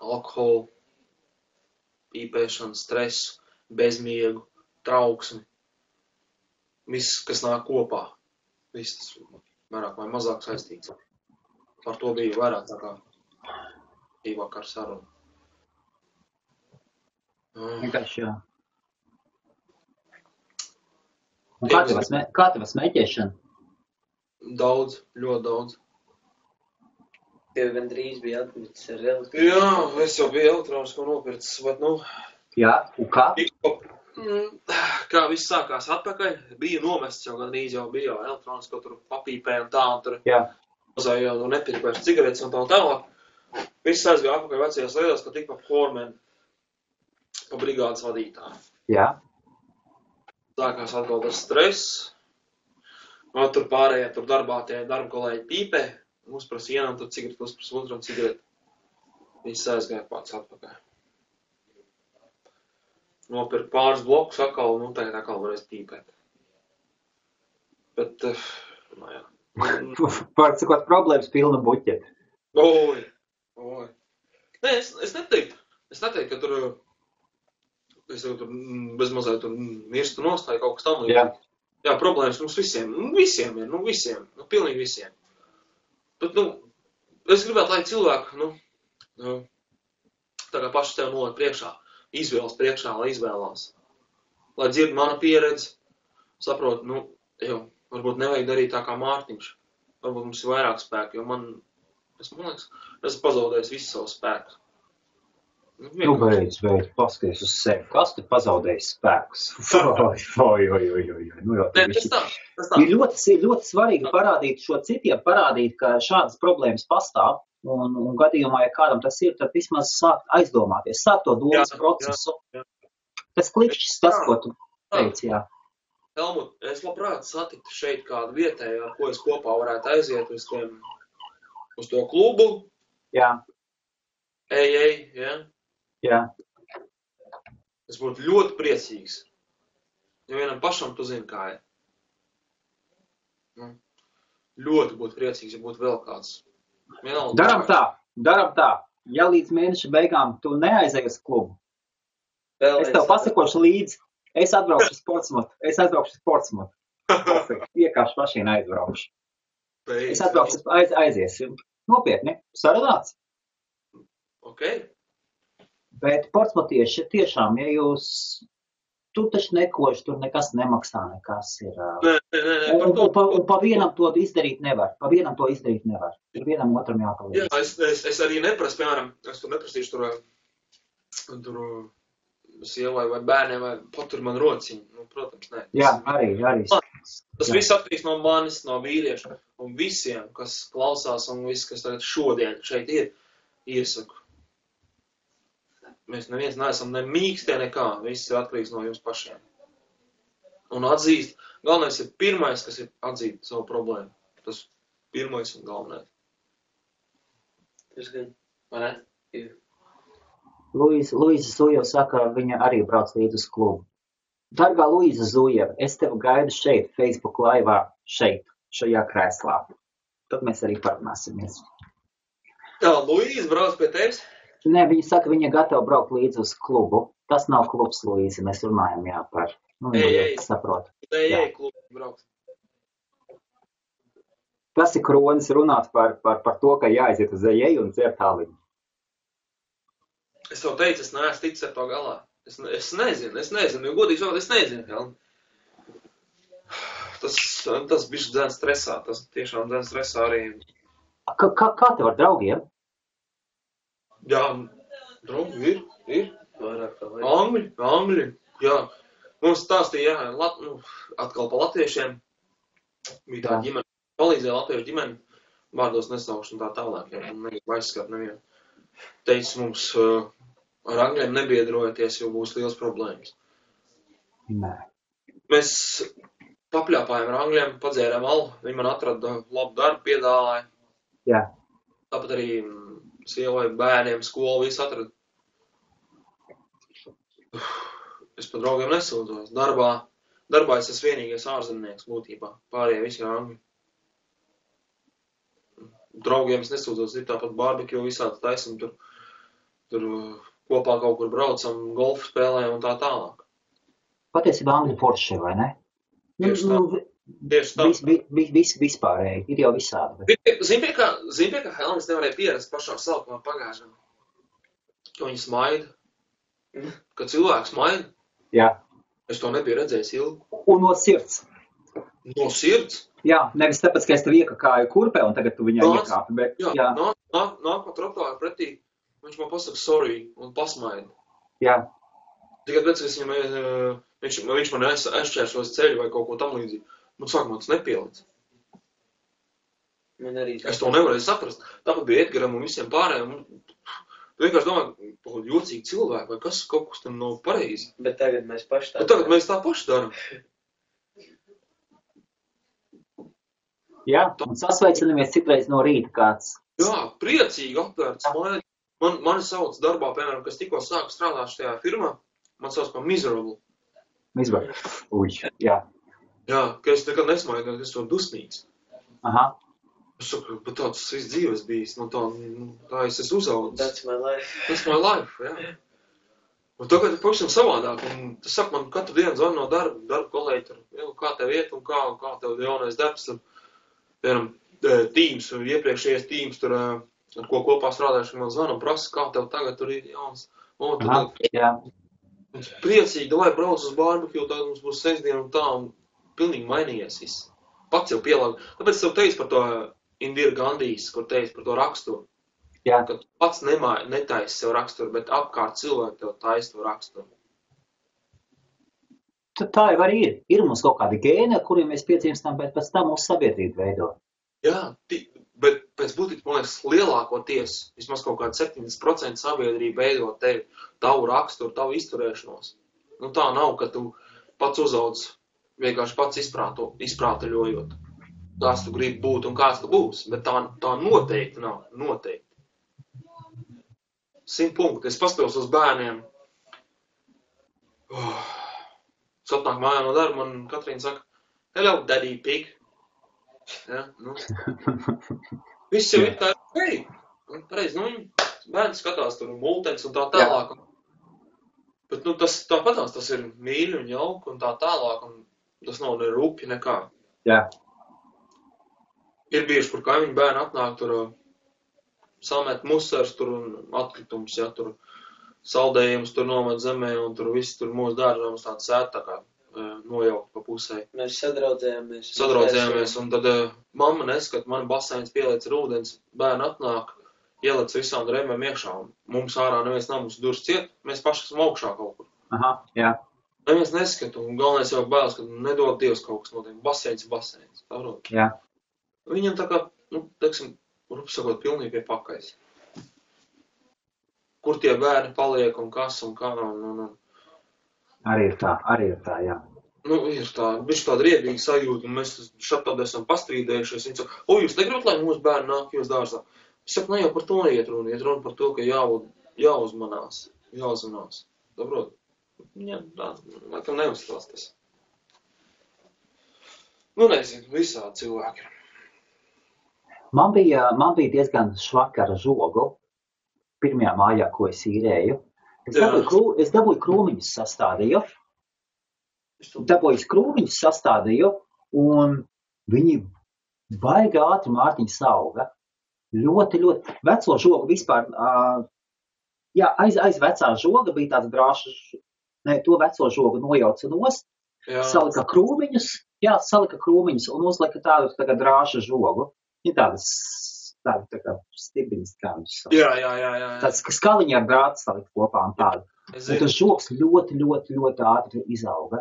B: alkoholu, pīpēšanu, stresu, bezmiegu, trauksmi. Viss, kas nāk kopā. Viss tas vairāk vai mazāk saistīts. Par to bija vairāk tā kā vakar saruna.
A: Vienkārši jā. Un kā tev smēķēšana?
B: Daudz, ļoti daudz.
C: Tev gandrīz bija atmicis ar elektroniku.
B: Jā, es jau biju elektronisko nopircis, bet
A: Jā, un kā?
B: Kā viss sākās atpakaļ, bija nomests jau gandrīz jau bija jau elektronisko tur papīpē un tā, un tur mazāja jau nepirka vairs cigaretes un tā tālāk. Viss aizgāja atpakaļ vecajās lietās, ka tik pa formēm, pa brigādes vadītāju.
A: Jā.
B: Sākās atkal tas stress, un tur pārējie tur darbā tie darba kolēģi pīpē, uzprasa vienam tur cigareti, uzprasa otram cigareti. Viss aizgāja pats atpakaļ. Nopirka pāris blokus atkal, un tagad atkal varēs pīpēt. Bet, jā.
A: Pārcikot problēmas pilna buķeta.
B: Oi. Nē, es neteiktu, ka tur, es tur bezmazliet tur mirstu nostāju kaut kas tam. Jā, problēmas mums visiem ir, pilnīgi visiem. Bet, es gribētu, lai cilvēki, tā kā paši tev noliek priekšā, izvēlas priekšā, lai izvēlās. Lai dzird mana pieredze, saprot, varbūt nevajag darīt tā kā Mārtiņš. Varbūt mums ir vairāk spēku, jo man liekas, esmu pazaudējis visu savu spēku.
A: Beidz, paskaties uz sevi. Kas te pazaudējis spēkus?
B: Tas tā.
A: Ir ļoti svarīgi parādīt, ka šādas problēmas pastāv. Un gadījumā, ja kādam tas ir, tad vismaz sākt aizdomāties, sākt to domas procesu.
B: Jā.
A: Tas klikšķis, tas, ko tu teici, jā.
B: Helmut, es labprāt satiktu šeit kādu vietēju, ar ko es kopā varētu aiziet uz to klubu.
A: Jā.
B: Jā.
A: Jā.
B: Es būtu ļoti priecīgs. Ja vienam pašam tu zini, kā ir. Ļoti būtu priecīgs, ja būtu vēl kāds.
A: Daram tā. Ja līdz mēneša beigām tu neaizēji uz klubu, es tev pasakošu līdzi, es atbraukšu uz Portsmutu. Vienkārši mašīnu aizbraukšu. Es atbraukšu, aiziesim. Nopietni, sarunāts.
B: Ok.
A: Bet portsmutieši tiešām, ja tu taču nekoši, tur nekas nemaksā, nekas ir. Un pa vienam to izdarīt nevar. Ir vienam otram jāpalīdz.
B: Jā, es arī neprasu, piemēram, es tur neprasīšu tur sievai vai bērniem, vai patur man rociņu. Protams, nē.
A: Jā, arī.
B: Tas viss atkarīgs no manis, no vīrieša, un visiem, kas klausās, un viss, kas tagad šodien šeit ir, iesaku. Mēs neviens neesam ne mīkstie nekā, viss ir atkarīgs no jums pašiem. Un atzīst, galvenais ir pirmais, kas ir atzīt savu problēmu. Tas pirmais un galvenais.
C: Tas gan.
B: Vai ne?
C: Jā.
A: Luīza Zujeva saka, viņa arī brauc līdz uz klubu. Dargā Luīza Zujeva, es tevi gaidu šeit, Facebook laivā, šajā krēslā. Tad mēs arī parunāsimies.
B: Jā, Luīza brauc pie tevis?
A: Nē, viņa saka, viņa gatava braukt līdz uz klubu. Tas nav klubs, Luīza, mēs runājam, par... saprotu.
B: Klubu braukt.
A: Tas ir kronis runāt par to, ka jāaiziet uz ejēju un dzert aliņu.
B: Es tev teicu, es neesmu ticis ar to galā. Es nezinu, jo godīgi sakot, es nezinu, Helm. Tas bišķi dzēn stresā, tas tiešām dzēn stresā arī.
A: Kā tev ar draugiem?
B: Jā, draugi ir.
C: Vairāk tā vajag.
B: Angļi, jā. Mums stāstīja, atkal pa latviešiem. Bija tā ģimene, palīdzēja latviešu ģimeni, vārdos nesaukšu un tā tālāk, ja negribu aizskart nevienu. Teica mums, ar angļiem nebiedrojoties, jo būs liels problēmas.
A: Nē.
B: Mēs papļāpājām ar angļiem, padzērām alu, viņi man atrada labu darbu, piedāvāja.
A: Jā.
B: Tāpat arī sievai, bērniem, skolu, visu atrada. Es par draugiem nesūdzos. Darbā es esmu vienīgais ārzemnieks būtībā. Pārējie visi ir angļi. Draugiem es nesūdzos, ir tāpat barbekju visādi taisam, tur kopā kaut kur braucam, golfu spēlējam un tā tālāk.
A: Patiesībā angļu forši, vai ne?
B: Tieši tā.
A: Vispārēji, ir jau visādi.
B: Zini, pie kā Helmas nevarēja pierast pašā sākumā pagājušajā. Ka viņi smaida. Kad cilvēks maina,
A: Jā.
B: es to nebiju redzējis ilgi.
A: Un no sirds.
B: No sirds?
A: Jā, nevis tāpēc, ka es tev iekakāju kurpē un tagad tu viņā iekāpi, bet jā.
B: Nāk pa trotuāru pretī, viņš man pasaka sorry un pasmaida.
A: Jā.
B: Tikai pēc, ka viņš man aizšķēršos ceļu vai kaut ko tam līdzīgi. Man sākumā tas nepielic. Es to nevarēju saprast. Tāpat bija Edgaram un visiem pārējiem. Tu vienkārši domā, jocīgi cilvēki, vai kas kaut kas tam nav pareizi.
C: Bet tagad mēs paši tā.
B: Bet tagad mēs tā paši daram.
A: Jā, un sasveicinamies citreiz no rīta kāds.
B: Jā, priecīgi apvērts. Mani sauc darbā, piemēram, kas tikko sāku strādāt šajā firmā, man sauc par miserable.
A: Miserable. Uj, jā.
B: Jā, ka es nekad nesmaidu, ka es to dusmīgs.
A: Aha.
B: Es saku, bet tāds viss dzīves bijis, tā es esmu uzaudzis.
C: That's my life.
B: That's my life, jā. Un tagad ir pavisam savādāk, un tas saka, man katru dienu zvana no darba kolēģi tur, kā tev iet un kā tev jaunais darbs, tur, piemēram, tīms, iepriekšējais tīms, tur, ar ko kopā strādājuši, man zvana un prasa, kā tev tagad tur ir jauns.
A: Aha, jā.
B: Priecīgi, lai brauc uz barbecue, tagad mums būs sestdiena un tā, un pilnīgi mainījies viss. Pats jau pielāgu. Tāpēc tev teicu par to Indira Gandhijas, kur teicu par to raksturu.
A: Jā.
B: Ka tu pats netaisi sev raksturu, bet apkārt cilvēki tev taisa to raksturu.
A: Tā jau arī ir. Ir mums kaut kādi gēni, ar kuriem mēs piedzimstam, bet pēc tam mūsu sabiedrība veido.
B: Jā, bet pēc būtības, man liekas, lielākoties, vismaz kaut kāda 70% sabiedrība veido tevi, tavu raksturu, tavu izturēšanos. Tā nav, ka tu pats uzauc vienkārši pats izprātaļojot, kāds tu gribi būt un kāds tu būsi, bet tā noteikti nav, noteikti. 100 punkti. Es paskatos uz bērniem. Sapnāk mājā no darba, man Katrīna saka, hello, daddy pig. Ja, Viss jau ir tā, hei, pareizi, bērns skatās tur multens un tā tālāk. Bet, tāpatās tas ir mīļi un jauki un tā tālāk, un tas nav ne rupi, nekā.
A: Jā.
B: Ir bieži, kur kaimiņu bērni atnāk tur samet musars tur un atkritums, ja, tur saldējums tur nomet zemē un tur viss tur mūsu dārzā mums tāds sēt tā kā nojaukt pa pusē.
C: Mēs sadraudzējāmies.
B: Un tad mamma neskat, man baseins pieliec ar ūdens, bērni atnāk, ielec visām drēmēm iekšā un mums ārā neviens nav mums durs ciet, mēs paši esam augšā kaut kur.
A: Aha, jā.
B: Neviens neskat un galvenais jau bēlas, ka nedod Dievs kaut kas notiek. Baseins.
A: Jā.
B: Viņam tā kā, teiksim, rupsakot pilnīgi pie pakais. Kur tie bērni paliek un kas un kā
A: Arī ir tā, jā.
B: Ir tā, viņš tāda riebīga sajūta, un mēs šādi esam pastrīdējušies. Viņi saka, jūs negribat, lai mūsu bērni nāk jūs dārzā? Es saku, ne jau par to iet runa par to, ka jāuzmanās. Saprot? Jā, tā, laikam neuzstās tas. Nezinu, visādi cilvēki.
A: Man bija diezgan švaka ar žogu pirmajā mājā, ko es īrēju. Es dabūju krūmiņus sastādīju. Un viņi baigi ātri Mārtiņa sauga. Ļoti, ļoti. Veco žogu vispār, aiz vecā žoga bija tāds drāšs, to veco žogu nojauca nost, salika krūmiņus un uzlika tādu tā kā drāša žogu. Ir tādas tā kā stibiņas, kā viņš sauc.
B: Jā.
A: Tāds skaliņi ar drātu salikt kopā un tādu. Un tas žogs ļoti, ļoti, ļoti ātri izauga.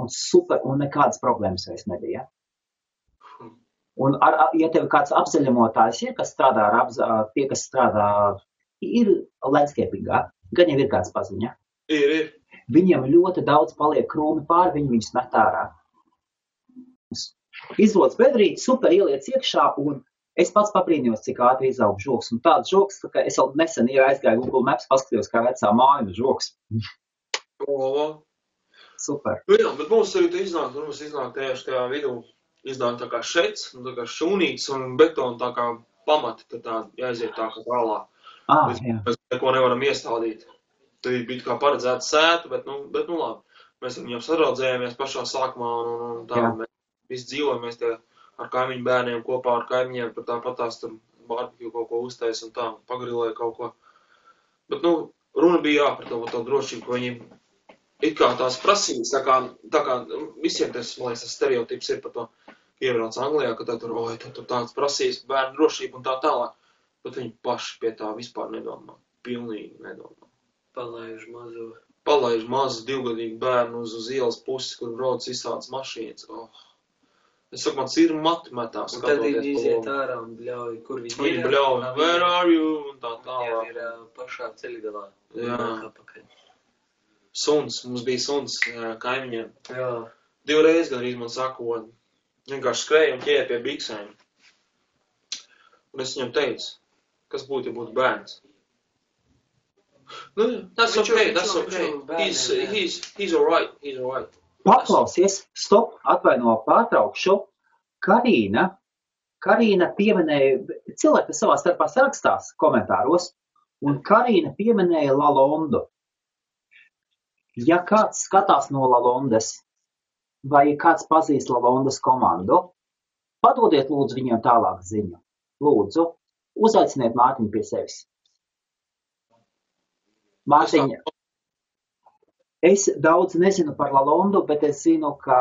A: Un super, un nekādas problēmas vairs nebija. Un, ja tev kāds apzaļamotājs ir, kas strādā tie, kas strādā, ir landscapingā, gan jau ir kāds paziņa.
B: Ir.
A: Viņiem ļoti daudz paliek krūmi pāri, viņi viņus met ārā. Izrodas bedrīt, super ieliec iekšā, un es pats pabrīnījos, cik ātri izaug žogs. Un tāds žogs, ka es jau nesen aizgāju Google Maps, paskatījos, kā vecā māja žogs. Super.
B: Jā, bet mums arī iznāk tieši tajā vidū, iznāk tā kā šets, tā kā šūnīts un betona tā kā pamati, tad tā jāiziet tā kā tālā. Mēs neko nevaram iestādīt. Tad bija kā paredzēts sētu, bet labi. Mēs viņam sadraudzējāmies pašā sākumā un tā. Mēs visi dzīvojamies tie ar kaimiņu bērniem kopā ar kaimiņiem, tāpatās tur barbecue kaut ko uztais un tā, pagrilēja kaut ko. Bet, runa bija par to drošību, ka viņi it kā tās prasības, tā kā visiem tas, man liekas, stereotips ir par to, ka iebrauc Anglijā, ka tur tāds prasības, bērnu drošība un tā tālāk, bet viņi paši pie tā vispār nedomā, pilnīgi nedomā. Palaiž mazu 2-gadīgu bērnu uz ielas pusi, kur brauc visādas mašīnas. Es saku, man ir matmetās.
C: Un tad viņi iziet ārā un bļauj, kur viņi ir.
B: Viņi bļauj, where are you? Un tā tālāk.
C: Viņi ir pašā ceļgalā.
B: Jā. Suns, mums bija suns kaimiņiem.
C: Jā.
B: 2 reizes gandrīz man saka, vienkārši skrēja un ķēja pie biksēm. Un es viņam teicu, kas būtu, ja būtu bērns. That's okay. He's alright.
A: Paklausies, stop, atvaino pārtraukšu. Karīna pieminēja, cilvēki savā starpā sarakstās komentāros, un Karīna pieminēja Lalondu. Ja kāds skatās no Lalondas, vai kāds pazīst Lalondas komandu, padodiet lūdzu viņiem tālāk ziņu. Lūdzu, uzaiciniet Mārtiņu pie sevis. Mārtiņa, es daudz nezinu par Lalondu, bet es zinu, ka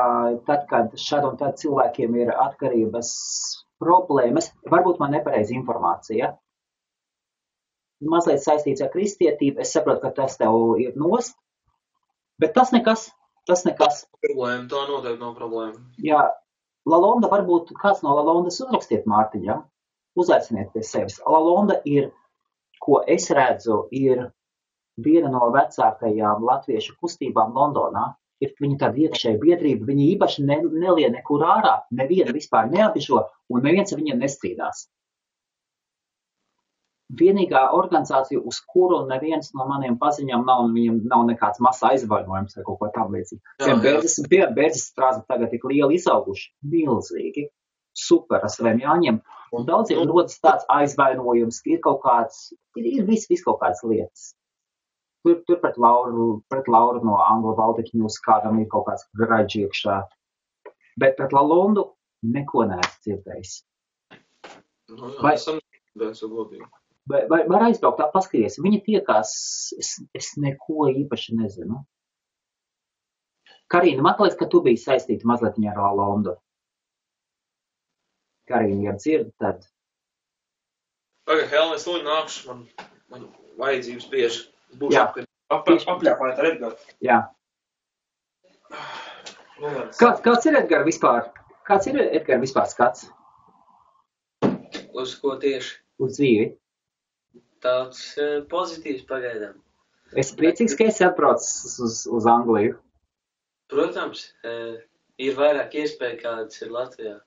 A: tad, kad šad un tad cilvēkiem ir atkarības problēmas, varbūt man nepareiz informācija, mazliet saistīts ar kristietību, es saprotu, ka tas tev ir nost, bet tas nekas.
B: Problēma, tā noteikti nav problēma.
A: Jā, Lalonda, varbūt kāds no Lalondas uzrakstiet Mārtiņam, uzaiciniet pie sevis. Lalonda ir, ko es redzu, ir viena no vecākajām latviešu kustībām Londonā. Ir viņa tāda iekšēja biedrība, viņi īpaši nelien nekur ārā, neviena vispār neapišo, un neviens ar viņiem nestrīdās. Vienīgā organizācija, uz kuru neviens no maniem paziņām viņam nav nekāds masa aizvainojums vai kaut ko tam līdzīgi. Bērdzes strāzi tagad tik lieli izauguši, milzīgi, super ar saviem jāņem, un daudziem rodas tāds aizvainojums, ka ir kaut kāds, ir viss kaut kādas lietas. Tur pret Lauru no Anglu Baltic News kādam ir kaut kāds graģi iekšā. Bet pret Lalondu neko neesmu dzirdējis. Vai var aizbraukt tā paskaties? Viņi tiekās, es neko īpaši nezinu. Karīna, man liekas, ka tu biji saistīta mazliet ar Lalondu. Karīna, ja dzird, tad...
B: Pagaid, Helēn, es lūdzu nākšu, man vajadzības bieži. Būšu apļāpājot ar Edgaru.
A: Jā. Kāds ir Edgara vispār? Kāds ir Edgara vispār skats?
C: Uz ko tieši?
A: Uz dzīvi.
C: Tāds pozitīvs pagaidām.
A: Es priecīgs, ka esi atbraucis uz Angliju.
C: Protams, ir vairāk iespēja, kādas ir Latvijā.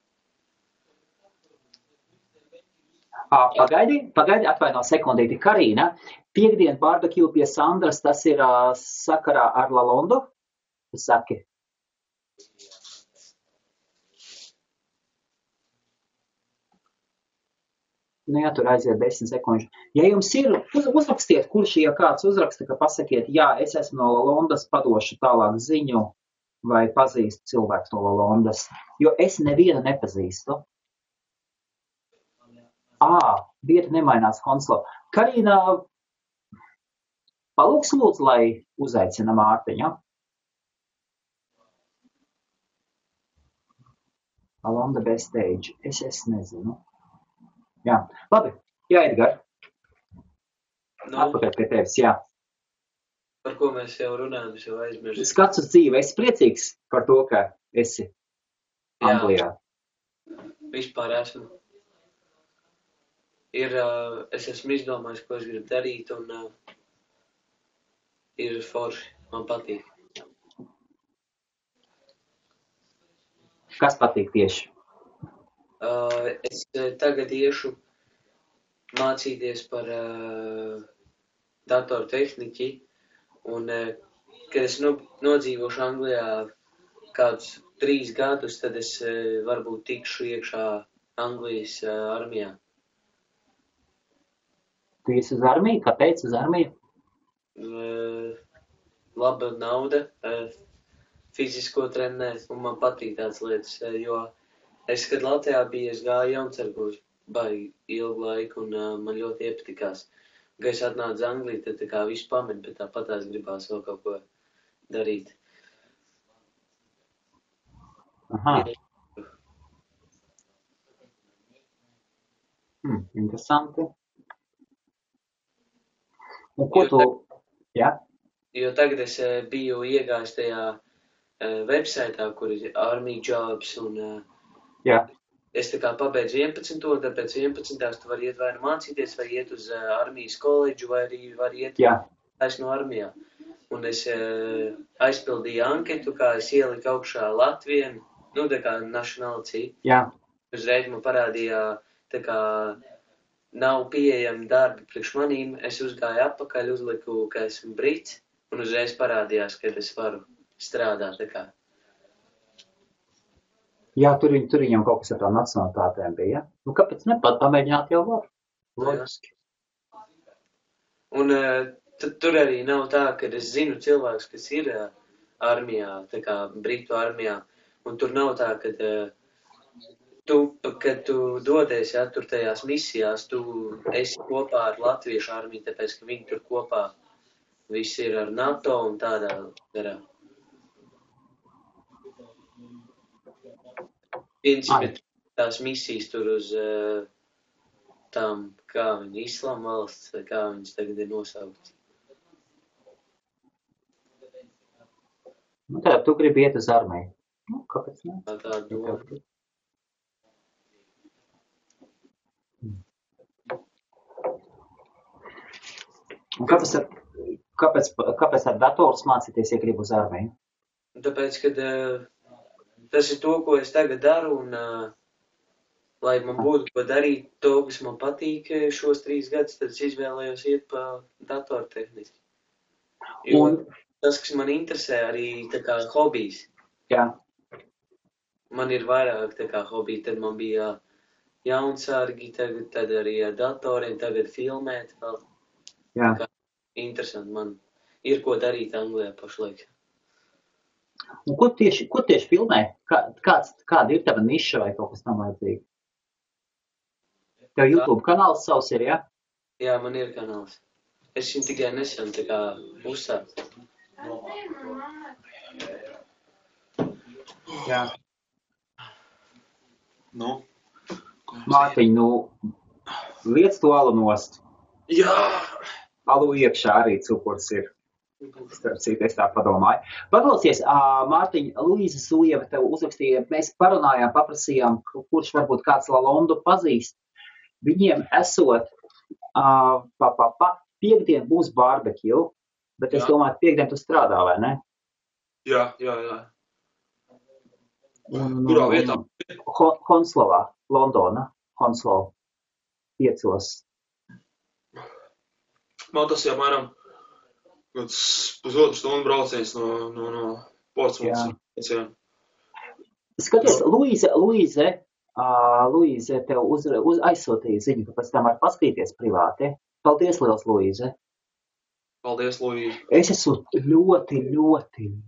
A: Pagaidi, atvaino sekundīti. Karīna, piekdien barbecue pie Sandras, tas ir sakarā ar Lalondu? Saki. Nu jā, tur aiziet 10 sekundžu. Ja jums ir, uzrakstiet, kurš, ja kāds uzraksta, ka pasakiet, jā, es esmu no Lalondas, padošu tālāk ziņu, vai pazīstu cilvēku no Lalondas, jo es nevienu nepazīstu. Vieta nemainās Honslo. Karīna, palūks lūdzu, lai uzaicina Mārtiņu. Lalonda backstage. Es nezinu. Jā, labi. Jā, Edgar. Atpakaļ pie tevis, jā.
C: Par ko mēs jau runājam, es jau aizmirstu.
A: Skats uz dzīvi. Es priecīgs par to, ka esi Anglijā.
C: Vispār esmu. Es esmu izdomājis, ko es gribu darīt, un ir forši. Man patīk.
A: Kas patīk tieši?
C: Es tagad iešu mācīties par datortehniķi, un kad es nodzīvošu Anglijā kādus 3 gadus, tad es varbūt tikšu iekšā Anglijas armijā.
A: Tu esi uz armiju? Kāpēc uz armiju?
C: Laba nauda, fizisko trenēt, un man patīk tādas lietas, jo es, kad Latvijā biju, es gāju jaunsargos baigi ilgu laiku, un man ļoti iepatikās. Kad es atnācu uz Angliju, tad tā kā visu pamet, bet tāpatās gribās vēl kaut ko darīt.
A: Aha. Interesanti. Un ko tu... Jā?
C: Jo tagad es biju iegājis tajā websaitā, kur ir Army Jobs, un
A: Jā.
C: es tā kā pabeidzu 11. Tad pēc 11. tu vari iet vai nu mācīties, vai iet uz armijas koledžu, vai arī vari iet no armijā. Un es aizpildīju anketu, kā es ieliku augšā Latviju, nu tā kā nationality.
A: Jā.
C: Uzreiz man parādīja, tā kā nav pieejami darbi priekš manīm, es uzgāju atpakaļ, uzliku, ka esmu brits, un uzreiz parādījās, ka es varu strādāt, tā kā.
A: Jā, tur viņam kaut kas ar tām nacionalitātēm bija, ja? Nu, kāpēc pamēģināt jau var? Logiski.
C: Un tur arī nav tā, ka es zinu cilvēks, kas ir armijā, tā kā Britu armijā, un tur nav tā, kad tu dodies, ja, tur tajās misijās, tu esi kopā ar latviešu armiju, tāpēc, ka viņi tur kopā visi ir ar NATO un tādā garā. Principi tās misijas tur uz tām, kā viņi, Islama valsts, vai kā viņas tagad ir nosaukts.
A: Nu tā, tu gribi iet uz armiju. Nu, kāpēc ne?
C: Tā doma.
A: Un kāpēc ar datorus mācīties, ja gribi uz armiju?
C: Tāpēc, kad tas ir to, ko es tagad daru, un lai man būtu ko darīt, to, kas man patīk šos 3 gadus, tad es izvēlējos iet pa datortehniku. Jo tas, kas man interesē, arī tā kā hobijs.
A: Jā.
C: Man ir vairāk tā kā hobiji, tad man bija jaunsārgi, tad arī ar datoriem, tagad filmēt vēl.
A: Jā.
C: Interesanti, man ir ko darīt Anglijā pašlaik.
A: Un ko tieši filmē? Kāda ir tava niša vai kaut kas tam vajadzīgi? Tev YouTube kanāls savs ir, ja?
C: Jā, man ir kanāls. Es viņu tikai nesen tā kā uzsācu.
A: Jā.
B: Nu?
A: Mārtiņ, liec to alu nost.
B: Jā!
A: Alu iekšā arī cukurs ir. Starp citu, es tā padomāju. Paklausies, Mārtiņ, Luīza Sujeva tev uzrakstīja, mēs parunājām, paprasījām, kurš varbūt kāds Lalondu pazīst. Viņiem esot, piekdien būs barbecue, bet es domāju, piekdien tu strādā, vai ne?
B: Jā. Kurā vietā?
A: Honslovā, Londona, Honslow, 5.
B: Man tas jau mēram pusotru stundu brauciens no Portsmouths.
A: Skaties, Luīze tev aizsūtīja ziņu, ka pēc tam var paskatīties privāti. Paldies, liels, Luīze.
B: Paldies, Luīze.
A: Es esmu ļoti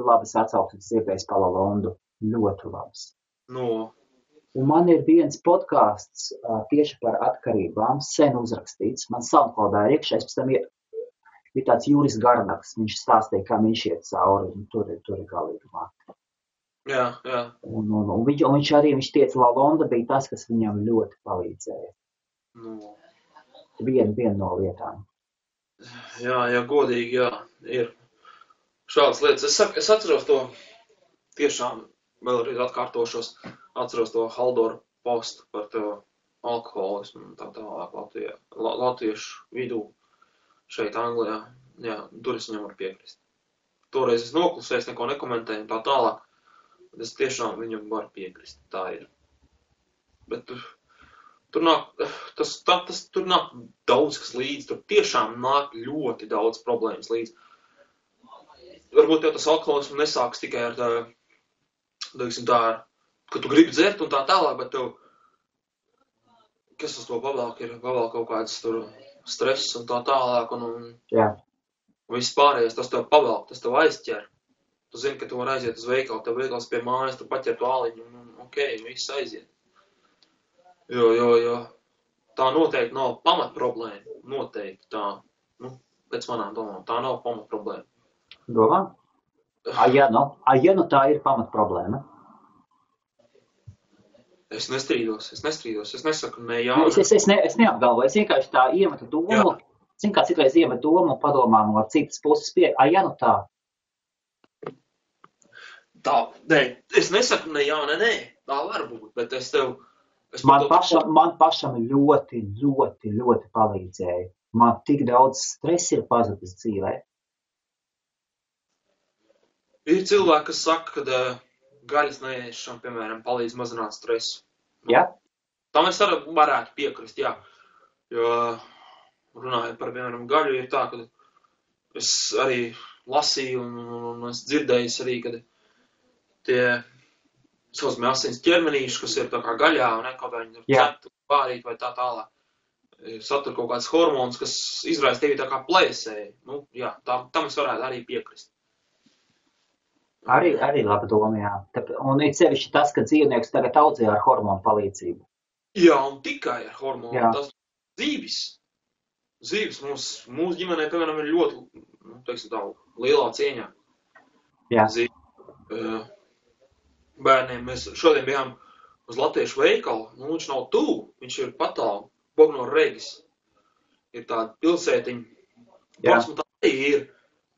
A: labas atsauksmes dzirdējis par Lalondu. Ļoti labas.
B: No.
A: Un man ir viens podcasts tieši par atkarībām, sen uzrakstīts. Man SoundCloudā ir iekšā, pēc tam ir tāds Juris Garnaks, viņš stāstīja, kā viņš iet cauri, un tur ir galīgi mati.
B: Jā.
A: Un viņš teica, Lalonda bija tas, kas viņam ļoti palīdzēja.
B: No.
A: Viena no lietām.
B: Jā, godīgi, jā, ir šādas lietas. Es atceros to, tiešām vēlreiz atkārtošos, atceros to Haldoru postu par to alkoholismu un tā tālāk latviešu vidū šeit Anglijā. Jā, tur es viņam varu piekrist. Toreiz es noklusēju, neko nekomentēju un tā tālāk. Es tiešām viņam varu piekrist, tā ir. Bet tur nāk daudz kas līdzi, tur tiešām nāk ļoti daudz problēmas līdzi. Varbūt jau tas alkoholismu nesāks tikai ar ka tu gribi dzert un tā tālāk, bet tev, kas uz to pavēlāk ir, kaut kāds tur stress un tā tālāk un viss pārējais, tas tev pavēlāk, tas tev aizķer. Tu zini, ka tu vari aiziet uz veikalu, tev veikals pie mājas, tu paķer to āliņu un viss aiziet. Jo tā noteikti nav pamatproblēma. Noteikti tā, pēc manām domām, tā nav pamatproblēma.
A: Domā? Ja nu tā ir pamatproblēma?
B: Es nestrīdos. Es nesaku ne jā.
A: Es neapgalvoju, es vienkārši tā iemetu domu. Zin, kā citreiz iemetu domu un padomā no citas puses ja nu tā.
B: Tā, nē, es nesaku ne jā, ne nē. Tā var būt, bet es tev...
A: Man pašam ļoti, ļoti, ļoti palīdzēja. Man tik daudz stresa ir pazudis dzīvē.
B: Ir cilvēki, kas saka, ka gaļas neēšana, piemēram, palīdz mazināt stresu.
A: Ja?
B: Tam es varētu piekrist, jā. Jo runājot par, piemēram, gaļu, ir tā, ka es arī lasīju un es dzirdēju arī, ka tie saucamie asins ķermenīši, kas ir tā kā gaļā, un kaut kā viņi ir cepti, pārīt vai tā tālāk, satur kaut kāds hormons, kas izraisa tevi tā kā plēsēji. Jā, tam es varētu arī piekrist.
A: Arī laba doma, jā. Un ir sevišķi tas, ka dzīvnieks tagad audzē ar hormonu palīdzību.
B: Jā, un tikai ar hormonu.
A: Jā.
B: Tas zīvis. Zīvis mūsu ģimenē, piemēram, ir ļoti, teiksim tā, lielā cieņā.
A: Jā.
B: Bērniem mēs šodien bijām uz latviešu veikalu. Viņš nav tuvu, viņš ir patālu. Bognor Regis. Ir tāda pilsētiņa. Plasma tā ir.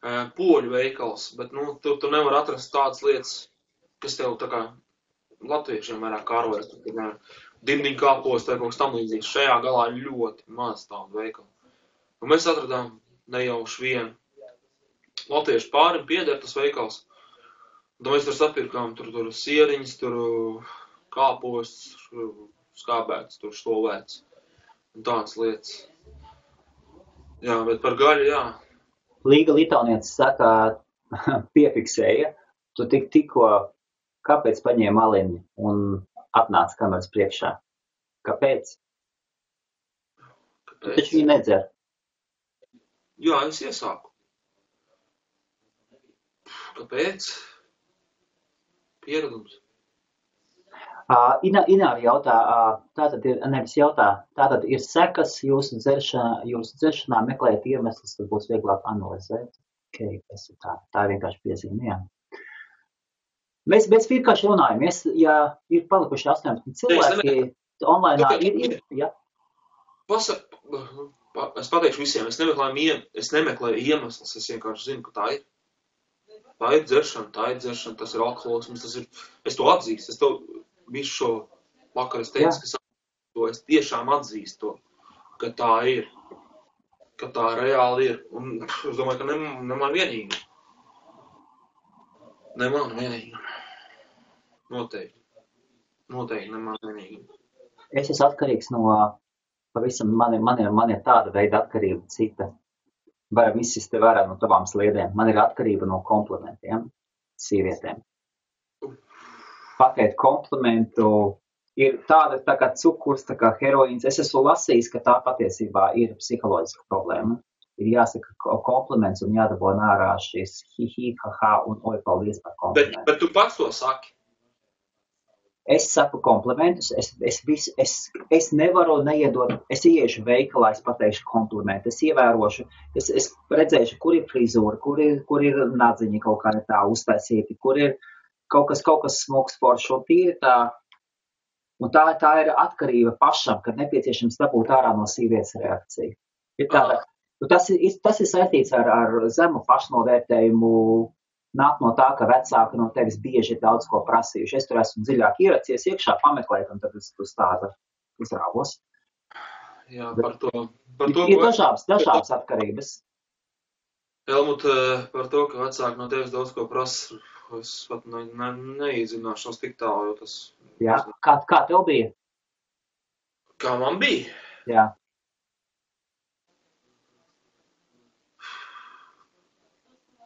B: Poļu veikals, bet, tu nevar atrast tādas lietas, kas tev tā kā latviešiem vairāk kārojas. Dimdiņu kāpos, tā kaut kas tam līdzīgs. Šajā galā ir ļoti maz tādu veikalu. Un mēs atradām nejauši vienu latviešu pārim pieder tas veikals. Un mēs tur sapirkām, tur sieriņas, tur kāpos, skābēts, tur šlovēts. Un tādas lietas. Jā, bet par gaļu, jā.
A: Līga Litaunietis saka, piefiksēja, tu tikko, kāpēc paņēma aliņu un atnāca kameras priekšā? Kāpēc? Tu taču viņu nedzer.
B: Jā, es iesāku. Kāpēc? Pieredums.
A: Ināri jautā, tātad ir sekas jūsu dzeršanā meklēt iemeslus, tad būs vieglāk analizēt. Okay, tā ir vienkārši piezīme, jā. Mēs vienkārši runājamies, ja ir palikuši 18 cilvēki, online ir, jā.
B: Es pateikšu visiem, es nemeklēju iemeslus, es vienkārši zinu, ka tā ir. Tā ir dzeršana, tas ir alkoholisms, es to atzīstu, es to visu šo vakaru es teicu, ka es tiešām atzīstu to, ka tā ir, ka tā reāli ir. Un es domāju, ka ne man vienīgi. Ne man vienīgi. Noteikti ne man vienīgi.
A: Es esmu atkarīgs no pavisam, man ir tāda veida atkarība cita. Varam izsist te vērā no tavām sliedēm. Man ir atkarība no komplimentiem sievietēm. Pateikt komplimentu ir tāda tā kā cukurs, tā kā heroīns. Es esmu lasījis, ka tā patiesībā ir psiholoģiska problēma. Ir jāsaka kompliments un jādabū ārā šis hi, ha, un oi, paldies par komplimentu.
B: Bet tu pats to saki?
A: Es saku komplimentus, es nevaru neiedot, es ieiešu veikalā, es pateikšu komplimentu, es ievērošu, es redzēšu, kur ir frizūra, kur ir nadziņi kaut kā tā uztaisīti, kur ir kaut kas smuks foršs, un tīri tā, un tā ir atkarība pašam, kad nepieciešams dabūt ārā no sievietes reakciju. Ir tāda, tas ir saistīts ar zemu pašnovērtējumu, nāk no tā, ka vecāki no tevis bieži ir daudz ko prasījuši. Es tur esmu dziļāk ieracies iekšā pameklēt, un tad es uz tāda uzrāvos.
B: Jā, par to
A: ir dažādas atkarības.
B: Helmut, par to, ka vecāki no tevis daudz ko prasa, es pat neiedzināšanos tik tālu, jo tas...
A: Jā, kā tev bija?
B: Kā man bija?
A: Jā.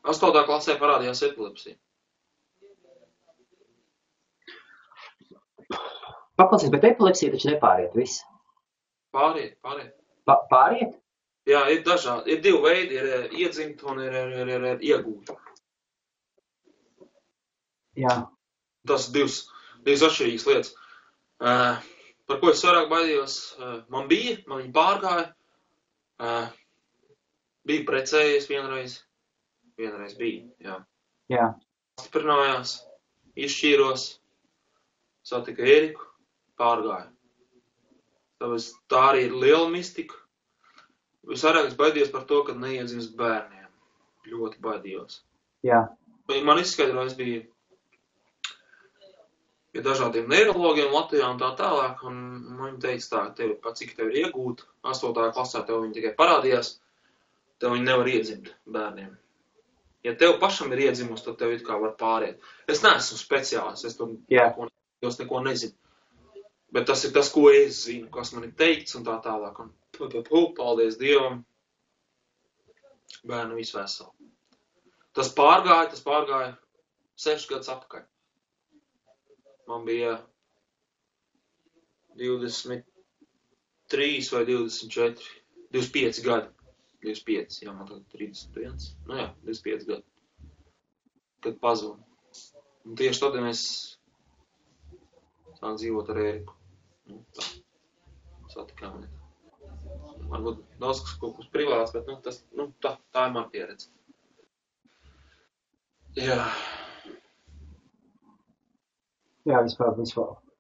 B: Astotā klasē parādījās epilepsija.
A: Paklausies, bet epilepsija taču nepāriet viss.
B: Pāriet.
A: Pāriet?
B: Jā, ir dažādi. Ir divi veidi, ir iedzimt un ir iegūt.
A: Jā.
B: Tas divas atšķirīgas lietas. Par ko es vairāk baidījos? Man viņa pārgāja. Biju precējies vienreiz. Vienreiz bija, jā.
A: Jā.
B: Stiprinājās, izšķīros, satika Ēriku, pārgāja. Tāpēc tā arī ir liela mistika. Visvairāk es baidījos par to, kad neiedzimst bērniem. Ļoti baidījos.
A: Jā.
B: Man izskaidroja, es biju pie dažādiem neirologiem Latvijā un tā tālāk, un viņi teica tā, cik tev ir iegūt, 8. klasē tev viņi tikai parādījās, tev viņi nevar iedzimt bērniem. Ja tev pašam ir iedzimus, tad tev it kā var pāriet. Es neesmu speciālists, es neko nezinu. Bet tas ir tas, ko es zinu, kas man ir teikts un tā tālāk. Un paldies Dievam, bērnu visu veselu. Tas pārgāja 6 gadus atpakaļ. Man bija 23 vai 24, 25 gadi. 25, jā, man tagad 31. Nu jā, 25 gadi. Kad pazudu. Un tieši tad mēs sākām dzīvot ar Ēriku. Nu, tā. Satikām. Varbūt daudz kas kaut kas privāts, bet tā ir man pieredze. Jā.
A: Jā, vispār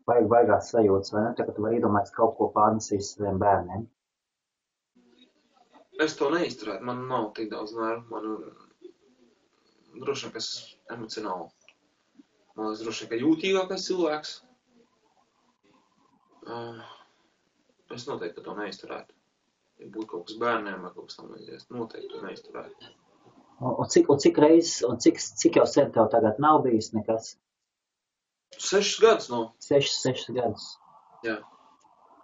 A: vajagās sajūtas, vai ne? Tagad tu vari iedomāties kaut ko pārnesīs saviem bērniem.
B: Es to neizturētu, man nav tik daudz nervu, man droši vien, ka es emocionāli. Man es droši vien, ka jūtīgākais cilvēks. Es noteikti to neizturētu. Ja būtu kaut kas bērniem vai kaut kas tam līdzīgs, noteikti to neizturētu.
A: Un cik reizes, un cik jau sen tev tagad nav bijis nekas?
B: 6 gadus nav.
A: 6 gadus.
B: Jā.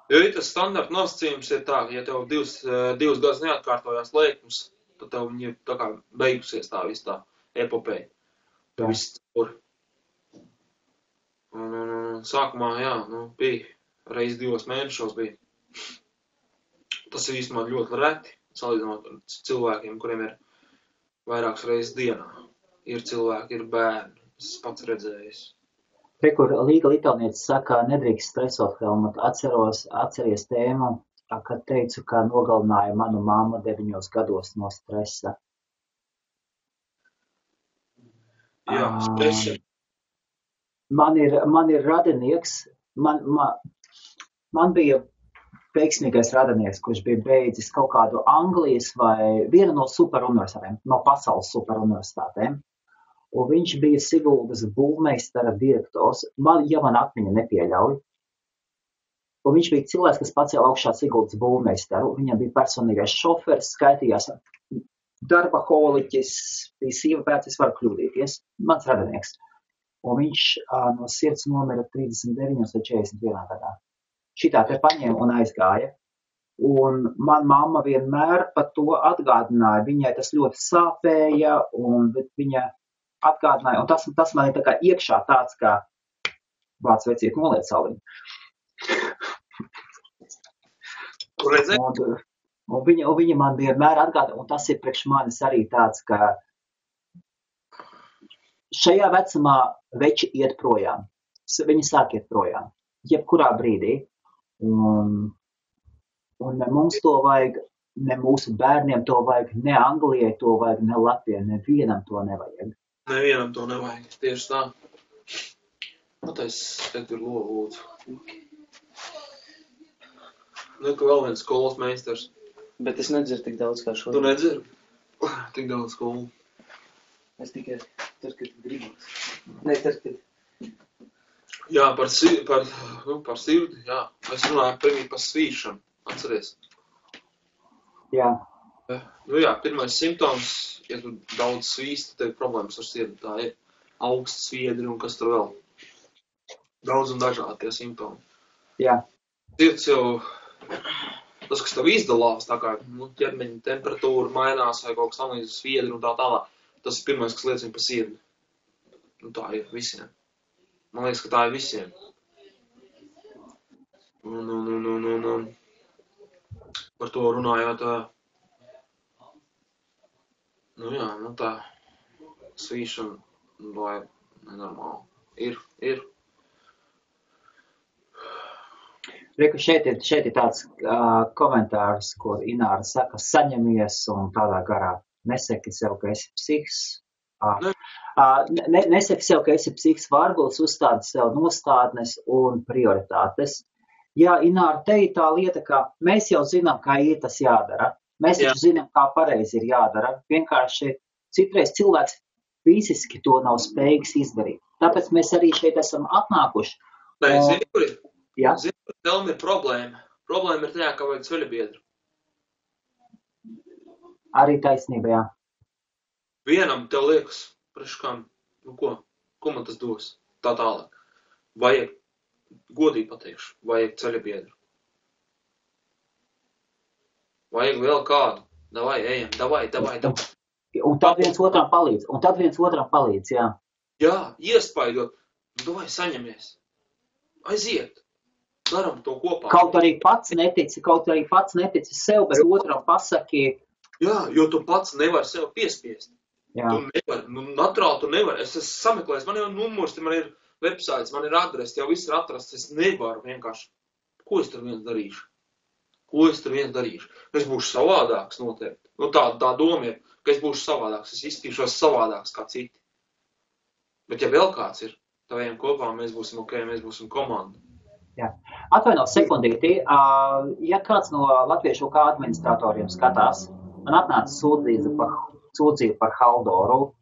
B: Jo tas standarta nosacījums ir tā, ka ja tev 2 gadus neatkārtojās lēkums, tad tev viņi ir tā kā beigusies tā viss tā epopeja. Tā viss tur. Un sākumā, jā, bija reiz 2 mēnešos bija. Tas ir īstenībā ļoti reti, salīdzinot ar cilvēkiem, kuriem ir vairākas reizes dienā. Ir cilvēki, ir bērni, es pats redzējis.
A: Te, kur Līga Litānietis saka, nedrīkst stresot, Helmut, atceries tēmu, kad teicu, ka nogalināja manu mammu 9 gados no stresa.
B: Jā, stresa.
A: Man ir radinieks, man bija veiksmīgais radinieks, kurš bija beidzis kaut kādu Anglijas vai vienu no superuniversitātēm, no pasaules superuniversitātēm. Un viņš bija Siguldas būvmeistara direktors, ja man atmiņa nepieļauj. Un viņš bija cilvēks, kas pacēla augšā Siguldas būvmeistaru. Viņam bija personīgais šoferis, skaitījās darba holiķis, bija sieva pēc, es varu kļūdīties, mans radinieks. Un viņš no sirds nomira 39 vai 41 gadā. Šitā te paņēma un aizgāja. Un man mamma vienmēr par to atgādināja. Viņai tas ļoti sāpēja, bet viņa atgādināja, un tas man ir tā kā iekšā tāds, kā vārds vecīt noliec saliņu. Un viņa man vienmēr atgādināja, un tas ir priekš manis arī tāds, ka šajā vecumā veči iet projām. Viņi sāk iet projām. Jebkurā brīdī. Un ne mums to vajag, ne mūsu bērniem to vajag, ne Anglijai to vajag, ne Latvijai, nevienam to nevajag.
B: Nevienam to nevajag, tieši tā. Patais, te tur lūdzu. Ka vēl viens skolas meistars.
C: Bet es nedzeru tik daudz kā šodien.
B: Tu nedzeru? Tik daudz skolu.
C: Es tikai tad, kad gribas. Ne, tad, kad...
B: Jā, par sirdi, jā. Es runāju pirmī par svīšanu, atceries?
A: Jā.
B: Jā, pirmais simptoms, ja tu daudz svīsti, tev ir problēmas ar sirdi. Tā ir augsts sviedri un kas tur vēl. Daudz un dažādi tie simptomi.
A: Jā.
B: Sirds jau, tas, kas tev izdalās, tā kā ķermeņa temperatūra mainās vai kaut kas tam līdz sviedri un tā tālāk, tas ir pirmais, kas liecina par sirdi. Tā ir visiem. Man liekas, ka tā ir visiem. Un par to runājot, tā svīšana vai nenormāli. Ir.
A: Reku, šeit ir tāds komentārs, kur Ināra saka, saņemies un tādā garā. Nesaki sev, ka esi psihs. Nesaki sev, ka esi psihs vargulis, uzstādi sev nostādnes un prioritātes. Jā, Ināra, te ir tā lieta, ka mēs jau zinām, kā ir tas jādara. Mēs taču zinām, kā pareizi ir jādara. Vienkārši citreiz cilvēks fiziski to nav spējīgs izdarīt. Tāpēc mēs arī šeit esam atnākuši.
B: Nē, zini, kur ir?
A: Jā.
B: Zini, kur tev ir problēma. Problēma ir tajā, ka vajag ceļabiedru.
A: Arī taisnība, jā.
B: Vienam tev liekas, priekškām, ko man tas dos? Tā tālāk. Vajag, godīgi pateikšu, vajag ceļabiedru. Vajag vēl kādu. Davai, ejam, davai.
A: Un tad viens otram palīdz, jā.
B: Jā, iespaidot. Davai, saņemies. Aiziet. Daram to kopā.
A: Kaut arī pats netici sev, bet otram pasaki.
B: Jā, jo tu pats nevari sev piespiest.
A: Jā.
B: Tu nevari, naturāli tu nevari. Es esmu sameklējis, man jau numurs, man ir websites, man ir adrese, jau viss ir atrasts. Es nevaru vienkārši. Ko es tur viens darīšu? Es būšu savādāks noteikti. Tā doma ir, ka es būšu savādāks. Es izskatīšos savādāks kā citi. Bet ja vēl kāds ir, tad ejam kopā, mēs būsim ok, mēs būsim komanda.
A: Jā. Atvaino sekundīti, ja kāds no latviešu kā administratoriem skatās, man atnāca sūdzība par Haldoru,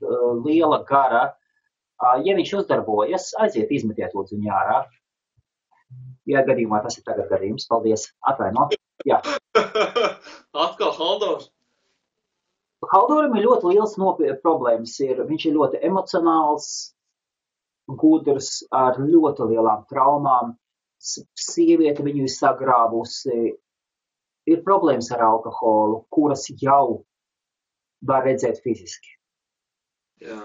A: liela gara, ja viņš uzdarbojas, aiziet izmetiet lūdzu viņu ārā. Ja gadījumā tas ir tagad gadījums, paldies, atvaino. Jā.
B: Atkal Haldors?
A: Haldoram ir ļoti liels problēmas. Viņš ir ļoti emocionāls, gudrs, ar ļoti lielām traumām. Sieviete viņu ir sagrāvusi. Ir problēmas ar alkoholu, kuras jau var redzēt fiziski.
B: Jā.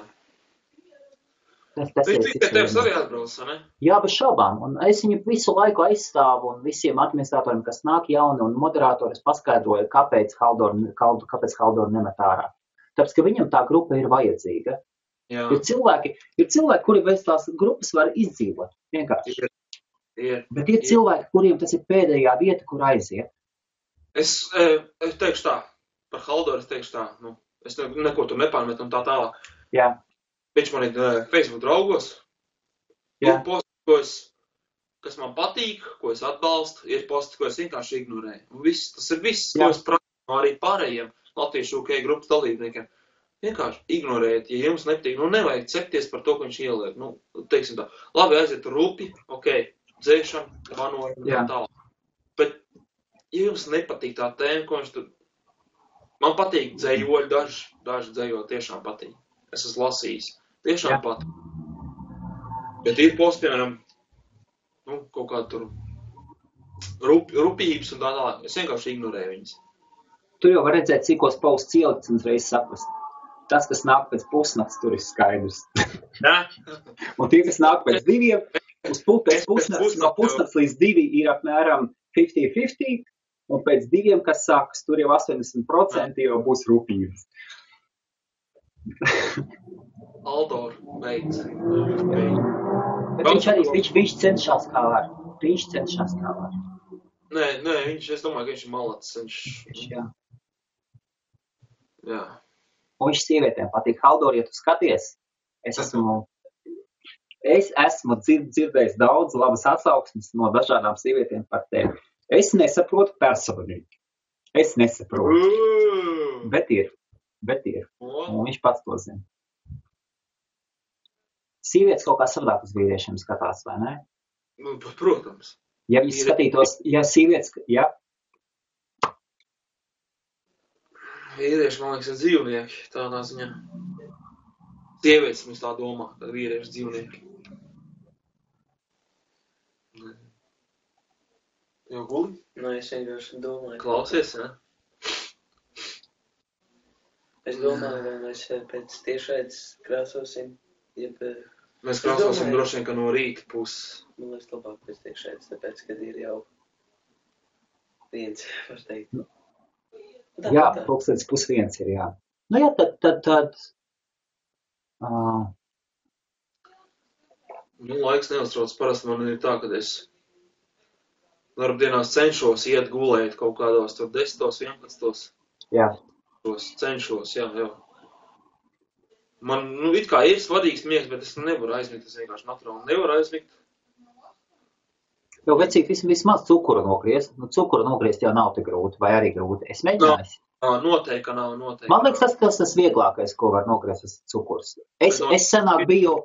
A: Tas
B: viņš tikai tevis arī atbrauc, ne?
A: Jā, bez šaubām. Un es viņu visu laiku aizstāvu un visiem administratoriem, kas nāk jauni un moderātoris paskaidroja, kāpēc Haldoru nemet ārā. Tāpēc, ka viņam tā grupa ir vajadzīga.
B: Jā.
A: Ir cilvēki, kuri bez tās grupas var izdzīvot. Vienkārši. Bet ir cilvēki, kuriem tas ir pēdējā vieta, kur aiziet.
B: Es teikšu tā, par Haldoru es teikšu tā, es neko tur nepārmetu un tā tālāk.
A: Jā.
B: Viņš man ir Facebook draugos. Ir posti, kas man patīk, ko es atbalstu, ir posti, ko es vienkārši ignorēju. Tas ir viss, ko es prasu arī pārējiem latviešu UK grupas dalībniekiem. Vienkārši ignorējiet, ja jums nepatīk. Nevajag cepties par to, ko viņš ieliek. Teiksim tā, labi, aiziet rupi, ok, dzēšana, vanojam, tālāk. Bet, ja jums nepatīk tā tēma, ko viņš tur... Man patīk dzējoļi, daži dzējoļi tiešām patīk. Es esmu lasījis. Tiešām pat. Bet ir posti, piemēram, kaut kāda tur rupības un tā tālāk. Es vienkārši ignorēju viņas.
A: Tu jau var redzēt, cikos posts ielikts un uzreiz saprast. Tas, kas nāk pēc pusnakts, tur ir skaidrs. Un tie, kas nāk pēc diviem, no pusnakts līdz 2 ir apmēram 50-50, un pēc 2, kas sākas, tur jau 80% jau būs rupības.
B: Aldor beidz.
A: Bet viņš cenšas kā var.
B: Nē, es domāju, ka viņš ir malacis. Jā.
A: Un viņš sievietēm patīk. Haldor, ja tu skaties, es esmu dzirdējis daudz labas atsauksmes no dažādām sievietēm par tevi. Es nesaprotu personīgi. Bet ir. Un viņš pats to zina. Sievietes kaut kā savādāk uz vīriešiem skatās, vai ne?
B: Protams.
A: Ja viņi skatītos, ja sievietes, ja?
B: Vīrieši, man liekas, ir dzīvnieki, tādā ziņā. Sievietes mums tā domā, ka vīrieši dzīvnieki. Jau guli?
C: Es vienkārši domāju.
B: Klausies, ne?
C: Es domāju, vai mēs pēc tiešraides krāsosim,
B: Mēs krāsosim droši vien, ka no rīta puses.
C: Man liekas labāk pēc tiešraides, tāpēc, kad ir jau viens, var teikt.
A: Jā, pulkstenis 12:30 ir, jā. Jā, tad.
B: Laiks neuztrauc. Parasti man ir tā, kad es Darbdienās cenšos iet gulēt kaut kādos tur 10, 11.
A: Jā.
B: Cenšos, jā. Man, it kā ir svadīgs miegs, bet es nevaru aizmigt, es vienkārši naturāli nevaru aizmigt.
A: Jo, vecīt, vismaz cukuru nogriezt. Cukuru nogriezt jau nav tik grūti, vai arī grūti. Es mēģināju.
B: Noteikti, ka nav.
A: Man liekas, tas vieglākais, ko var nogriezt, tas cukurs. Es senāk biju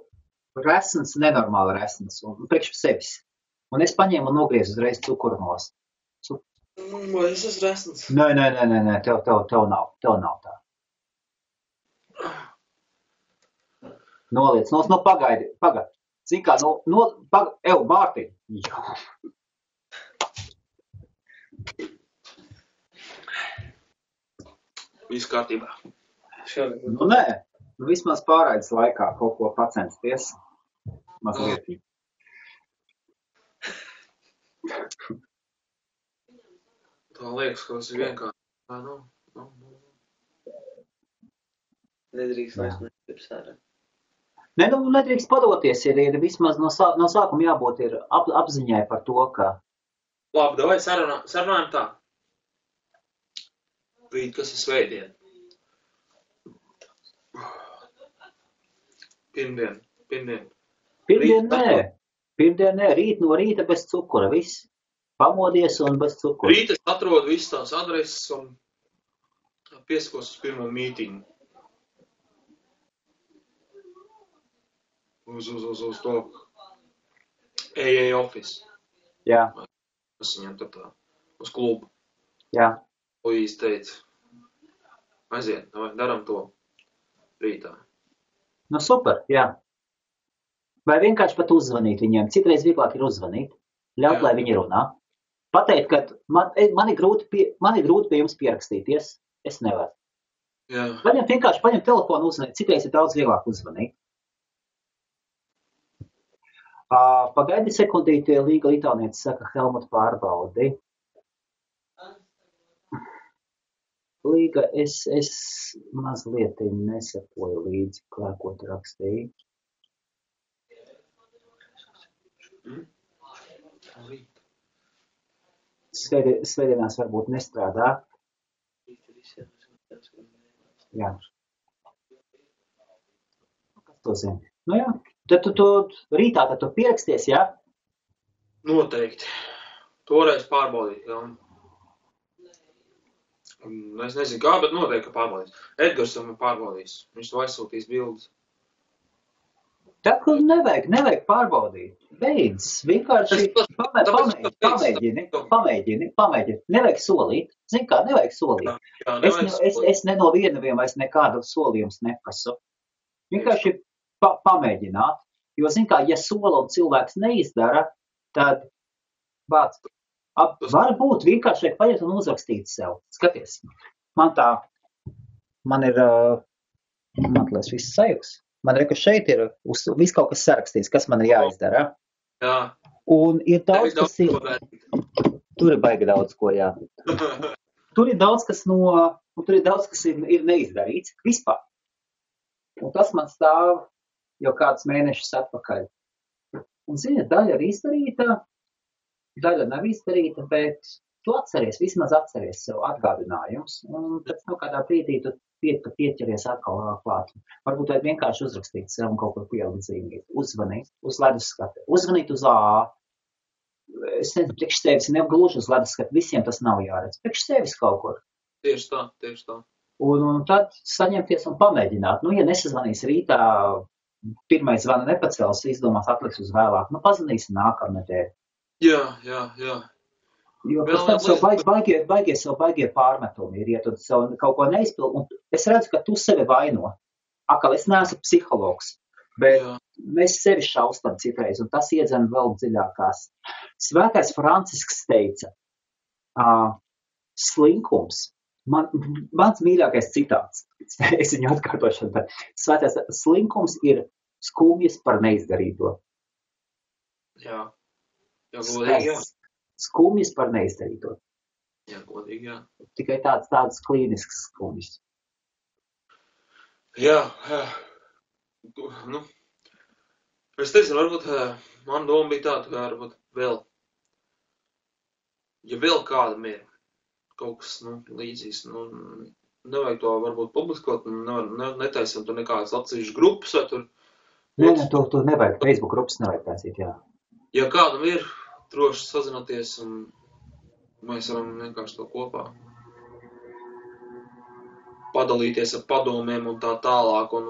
A: resns, nenormāli resns, un priekš sevis. Un es paņēmu un nogriezu uzreiz cukuru nost.
B: Vai es esmu resns?
A: Nē, tev nav tā. Noliec, pagaidi. Zin kā, Bārtiņ.
B: Viss kārtībā.
A: Nē, vismaz pārraides laikā kaut ko pacensties. Mazliet.
B: Tā liekas, ka tas ir vienkārši.
C: Nedrīkst vairs negribas ārā.
A: Nē, nedrīkst padoties, ir vismaz no sākuma jābūt ir apziņai par to, ka...
B: Labi, davai sarunājam tā. Rīt, kas ir svētdien? Pirmdien.
A: Pirmdien nē, rīt no rīta bez cukura, viss. Pamodies un bez cukura.
B: Rīt es atrodu visas tās adreses un pieskos uz pirmo mītingu. Uz to AA office.
A: Jā.
B: Es viņam tur tā, uz klubu.
A: Jā.
B: Luīs teica, aiziet, daram to rītā.
A: Super, jā. Vai vienkārši pat uzzvanīt viņiem. Citreiz vieglāk ir uzzvanīt. Ļaut, lai viņi runā. Pateikt, ka man ir grūti pie jums pierakstīties. Es nevaru.
B: Jā.
A: Vienkārši paņem telefonu uzzvanīt. Citreiz ir daudz vieglāk uzzvanīt. Pagaidi sekundīti, Līga Litāniece saka, Helmut pārbaudi. Līga, es mazliet nesakoju līdzi, ko tu rakstīji. Svētdienās varbūt nestrādā. Jā. Kas to zina? Nu jā. Tad tu rītā tu pieraksties, jā?
B: Noteikti. Toreiz pārbaudīt, jā. Es nezinu kā, bet noteikti, ka pārbaudīs. Edgars jau man pārbaudīs. Viņš to aizsūtīs bildes.
A: Tā, ka nevajag pārbaudīt. Beidz. Vienkārši pamēģini. Nevajag solīt. Zini kā, nevajag solīt. Es ne no vienaviem vairs nekādu solījums neprasu. Vienkārši pamēģināt. Jo, zini kā, ja sola un cilvēks neizdara, tad varbūt vienkārši vajag paņemt un uzrakstīt sev. Skaties, man ir viss sajūgs. Man ka šeit ir viss kaut kas sarakstīts, kas man ir jāizdara.
B: Jā.
A: Un ir daudz, kas ir... Tur ir baigi daudz ko, jā. Tur ir daudz, kas ir neizdarīts vispār. Un tas man stāv jau kādus mēnešus atpakaļ. Un, zini, daļa ir izdarīta, daļa nav izdarīta, bet tu vismaz atceries sev atgādinājums. Un pēc kādā brīdī tu pieķeries atkal klāt. Varbūt vajag vienkārši uzrakstīt sev un kaut ko pielikt zīmīt. Uzvanīt uz leduskati. Uzvanīt uz AA. Es nezinu, priekš sevis negluži uz leduskati. Visiem tas nav jāredz. Priekš sevis kaut kur.
B: Tieši tā.
A: Un tad saņemties un pamēģināt. Ja nesazvanīs rītā, pirmais zvana nepacels, izdomās atliks uz vēlāk. Pazvanīsim nākamnedēļ.
B: Jā.
A: Jo pēc tam sev baigie pārmetumi ir, ja tu sev kaut ko neizpildi, un es redzu, ka tu sevi vaino. Akal, es neesmu psihologs, bet mēs sevi šaustam citreiz, un tas iedzen vēl dziļākās. Svētais Francisks teica, slinkums, mans mīļākais citāts, es viņu atkārtošu, bet svētais slinkums ir skumjas par neizdarīto.
B: Jā, godīgi, jā.
A: Skumjas par neizdarīto.
B: Jā, godīgi, jā.
A: Tikai tāds klīnisks skumjas.
B: Jā. Es teicu, varbūt man doma bija tāda, ka varbūt vēl ja vēl kādam ir kaut kas, līdzīgs, nevajag to varbūt publiskot, netaisam tur nekādas atsevišķas grupas vai tur.
A: Nē, tu nevajag, Facebook grupas nevajag taisīt, jā.
B: Ja kādam ir, droši sazināties un mēs varam vienkārši to kopā padalīties ar padomiem un tā tālāk un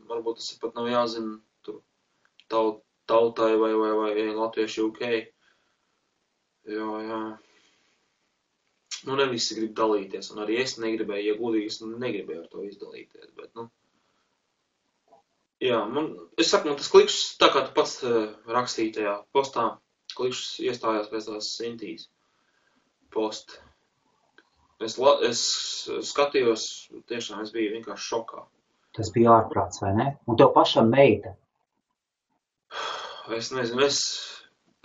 B: varbūt tas pat nav jāzina tur tautai vai latvieši UK. Jā. Ne visi grib dalīties, un arī es negribēju, ja godīgi, es negribēju ar to izdalīties, bet, jā, es saku, tas klikšs, tā kā tu pats rakstīji tajā postā, klikšs iestājās pēc tās Sintīs post. Es skatījos, tiešām es biju vienkārši šokā.
A: Tas bija ārprāts, vai ne? Un tev pašam meita?
B: Es nezinu,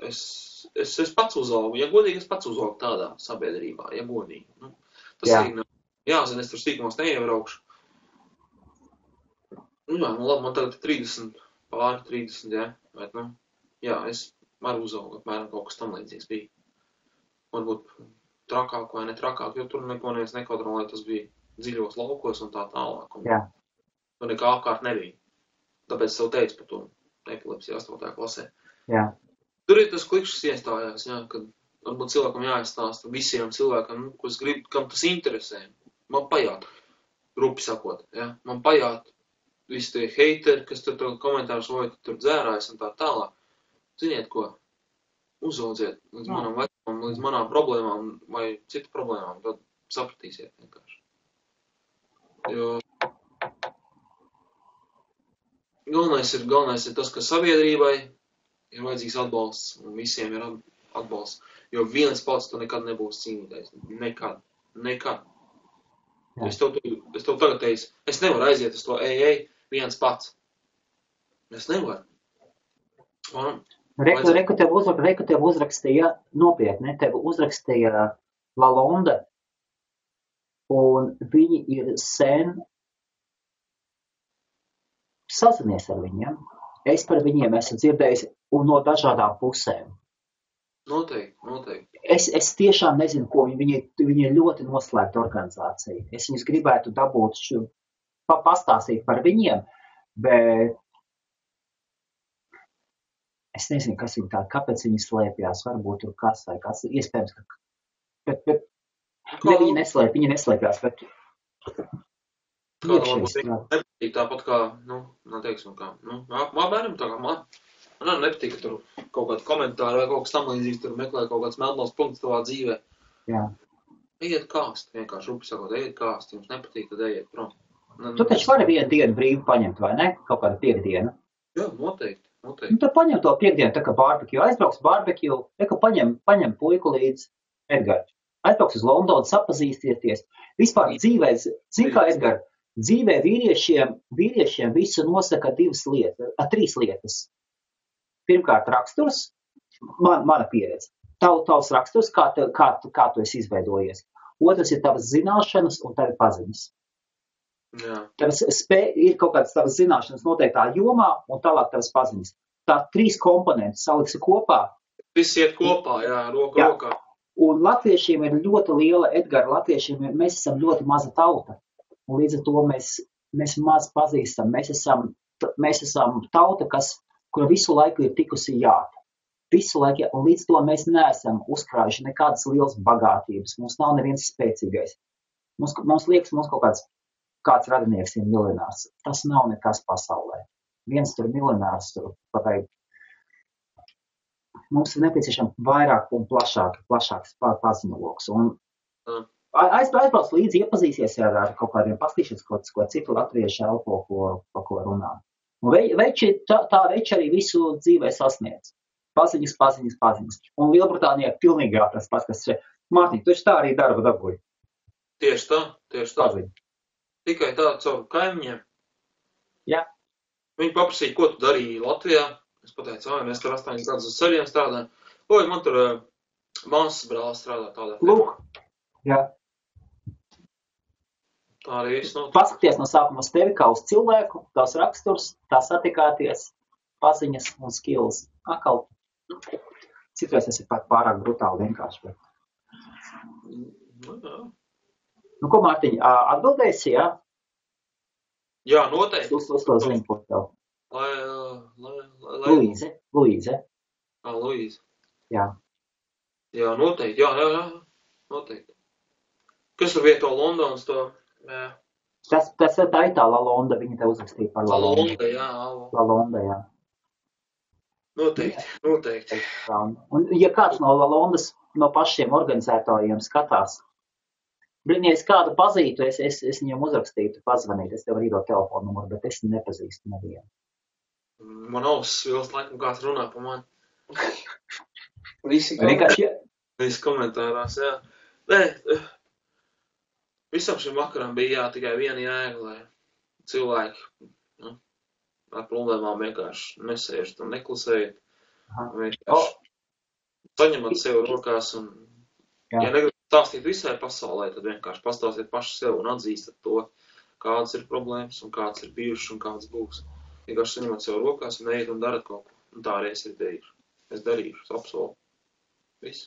B: es pats uzaugu, ja godīgi, es pats uzaugu tādā sabiedrībā, ja godīgi. Tas arī nav jāzina, es tur stīkumos neiebraukšu. Labi, man tagad 30, pāri 30, jā, bet, jā, es varu uzaugu, apmēram kaut kas tam līdzīgs bija. Varbūt trakāk vai netrakāk, jo tur neko neviens nekontrolē, tas bija dziļos laukos un tā tālāk.
A: Jā.
B: Tur nekā apkārt nebija. Tāpēc tev teicu par to epilepsiju 8. klasē.
A: Jā.
B: Tur ir tas klikšs iestājās, jā, kad varbūt cilvēkam jāizstāsta visiem cilvēkam, ko es gribu, kam tas interesē. Man pajāt, rupi sakot, jā, man pajāt visi tie heiteri, kas tur komentārus vai tur dzērājas un tā tālāk. Ziniet ko, uzaudziet līdz manam vecumam, līdz manām problēmām vai citu problēmām, tad sapratīsiet vienkārši. Jo galvenais ir tas, ka sabiedrībai ir vajadzīgs atbalsts, un visiem ir atbalsts, jo viens pats tu nekad nebūs cīnītājs. Nekad. Es tev tagad teicu, es nevaru aiziet uz to viens pats. Es nevaru.
A: Reku tev uzrakstīja, nopietni, tev uzrakstīja Lalonde, un viņi ir sen sazinies ar viņiem. Es par viņiem esmu dzirdējis un no dažādām pusēm.
B: Noteikti.
A: Es tiešām nezinu, ko viņi ir ļoti noslēgta organizācija. Es viņus gribētu dabūt pastāstīt par viņiem, bet es nezinu, kas viņi tādi, kāpēc viņi slēpjās, varbūt tur kas vai kas, iespējams, viņi neslēpjās, bet
B: Kādam varbūt nepatīk tāpat kā, neteiksim kā, bērnam tā kā man nepatīk, ka tur kaut kādi komentāri vai kaut kas tam līdzīgs, tur meklē kaut kāds melnos punkts tavā dzīvē.
A: Jā.
B: Ejiet kāst, vienkārši rupi sakot, ejiet kāst, jums nepatīk, tad ejiet prom.
A: Tu taču vari vienu dienu brīvi paņemt, vai ne? Kaut kādu piekdienu.
B: Jā, noteikti.
A: Tad paņem to piekdienu, tā kā barbecue, aizbrauks barbecue, paņem puiku līdz Edgars. Aizbrauks uz Londonu, sapazīstieties. Vispār dzīvē, zin kā Edgar, dzīvē vīriešiem visu nosaka trīs lietas. Pirmkārt, raksturs, mana pieredze. Tavs raksturs, kā tu esi izveidojies. Otrs ir tavas zināšanas un tavi paziņas.
B: Jā.
A: Ir kaut kādas tavas zināšanas noteiktā jomā un tālāk tavas paziņas. Tā 3 komponenti saliksi kopā.
B: Viss iet kopā, jā, rokā.
A: Un latviešiem ir ļoti liela, Edgara, mēs esam ļoti maza tauta. Un līdz ar to mēs maz pazīstam. Mēs esam tauta, kura visu laiku ir tikusi jāta. Visu laiku, un līdz to mēs neesam uzkrājuši nekādas lielas bagātības. Mums nav neviens spēcīgais. Mums liekas, mums kāds radinieks ir miljonārs. Tas nav nekas pasaulē. Viens tur miljonārs tur pateikt. Mums ir nepieciešams vairāk un plašāks paziņoloks. Un aizbrauc līdzi, iepazīsies ar kaut kādiem pastīšanas, ko citu latviešu elpo, pa ko runā. Un tā veči arī visu dzīvē sasniedz. Paziņas. Un Lielbritānijā pilnīgi jāprast pats, kas šeit. Mārtiņ, tu tā arī darba dabūji.
B: Tieši tā.
A: Paziņ.
B: Tikai tā caur kaimiņiem.
A: Jā.
B: Viņi paprasīja, ko tu darīji Latvijā. Es pateicu, mēs tur 8 gadus uz ceļiem strādājam. Man tur māsas brālis strādā tādā.
A: Lūk. Jā.
B: Tā arī viss notiek.
A: Paskaties no sākuma uz tevi kā uz cilvēku, tās raksturs, tā satikāties, paziņas un skills. Akal Citreiz tas ir pat pārāk brutāli vienkārši. Bet... Nu, ko, Mārtiņ, atbildēsi, jā?
B: Jā, noteikti.
A: Uz to zinu, ko tev. Luīze.
B: Luīze.
A: Jā.
B: Jā, noteikti, jā, noteikti. Kas tur vieto Londonas to? Jā.
A: Tas tā ir tā Lalonda, viņa te uzrakstīja par Lalonda. Lalonda, jā.
B: Noteikti.
A: Un, ja kāds no Lalondas, no pašiem organizētājiem skatās, ja es kādu pazītu, es viņam uzrakstītu, pazvanītu, es tev varu iedot telefonu numuru, bet es nepazīstu nevienu.
B: Man ausis vilst laikam kāds runā pa mani. Visi komentārās, jā. Nē, visam šim vakaram bija tikai viena jēga, lai cilvēki ar problēmām vienkārši nesēžat un neklusējat. Vienkārši saņemat sev rokās un, ja negribat stāstīt visai pasaulē, tad vienkārši pastāstiet paši sev un atzīstat to, kādas ir problēmas un kādas ir bijušas un kādas būs. Vienkārši saņemat sev rokās un ejiet un darat kaut ko. Un tā arī es arī darīšu. Es darīšu, es apsolu. Viss.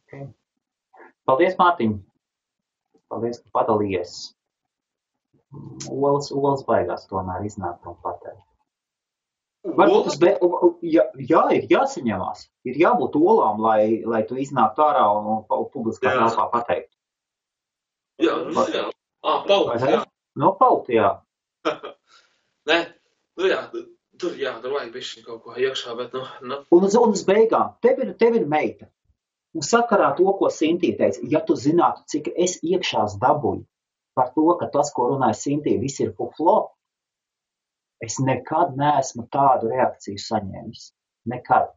A: Okay. Paldies, Mārtiņ. Paldies, ka padalījies. Olas baigās tomēr iznāk un pateikt. Varbūt ir jāsaņemās. Ir jābūt olām, lai tu iznāktu ārā un publiskā telpā pateikt.
B: Jā. Pauti, jā.
A: No pauti, jā.
B: Nē, tur vajag bišķi kaut ko iekšā, bet
A: Un uz beigām, tev ir meita. Un sakarā to, ko Sintija teica, ja tu zinātu, cik es iekšās dabūju par to, ka tas, ko runāja Sintija, viss ir fuflo, es nekad neesmu tādu reakciju saņēmis. Nekad.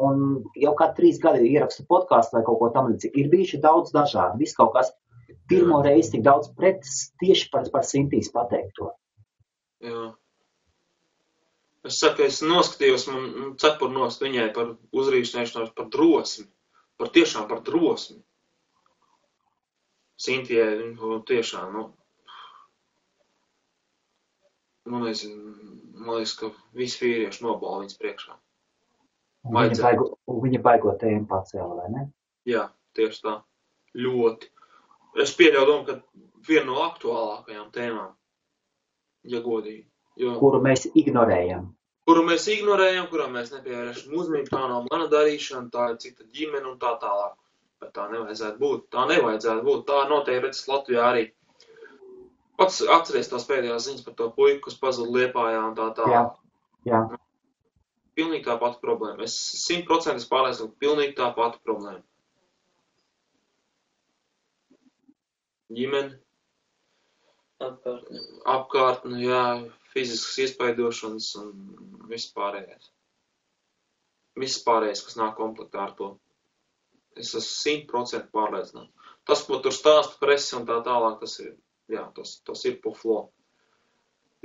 A: Un jau kā 3 gadi ierakstu podkāstu vai kaut ko tam līdzīgi. Ir bijuši daudz dažādi. Viss kaut kas pirmo reizi tik daudz pretis tieši par Sintijas pateikto.
B: Jā. Es saku, es noskatījos, man cepur nost viņai par uzrīšanēšanos, par drosmi. Tiešām par drosmi. Sintijai, tiešām, man liekas, ka visi vīrieši nobala viņas priekšā.
A: Viņa baigo tēmu pacēla, vai ne?
B: Jā, tieši tā. Ļoti. Es pieļauju domu, ka viena no aktuālākajām tēmām, ja godīgi.
A: Kuru mēs ignorējam.
B: Kuru mēs nepievēršam uzmanību, tā nav mana darīšana, tā ir cita ģimene un tā tālāk. Bet tā nevajadzētu būt. Tā noteikti redzes Latvijā arī. Pats atceries tās pēdējās ziņas par to puiku, kas pazuda Liepājā un tā tālāk.
A: Jā.
B: Pilnīgi tā pati problēma. Es 100% pārliecinu, pilnīgi tā pati problēma. Ģimene. Apkārtne, jā. Fiziskas iespaidošanas un viss pārējais. Viss pārējais, kas nāk komplektā ar to. Es esmu 100% pārliecināts. Tas, ko tur stāsta presi un tā tālāk, tas ir puflo.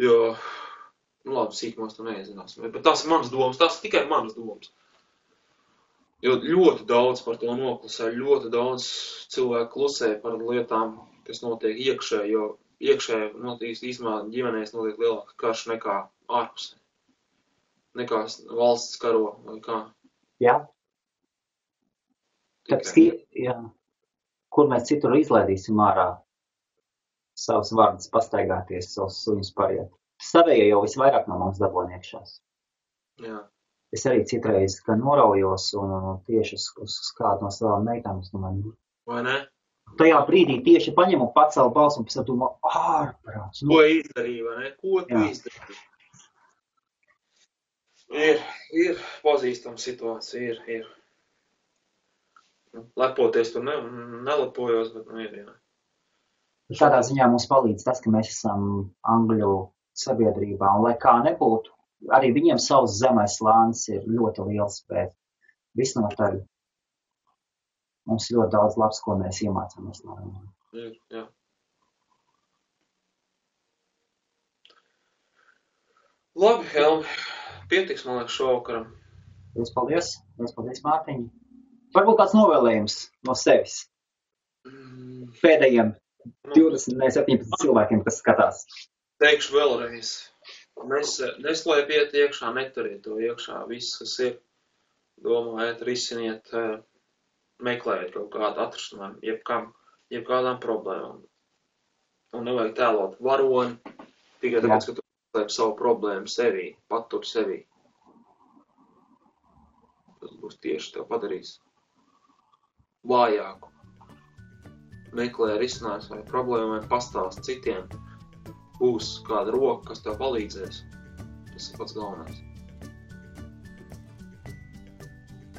B: Jo, labi, sīkumos tu neiezināsim. Bet tās ir manas domas, tās ir tikai manas domas. Jo ļoti daudz par to noklusē, ļoti daudz cilvēku klusē par lietām, kas notiek iekšē, jo iekšē īstenībā ģimenēs notiek lielāka karš nekā ārpusē. Nekā valsts karo vai kā.
A: Jā. Kur mēs citur izlaidīsim ārā savus vārdus pastaigāties, savus suņus pariet. Savējie jau visvairāk no mums dabūna iekšās.
B: Jā.
A: Es arī citreiz, ka noraujos un tieši uz kādu no savām meitām, es domāju.
B: Vai ne?
A: Tajā brīdī tieši paņem un pacēlu balsu un pēc domā, ārprāts.
B: Ko izdarīja, vai ne? Ko tu izdarīji? Ir pazīstama situācija, ir. Lepoties tur nelepojos, bet ir, jā.
A: Tādā ziņā mums palīdz tas, ka mēs esam Angļu sabiedrībā, un lai kā nebūtu, arī viņiem savs zemais slānis ir ļoti liels, bet visnotaļ. Mums ļoti daudz labs, ko mēs iemācāmies no viņiem.
B: Jā. Labi, Helmi. Pietiks, man liekas, šovakaram.
A: Paldies, Mārtiņ. Varbūt kāds novēlējums no sevis. Pēdējiem 17 cilvēkiem, kas skatās.
B: Teikšu vēlreiz. Neslēpiet iekšā, neturiet to iekšā. Viss, kas ir, domājiet, risiniet, meklējiet kaut kādu atrisinājumu, jebkādām problēmām. Un nevajag tēlot varoni, tikai tāpēc, ka tu slēp savu problēmu sevī, patur sevī. Tas būs tieši tev padarīs vājāku. Meklē risinājums vai problēmu vai pastāst citiem. Būs kāda roka, kas tev palīdzēs. Tas ir pats galvenais.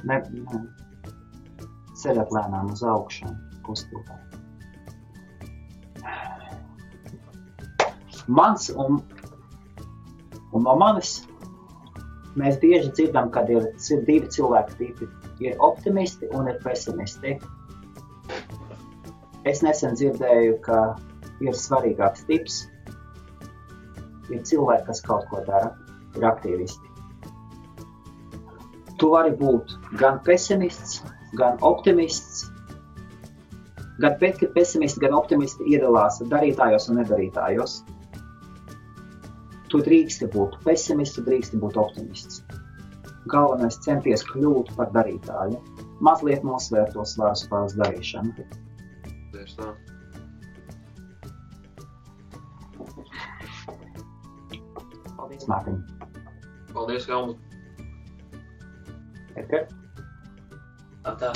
A: Ne. Ceļot lēnām uz augšanu, kustībā. Mans un no manis mēs bieži dzirdam, kad ir divi cilvēku tipi. Ir optimisti un ir pesimisti. Es nesen dzirdēju, ka ir svarīgāks tips. Ir cilvēki, kas kaut ko dara, ir aktīvisti. Tu vari būt gan pesimists, gan optimists. Gan pesimisti, gan optimisti iedalās darītājos un nedarītājos. Tu drīksti būt pesimists, tu drīksti būt optimists. Galvenais centies kļūt par darītāju. Mazliet nosvērt to svaru spēles darīšanu.
B: Tieši tā.
A: Paldies, Mārtiņ.
B: Paldies, Helmut.
A: Edgar?
C: Tā.